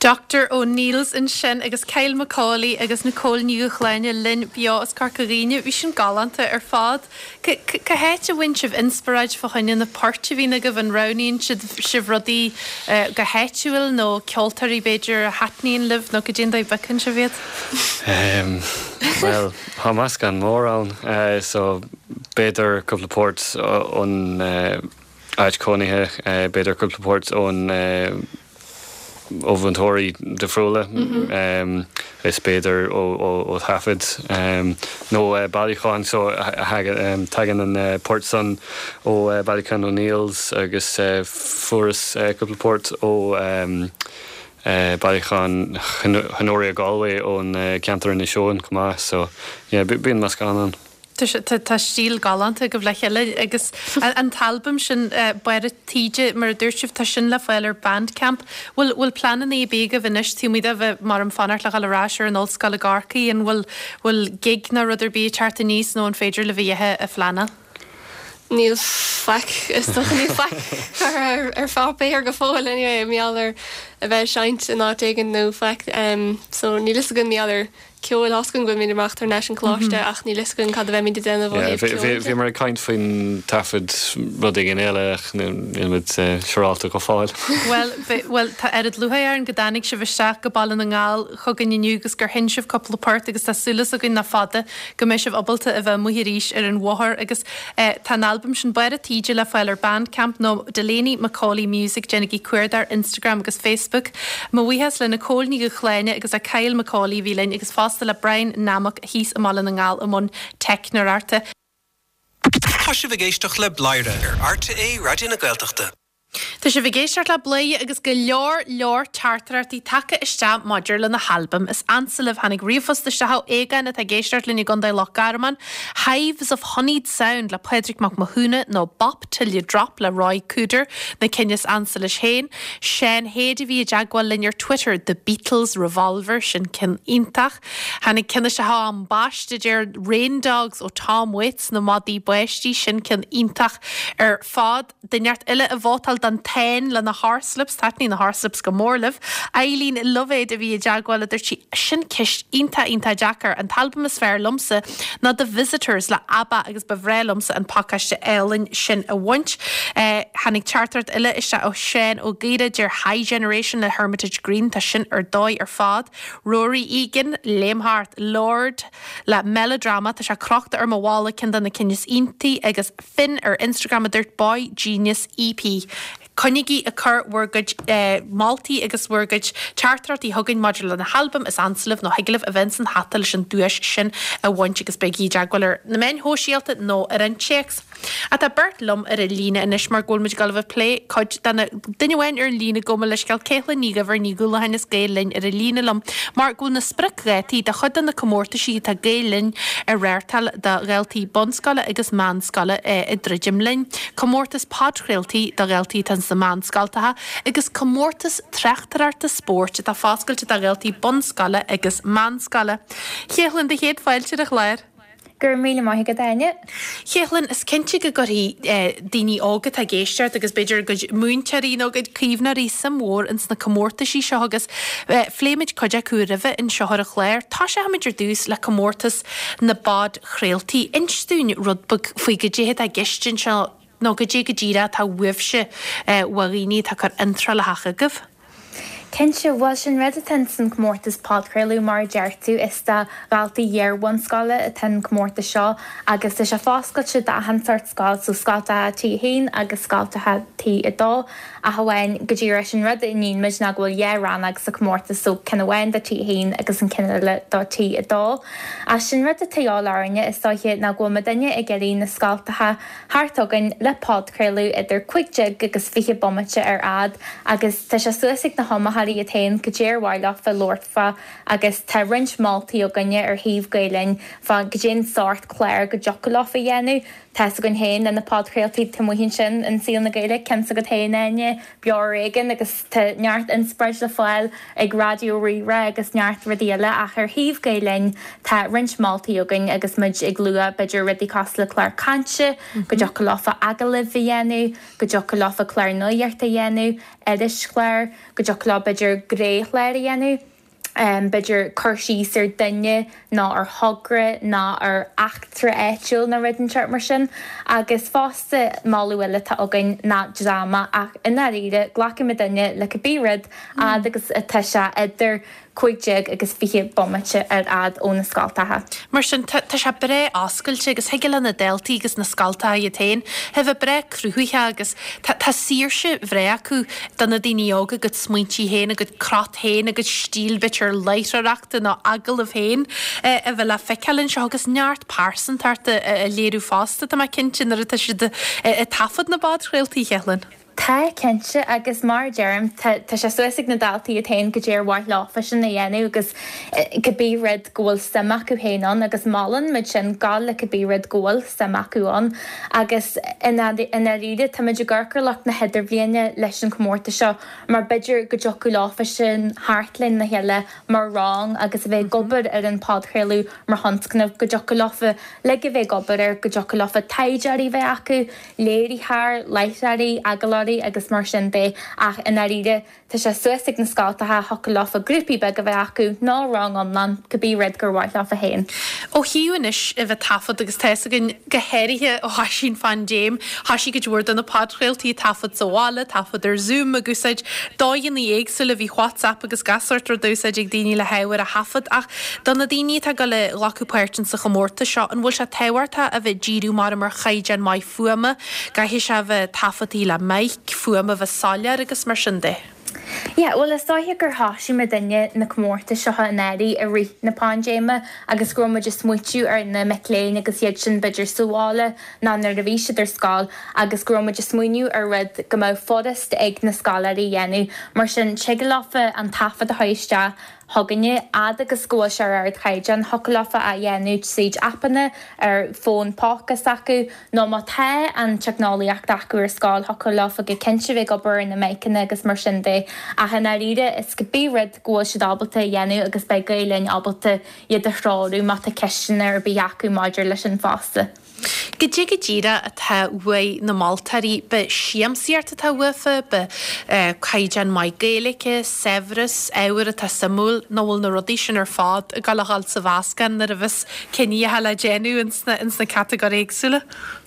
Doctor O'Neill's ansin agus Kyle McAuley agus Nicole Ní Dhúshláine linn beo as Corca Dhuibhne. Bhí sin galánta ar fad. Cá háit a bhfaigheann sibh inspioráid fá choinne na poirt a bhíonn agaibh? An roghnaíonn sibh rudaí go háitiúil nó ceoltóirí b'fhéidir a thaitníonn libh nó goidé an dóigh a bpiocann sibh iad? Bhuel, tá meascán mór ann so b'fhéidir cúpla port ón áit cónaithe, b'fhéidir cúpla port ón ó mhúinteoirí difriúla, is b'fhéidir ó thaifead nó bailiúcháin. So tagann an port san ó bailiúchán O'Neill's agus fuaireas cúpla port ó bailiúchán Honoria Galway ón ceantar Inis Eoghain chomh maith. So yeah bíonn meascán ann. Tá stíl galánta agaibh le chéile agus an t-albam sin, Barr a' Taoide, mar a dúirt sibh, tá sin le fáil ar Bandcamp. Bhfuil bhfuil pleananna ar bith agaibh anois taobh amuigh de bheith mar am fanacht le dhul ar ais ar an ollscoil i gCorcaigh, an bhfuil bhfuil gig ná rud ar bith ag teacht aníos nó an féidir libh a dhath a phleanáil? Níl faic, is dócha, níl faic curtha ar pháipéar go fóill anyway, mar gheall ar a bheith ag seinnt in áit éigin nó faic. So níl fhios againn mar gheall ar ceoil, tá 'fhios againn go bhfuilimid ag imeacht thar n-ais an coláiste ach níl 'fhios againn cad a bheimid ag déanamh ó thaobh ceoil de. Bhíomar ag caint faoin taifead rud éigin eile ach níl muid siúrálta go fóill. Bhuel, bhuel, tá oiread lúcháir orainn go dtáinig sibh isteach go Baile na nGall chugainn inniu agus gur sheinn sibh cúpla port agus tá súil againn nach fada go mbeidh sibh ábalta a bheith amuigh arís ar an bhóthar agus Tá an albam sin Barr a' Taoide le fáil ar Bandcamp nó Delaney McAuley Music, déanaigí cuardach ar Instagram agus Facebook. Mo bhuíochas le Nicole Ní Dhúshláine agus le Kyle McAuley a bhí linn agus fosta le Brian Nammock thíos i mBaile na nGall i mbun teicneoireachta. Tá sibh ag éisteacht le Bladhaire ar RTÉ Raidió na Gaeltachta. Tá sibh ag éisteacht le Bladhaire agus go leor leor teachtaireachtaí tagtha isteach maidir le na halbaim is ansa libh. Tháinig ríomhphost isteach ó Aogán atá ag éisteacht linn i gContae Loch Garman, Hives of Honeyed Sound le Pádraig Mac Mathúna nó Bop 'Til You Drop le Ry Cooder na cinn is ansa leis féin. Seán Hade a bhí i dteagmháil linn ar Twitter, The Beatles Revolver, sin ceann iontach. Tháinig ceann isteach ó Ambaiste a deir Rain Dogs ó Tom Waits, Na Madaí Báistí, sin ceann iontach ar fad. Duine inteacht eile a vótáil don Táin le na Horslips, taitníonn na Horslips go mór libh. Eileen Loibhéad a bhí i dteagmháil a dúirt sí, sin ceist iontach iontach deacair. An t-albam is fearr liomsa ná The Visitors le ABBA agus ba bhreá liomsa an pacáiste álainn sin a bhaint. Tháinig teachtaireacht eile isteach ó Sheán Ó Gaora, deir High Generation le Hermitage Green, tá sin ar dóigh ar fad. Rory Egan, léim thart, Lorde le Melodrama, tá sé crochta ar mo bhalla, ceann de na cinn is iontaí agus. Finn ar Instagram a dúirt boygenius EP. Coinnígí ag cur bhur gcuid moltaí agus bhur gcuid teachtaireachtaí chugainn maidir le na halbaim is ansa libh nó thig libh a bheith ins an hata leis an duais sin a bhaint agus bígí i dteagmháil ar na meáin shóisialta nó ar an téacs. Ach tá beirt liom ar an líne anois mar go bhfuil muid ag dul a bheith ag plé cuid de na duine amháin ar an líne gabh mo leithscéal Caitlín Ní Dhuibhir Ní Dhúlacháin as Gael Linn ar an líne liom mar go bhfuil na spriocdhátaí do chuid de na comórtaisí atá Gael Linn a reáchtáil do dhaltaí bunscoile agus meánscoile ag druidim linn, comórtas podchraoltaí do dhaltaí atá sna meánscoltacha agus comórtas tráchtaireachta spóirt atá foscailte do dhaltaí bunscoile agus meánscoile. Chéithlinn, do chéad fáilte ar an chlár. Go raibh míle maith agat, Áine. Chéithlinn, is cinnte go gcuirfidh daoine óga atá ag éisteacht agus b'fhéidir a gcuid múinteoirí nó a gcuid caomhnóirí suim mhór ins na comórtaisí seo agus phléigh muid cuid acu roimhe anseo ar an chlár. Tosóimid ar dtús le comórtas na bpodchraoltaí. Inis dúinn rud beag faoi goidé atá i gceist anseo nó goidé go díreach atá uaibhse ó dhaoine atá ag cur iontrálacha chugaibh. Cinnte, bhuel sin rud atá ins an comórtas podchraoladh mar a deir tú, is do dhaltaí iar-bhunscoile atá an comórtas seo agus tá sé foscailte d'achan sórt scoil, so scoltacha T1 agus scoltacha T2 ach amháin go díreach sin rud a níonn muid ná go bhfuil dhá rannóg sa comórtas so ceann amháin do T1 agus an ceann eile do T2. Ach sin rud atá de dhíobháil orainne is dóiche ná go bhfuil muidinne ag iarraidh na scoltacha thart againn le podchraoladh idir 15 agus 20 bomaite ar fhad agus tá sé suas ag na hiomaitheoirí iad féin goidé ar mhaith leofa labhairt fá agus tá roinnt moltaí againne ar shuíomh Gael Linn fá goidé an sórt clár go dtiocfadh leofa a dhéanamh. Tá's againn féin le na podchraoltaí taobh amuigh ansin in Saol na Gaeilge, ceann s'agat féin Áine, Beo Ar Éigean agus tá neart inspioráid le fáil ag Raidió Rí-Rá agus neart rudaí eile ach ar thaobh Gael Linn tá roinnt moltaí againn agus muid ag lua b'fhéidir rudaí cosúil le clár cainte, go dtiocfadh leofa agallaimh a dhéanamh, go dtiocfadh leofa clár nuachta a dhéanamh, irischlár, go dtiocfadh leo b'fhéidir gnéchlár a dhéanamh. b'fhéidir cur síos ar duine nó ar thogra nó ar eachtra áitiúil nó rud inteacht mar sin. Agus fosta moladh eile atá againn ná dráma ach i ndáiríre glacfaidh muidinne le cibé rud fhad agus atá sé idir 15 agus 20 bomaite ar fhad ó na scoltacha. Mar sin tá sé breá oscailte agus thig le na daltaí agus na scoltacha iad féin a bheith breá cruthaitheach agus tá saoirse bhreá acu do na daoine óga a gcuid smaointí féin, a gcuid crot féin, a gcuid stíl b'fhéidir láithreoireachta nó agallamh féin a bheith le feiceáil anseo agus neart pearsantacht a léiriú fosta, tá mé cinnte, nuair atá siad ag taifead na bpodchraoltaí, a Chéithlinn. Tá, cinnte, agus mar a deirim, tá tá sé suas ag na daltaí iad féin goidé ar mhaith leofa sin a dhéanamh agus cibé rud go bhfuil suim acu féin ann agus molann muid sin gabháil le cibé rud go bhfuil suim acu ann agus i ndáiríre tá muid ag amharc ar lucht na hidirbhliana leis an chomórtas seo mar b'fhéidir go dtiocfadh leofa sin theacht lena chéile mar rang agus a bheith ag obair ar an podchraoladh mar thionscnamh, go dtiocfadh leofa uilig a bheith ag obair air, go dtiocfadh leofa taighdeoirí a bheith acu, léiritheoir, láithreoirí, agallóirí agus mar sin de ach i ndáiríre tá sé suas ag na scoltacha, thiocfadh leofa grúpaí beaga a bheith acu nó rang iomlán, cibé rud gur mhaith leofa féin. Ó thaobh anois a bheith taifead agus tá fhios againn go háirithe ó thoisigh an phaindéim, thoisigh cuid mhór de na podchraoltaí ag taifead sa bhaile, taifead ar Zoom, ag úsáid dóigheanna éagsúla, bhí WhatsApp agus gach sórt rud á úsáid ag daoine le hábhar a thaifead ach do na daoine atá ag dul a ghlacadh páirt in sa chomórtas seo, an bhfuil sé tábhachtach a bheith díriú mar ar chaighdeán maith fuaime, gcaithfidh sé a bheith taifeadtaí le mic, fuaim a bheith soiléir agus mar sin de? Yeah, bhuel is dóiche gur thoisigh muidinne na comórtais seo anuraidh i rith na paindéime agus go raibh muid ag smaoitiú ar na mic léinn agus iad sin b'fhéidir sa bhaile nó nuair a bhí siad ar scoil agus go raibh muid ag smaoineamh ar rud go mbeadh furast ag na scoláirí a dhéanamh. Mar sin tig leofa an taifead a chur isteach chugainne, fhad agus go bhfuil sé ar ardchaighdeán, thiocfadh leofa a dhéanamh tríd aipeanna ar fón póca s'acu, nó má tá an teicneolaíocht acu ar scoil, thiocfadh leofa go cinnte bheith ag obair ar na miceanna agus mar sin de. Ach i ndáiríre, is cibé rud go bhfuil siad ábalta a dhéanamh agus beidh Gael Linn ábalta iad a threorú má tá ceisteanna ar bith acu maidir leis sin fosta. Goidé go díreach atá uaidh na moltóirí, b'é siamsaíocht atá uafa, b'é caighdeán maith Gaeilge, saibhreas, ábhar atá suimiúil, nó bhfuil na rudaí sin ar fad ag dul a dhul sa mheascán nuair a bheas cinneadh le déanamh ins na catagóirí éagsúla?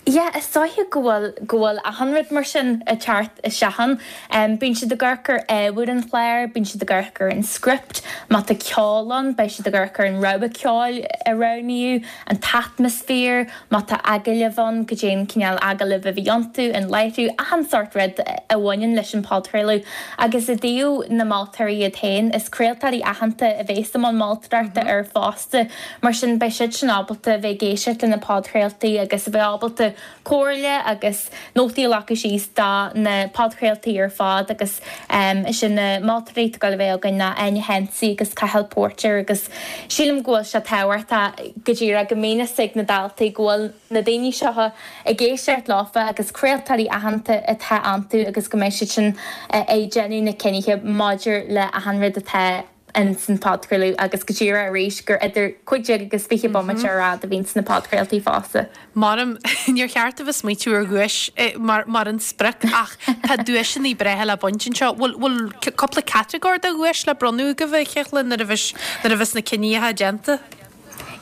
Yeah, is dóiche go bhfuil, go bhfuil achan rud mar sin ag teacht isteach ann. Bíonn siad ag amharc ar ábhar an chláir, bíonn siad ag amharc ar an script, má tá ceol ann, beidh siad ag amharc ar an rogha ceoil a roghnaíodh, an t-atmaisféar, má tá agallaimh ann, goidé an cineál agallaimh a bhí iontu, an láithriú, achan sórt rud a bhaineann leis an phodchraoladh. Agus i dtaobh na moltóirí iad féin, is craoltóirí aitheanta a bhéas i mbun moltóireachta air fosta, mar sin beidh siad sin ábalta a bheith ag éisteacht le na podchraoltaí agus a bheith ábalta comhairle agus nótaí a ghlacadh síos do na podchraoltaí ar fad agus is iad na moltóirí atá ag dul a bheith againn ná Áine Hensey agus Cathal Póirtéir agus sílim go bhfuil sé tábhachtach go díreach go mbíonn fhios ag na daltaí go bhfuil na daoine seo ag éisteacht leofa agus craoltóirí aitheanta atá iontu agus go mbeidh siad sin ag déanamh na cinnithe maidir le achan rud atá ins an podchraoladh agus go díreach arís gur idir 15 agus 20 bomaite ar fhad a bhíonn sna podchraoltaí fosta. Maram, níor cheart a bheith smaoitiú ar dhuais mar mar an sprioc ach tá duaiseanna breátha le baint anseo. Bhfuil bhfuil cúpla catagóir de dhuais le bronnadh agaibh a Chéithlinn nuair a bheas nuair a bheas na cinníocha déanta?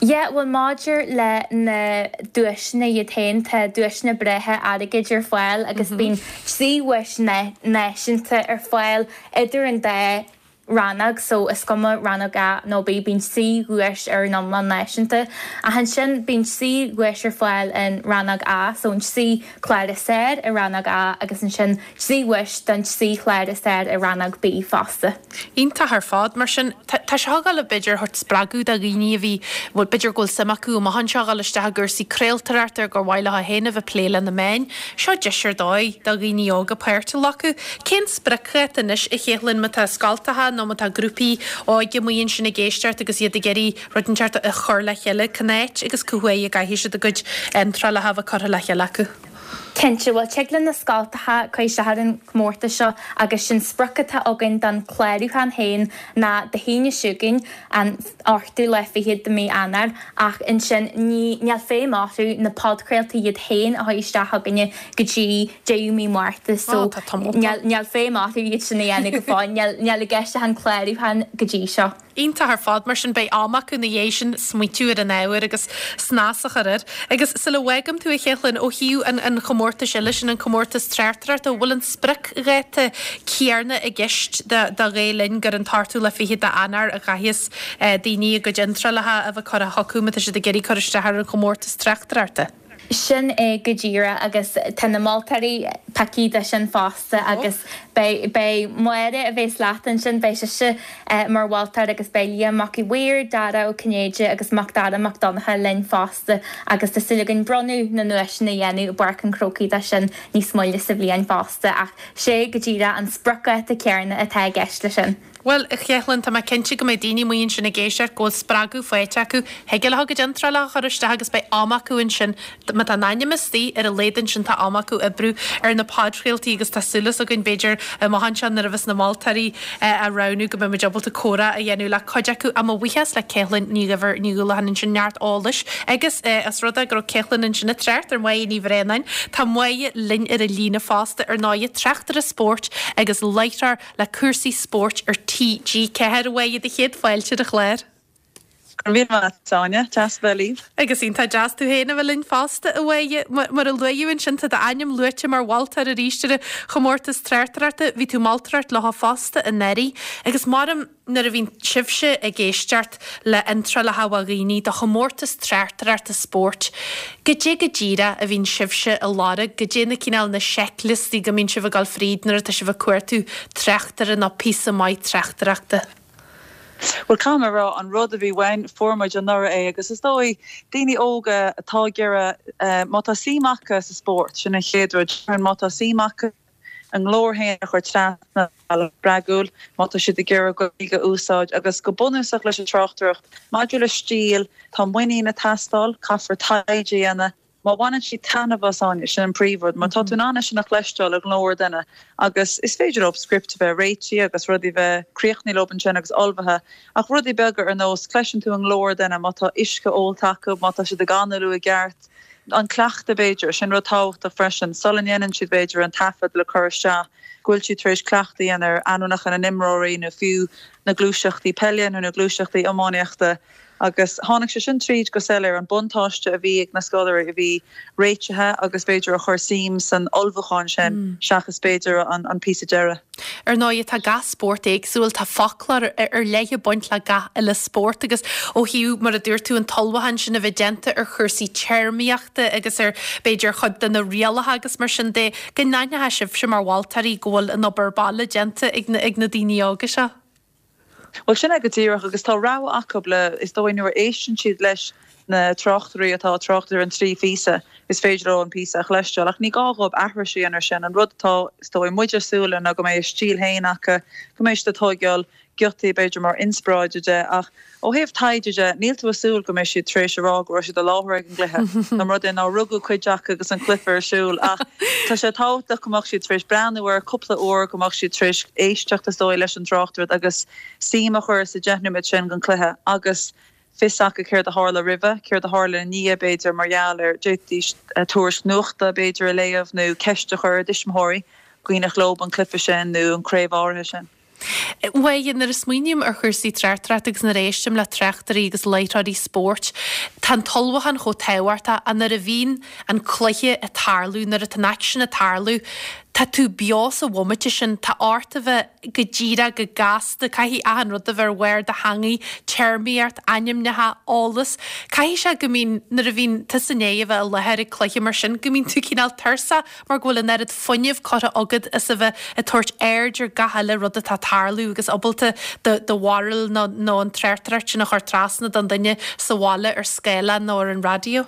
Yeah, bhuel maidir le na duaiseanna iad féin, tá duaiseanna breátha airgid ar fáil agus bíonn 3 dhuais náisiúnta ar fáil idir an dá rannóg so is cuma rannóg A nó B, bíonn 3 dhuais ar an iomlán náisiúnta. Ach ansin bíonn 3 dhuais ar fáil in rannóg A, so an 3 chlár is fearr i rannóg A agus ansin 3 dhuais don 3 chlár is fearr i rannóg B fosta. Iontach ar fad. Mar sin, tá seo ag dul b'fhéidir a thabhairt spreagadh do dhaoine a bhí, bhuel b'fhéidir go bhfuil suim acu amach anseo a dhul isteach i gcúrsaí craoltóireachta ar gur mhaith leo féin a bheith ag plé le na meáin. Seo deis ar dóigh do dhaoine óga páirt a ghlacadh. Cén spriocdháta anois, a Chéithlinn, má tá scoltacha nó. nó má tá grúpaí óige amuigh ansin ag éisteacht agus iad ag iarraidh rud inteacht a chur le chéile, cén áit agus cá huair a gcaithfidh siad a gcuid iontrálacha a bheith curtha le chéile acu? Cinnte, bhuel tig le na scoltacha cur isteach ar an chomórtas seo agus sin sprioc atá againn don chlárúchán féin ná Dé hAoine seo chugainn, an ochtú lá fichead de mí Eanáir, ach ansin ní níl feidhm orthu na podchraoltaí iad féin a chur isteach chugainne go dtí deireadh mí Márta so níl níl feidhm orthu iad sin a dhéanamh go fóill, níl níl i gceist ach an clárúchán go dtí seo. Iontach ar fad, mar sin beidh am acu ina dhiaidh sin smaoitiú ar an ábhar agus snas a chur air. Agus sula bhfágaim tú a Chéithlinn, ó thaobh an an chomórtais eile sin, an comórtas tráchtaireachta, an bhfuil an spriocdháta céarna i gceist do do Ghael Linn gur an t-ochtú lá fichead d'Eanáir a chaithfeas daoine a gcuid iontrálacha a bheith curtha chucu má tá siad ag iarraidh cur isteach ar an chomórtas tráchtaireachta? Sin é go díreach agus tá na moltóirí pioctha do sin fosta agus beidh, beidh Máire a bhéas leat ansin, beidh sise mar mholtóir agus beidh Liam Mac Uí Mhaoir, Dara Ó Cinnéide agus Macdara Mac Donncha linn fosta agus tá súil againn bronnadh na nduaiseanna a dhéanamh i bPáirc an Chrócaigh do sin níos moille sa bhliain fosta ach sé go díreach an spriocdháta céarna atá i gceist leis sin. Bhuel, a Chéithlinn, tá mé cinnte go mbeidh daoine amuigh ansin ag éisteacht go bhfuil spreagadh faighte acu. Thig leo a gcuid iontrálacha a chur isteach agus beidh am acu ansin, má tá a n-ainm istigh, ar a laghad ansin tá am acu oibriú ar na podchraoltaí agus tá súil againn, b'fhéidir, amach anseo nuair a bheas na moltóirí á roghnú go mbeidh muid ábalta comhrá a dhéanamh le cuid acu. Ach mo bhuíochas le Céithlinn Ní Dhuibhir Ní Dhúlacháin ansin, neart eolais agus os rud é go raibh Céithlinn ansin ag trácht ar Mháire Ní Bhraonáin, tá Máire linn ar an líne fosta, ar ndóigh, tráchtaire spóirt agus láithreoir le cúrsaí spóirt ar TG4. A Mháire, do chéad fáilte ar an chlár. Go raibh míle maith agat, Áine. Deas a bheith libh. Agus iontach deas tú féin a bheith linn fosta, a Mháire. Mar a luadh ansin, tá d'ainm luaite mar mholtóir arís ar an chomórtas tráchtaireachta. Bhí tú ag moltóireacht leo fosta anuraidh. Agus maram. Nuair a bhíonn sibhse ag éisteacht le hiontrálacha ó dhaoine do chomórtas tráchtaireachta spóirt, goidé go díreach a bhíonn sibhse a lorg, goidé na cineál na seicliostaí go mbíonn sibh ag dul fríd nuair atá sibh ag cuartú tráchtaire nó píosa maith tráchtaireachta? Bhuel, caithfidh mé a rá, an rud a bhí uainn, fuair muid anuraidh é agus is dóigh, daoine óga atá ag iarraidh, má tá suim acu sa spórt, sin an chéad rud, má tá suim acu, a nglór féin a chur trasna ar bhealach spreagúil má tá siad ag iarraidh Gaeilge a úsáid agus go bunúsach leis an tráchtaireacht. Maidir le stíl, tá muinín ag teastáil, caithfear taighde a dhéanamh. Má bhaineann siad taitneamh as, Áine, sin an príomhrud, mar tá tú in ann é sin a chloisteáil i nglór duine agus is féidir leo script a bheith réitithe agus rudaí a bheith críochnaithe leo ansin agus ullmhaithe ach rudaí beaga ar nós, cloiseann tú i nglór duine má tá uisce ólta acu, má tá siad ag análú i gceart. An cleachtadh, b'fhéidir, sin rud tábhachtach freisin, sula ndéanann siad, b'fhéidir, an taifead le cur isteach, go bhfuil siad tar éis cleachtadh a dhéanamh ar ainmneacha na n-imreoirí nó fiú na gluaiseachtaí peile nó na gluaiseachtaí iománaíochta. Agus tháinig sé sin tríd go soiléir, an buntáiste a bhí ag na scoláirí a bhí réitithe agus b'fhéidir a chuir suim san ullmhúchán sin seachas b'fhéidir an píosa deiridh. Ar ndóigh, tá gach spórt éagsúil, tá foclóir ar leith ag baint le gach uile spórt agus ó thaobh, mar a dúirt tú, an t-ullmhúchán sin a bheith déanta ar chúrsaí téarmaíochta agus ar, b'fhéidir, chuid de na rialacha agus mar sin de, go n-aithneoidh sibhse mar mholtóirí go bhfuil an obair baile déanta ag na daoine óga seo. Bhuel, sin é go díreach agus tá rogha acu le, is dóigh, nuair a éisteann siad leis na tráchtairí atá ag trácht ar an dtrí phíosa, is féidir leo an píosa a chloisteáil ach ní gá dhóibh aithris a dhéanamh air sin. An rud atá, is dóigh, muid ag súil le ná go mbeidh a stíl féin acu, go mbeidh siad ag tóigeáil giotaí b'fhéidir mar inspioráid de ach ó thaobh taighde de, níl tú ag súil go mbeidh siad tar éis a rá go raibh siad i láthair ag an gcluiche, dá mba rud é nár rugadh cuid acu agus an cluiche ar siúl ach tá sé tábhachtach go mbeadh siad tar éis breathnú air cúpla uair, go mbeadh siad tar éis éisteacht is dóigh leis an tráchtaireacht agus suim a chur sa deich nóiméad sin den chluiche agus fios acu céard a tharla roimhe, céard a tharla ina dhiaidh b'fhéidir mar gheall ar, d'fhéadfaidís tuairisc nuachta b'fhéidir a léamh nó ceist a chur ar a dtuismitheoirí, cuimhneach leo an cluiche sin nó an craobh áirithe sin. Bhuel, nuair a smaoiním ar chúrsaí tráchtaireachta agus nuair a éistim le tráchtairí agus láithreoirí spóirt, tá an t-ullmhúchán chomh tábhachtach ach nuair a bhíonn an cluiche ag tarlú, nuair atá an aicsean ag tarlú, tá tú beo sa bhomaite sin, tá ort a bheith go díreach, go gasta, caithfidh achan rud a bheith ar bharr do theangaidh, téarmaíocht, ainmneacha, eolas. Caithfidh sé go mbíonn, nuair a bhíonn tusa i ndiaidh a bheith i láthair ag cluiche mar sin, go mbíonn tú cineál tuirseach mar go bhfuil an oiread fuinnimh curtha agat as a bheith ag tabhairt aird ar gach uile rud atá ag tarlú agus ábalta do bharúil nó an tráchtaireacht sin a chur trasna don duine sa bhaile ar scáileán nó ar an raidió.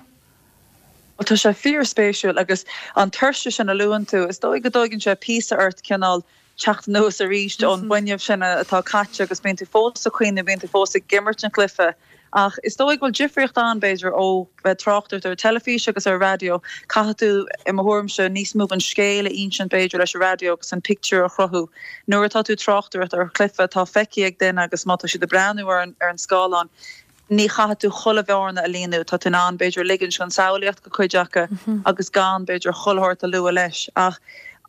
Bhuel, tá sé fíorspéisiúil agus an tuirse sin a luann tú, is dóigh go dtóigeann sé píosa ort cineál. teacht anuas arís ón bhfuinneamh sin atá caite agus bíonn tú fós ag cuimhneamh, bíonn tú fós ag imirt an chluiche. Ach is dóigh go bhfuil difríocht ann, b'fhéidir, ó bheith ag tráchtaireacht ar an teilifís agus ar an raidió. Caithfidh tú, i mo thuairimse, níos mó den scéal a insint, b'fhéidir, leis an raidió agus an pictiúr a chruthú. Nuair atá tú ag tráchtaireacht ar chluiche atá feicthe ag duine agus má tá siad ag breathnú ar an scáileán, ní chaithfidh tú chuile bhearna a líonadh, tá tú in ann, b'fhéidir, ligint don samhlaíocht go cuid acu agus gan, b'fhéidir, chuile shórt a lua leis. Ach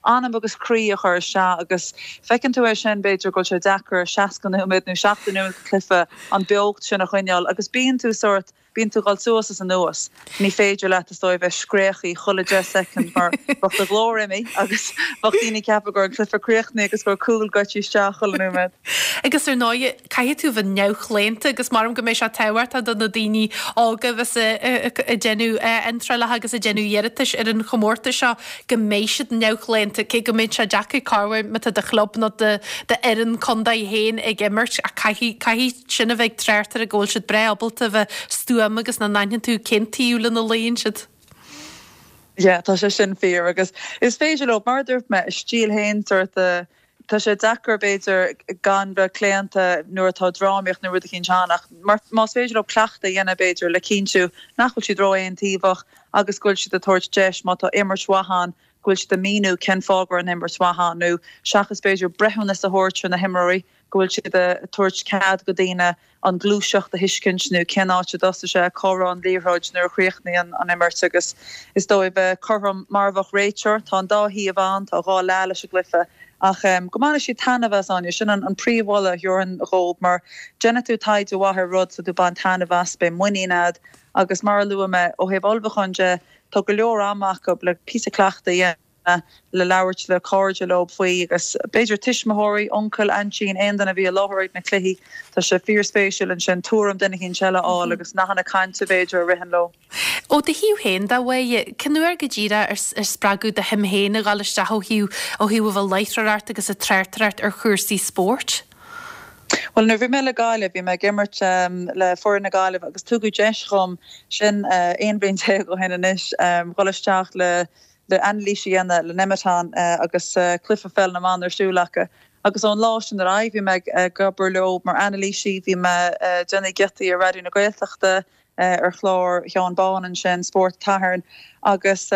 anam agus croí a chur isteach agus feiceann tú é sin, b'fhéidir, go bhfuil sé deacair 60 nóiméad nó 70 nóiméad de chluiche an beocht sin a choinneáil agus bíonn tú sórt, bíonn tú ag dul suas is anuas. Ní féidir leat, is dóigh, bheith scréachaí chuile 10 soicind mar bheadh do ghlór imithe agus bheadh daoine ag ceapadh go raibh an cluiche críochnaithe agus go raibh cúl goite isteach chuile nóiméad. Agus ar ndóigh, caithfidh tú bheith neamhchlaonta agus maram go mbeidh sé tábhachtach do na daoine óga a bheas ag déanamh iontrálacha agus ag déanamh iarratais ar an chomórtas seo go mbeidh siad neamhchlaonta, cé go mbeidh sé deacair corruair má tá do chlub nó d'fhoireann contae féin ag imirt ach caithfidh, caithfidh sin a bheith ag tráchtairí go bhfuil siad breá ábalta a bheith stuama agus nach n-aithneann tú cén taobh lena luíonn siad. Yeah, tá sé sin fíor agus is féidir leo, mar a dúirt mé, a stíl féin sórt a Tá sé deacair, b'fhéidir, gan bheith claonta nuair atá drámaíocht nó rud eicínt ann ach más féidir leo cleachtadh a dhéanamh, b'fhéidir, le cinntiú nach bhfuil siad ró-aontaobhach agus go bhfuil siad ag tabhairt deis, má tá imirt mhaith ann, go bhfuil siad ag míniú cén fáth go raibh an imirt mhaith ann nó seachas, b'fhéidir, breithiúnas a thabhairt ar na himreoirí, go bhfuil siad ag tabhairt cead go daoine an ghluaiseacht a thuiscint nó cén áit a dtosaigh sé, cá raibh an liathróid nuair a chríochnaigh an imirt agus is dóigh bheith cothrom mar a bheadh réiteoir. Tá an dá thaobh ann, tá dhá leath leis an gcluiche ach go mbainfidh siad taitneamh as, Áine. Sin an príomh-mholadh a thabharfainn dhóibh mar déanfaidh tú taighde mhaith ar rud, tá tú ag baint taitneamh as, beidh muinín a'd agus mar a luaigh mé, ó thaobh ullmhúcháin de, tá go leor ama acu le píosa cleachtaidh a dhéanamh. le labhairt le cairde leo faoi agus b'fhéidir tuismitheoirí, uncail, aintín, aon duine a bhí i láthair ag na cluichí. Tá sé fíorspéisiúil ansin tuairim duine eicínt eile a fháil agus nathanna cainte b'fhéidir a ritheann leo. Ó do thaobh féin de, a Mháire, cén uair go díreach ar spreagadh do shuim féin a dhul isteach ó thaobh ó thaobh a bheith ag láithreoireacht agus ag tráchtaireacht ar chúrsaí spóirt? Bhuel, nuair a bhí mé le Gaillimh, bhí mé ag imirt le foireann na Gaillimhe agus tugadh deis dhom, sin 11 bhliain ó shin anois, dhul isteach le le anailís a dhéanamh le Nemeton agus cluiche pheil na mban ar siúl acu. Agus ón lá sin ar aghaidh bhí mé ag obair leo mar anailísí, bhí mé ag déanamh giotaí ar Raidió na Gaeltachta, ar chlár Sheáin Bán ansin, Spórt an tSathairn. Agus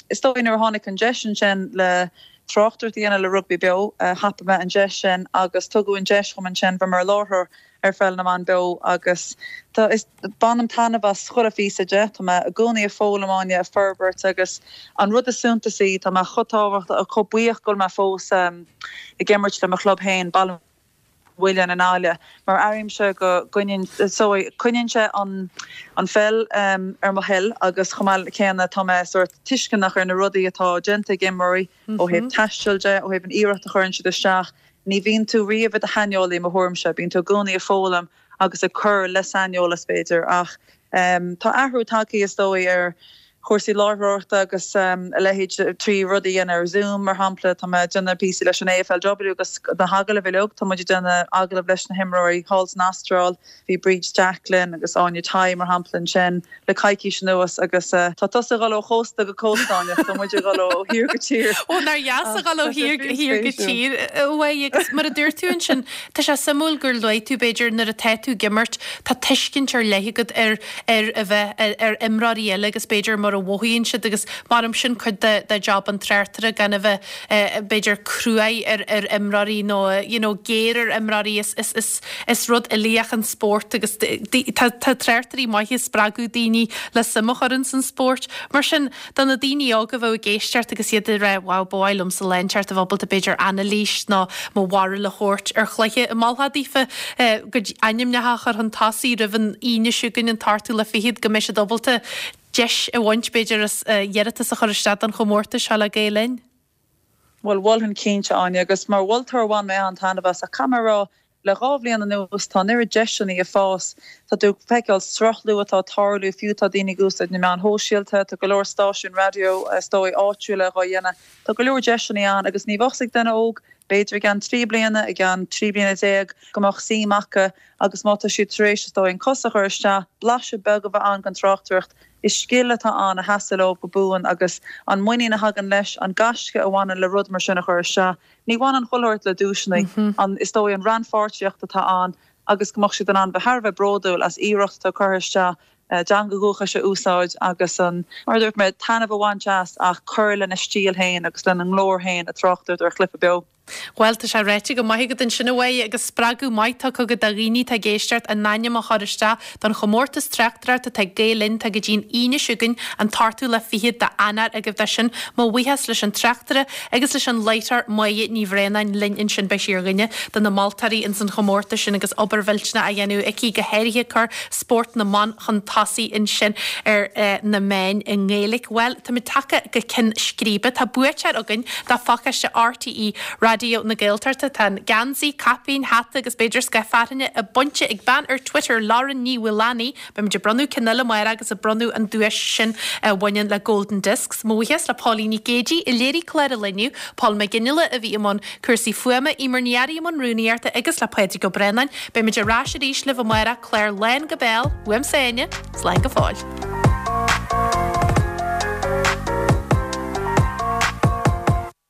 is dóigh nuair a tháinig an deis ansin le tráchtaireacht a dhéanamh le Rugbaí Beo, thapaigh mé an deis sin agus tugadh an deis dhom ansin bheith mar láithreoir ar Pheil na mBan Beo agus tá, is, bainim taitneamh as chuile phíosa de. Tá mé i gcónaí ag foghlaim, Áine, ag forbairt agus an rud is suntasaí, tá mé chomh tábhachtach, chomh buíoch go bhfuil mé fós ag imirt le mo chlub féin, Baile Mhuilinn i nGaillimh, mar airímse go gcoinníonn, so, coinníonn sé an, an pheil ar mo thoil agus chomh maith céanna tá mé sórt tuisceanach ar na rudaí atá déanta ag imreoirí ó thaobh taistil de, ó thaobh an iarracht a chuireann siad isteach. Ní bhíonn tú riamh i do shaineolaí, i mo thuairimse. Bíonn tú i gcónaí ag foghlaim agus ag cur le saineolas, b'fhéidir. Ach tá athrú tagtha, is dóigh, ar chúrsaí láithreoireachta agus a leithéid trí rudaí a dhéanamh ar Zoom, mar shampla. Tá mé ag déanamh píosaí leis an AFLW agus na hagallaimh uilig, tá muid ag déanamh agallamh leis na himreoirí thall san Astráil. Bhí Bríd Jacklin agus Áine Tighe, mar shampla, ansin le coicís anuas agus tá tusa ag dul ó chósta go cósta, Áine, tá muid ag dul ó thír go tír. Ó, nár dheas a dhul ó thír go tír, uaidh agus mar a dúirt tú ansin, tá sé suimiúil gur luaigh tú, b'fhéidir, nuair atá tú ag imirt, tá tuiscint ar leith agat ar ar a bheith ar imreoirí eile agus b'fhéidir mar a mhothaíonn siad agus maram sin cuid de de job an tráchtaire gan a bheith b'fhéidir cruaidh ar ar imreoirí nó you know géar ar imreoirí is is is is rud uilíoch an spórt agus tá tá tráchtairí maithe ag spreagadh daoine le suim a chur ins an spórt. Mar sin do na daoine óga a bheadh ag éisteacht agus iad ag rá wow ba mhaith liomsa lá inteacht a bheith ábalta b'fhéidir anailís nó mo bharúil a thabhairt ar chluiche an molfá daofa a gcuid ainmneacha a chur chun tosaigh roimh an Aoine seo chugainn an t-ochtú lá fichead go mbeidh siad ábalta deis a bhaint b'fhéidir as iarratas a chur isteach don chomórtas seo le Gael Linn. Bhuel, mholfainn cinnte, Áine, agus mar mholtóir bhain mé an-taitneamh as, ach caithfidh mé a rá, le dhá bhliain anuas tá an oiread deiseanna ag fás, tá tú ag feiceáil sruthlú atá ag tarlú, fiú tá daoine ag úsáid na meáin shóisialta, tá go leor stáisiún raidió, is dóigh, áitiúla dhá dhéanamh, tá go leor deiseanna ann agus ní bheadh 's ag duine óg, b'fhéidir i gceann trí bliana, i gceann 13 bliana, go mbeadh suim acu agus má tá siad tar éis, is dóigh, an cos a chur isteach, blaiseadh beag a bheith ann den tráchtaireacht. Is scil atá ann a sheasfaidh leo go buan agus an muinín a thagann leis, an gaisce a bhaineann le rud mar sin a chur isteach, ní bhaineann chuile shórt le duaiseanna, an, is dóigh, an rannpháirtíocht atá ann agus go mbeadh siad in ann bheith thar a bheith bródúil as iarracht atá curtha isteach a dteanga dhúchais a úsáid agus an, mar a dúirt mé, taitneamh a bhaint as ach cur lena stíl féin agus lena nglór féin ag tráchtaireacht ar chluiche beo. Bhuel, tá sé ráite go maith agat ansin, a Mháire, agus spreagadh maith tugtha agat do dhaoine atá ag éisteacht a n-ainm a chur isteach don chomórtas tráchtaireachta atá ag Gael Linn, tá go dtí an Aoine seo chugainn, an t-ochtú lá fichead d'Eanáir agaibh dó sin. Mo bhuíochas leis an tráchtaire agus leis an láithreoir Máire Ní Bhraonáin linn ansin, beidh sí ar dhuine de na moltóirí ins an chomórtas sin agus obair mhillteanach á dhéanamh aici, go háirithe cur spórt na mban chun tosaigh ansin ar na meáin i nGaeilge. Bhuel, táimid tagtha go ceann scríbe. Tá buaiteoir againn do phacáiste RTÉ Raidió na Gaeltachta. Tá an geansaí, caipín, hata agus b'fhéidir scáth fearthainne bainte ag bean ar Twitter, Lauren Ní Mhaolánaigh. Beimid ag bronnadh ceann eile amárach agus ag bronnadh an duais sin a bhaineann le Golden Discs. Mo bhuíochas le Póilín Nic Géidigh a léirigh clár an lae inniu, Paul McGinley a bhí i mbun cúrsaí fuaime, Eimear Ní Fhearraigh i mbun rúnaíochta agus le Pádraig Ó Braonáin. Beimid ar ais arís libh amárach, clár lán go béal, uaimse Áine, slán go fóill.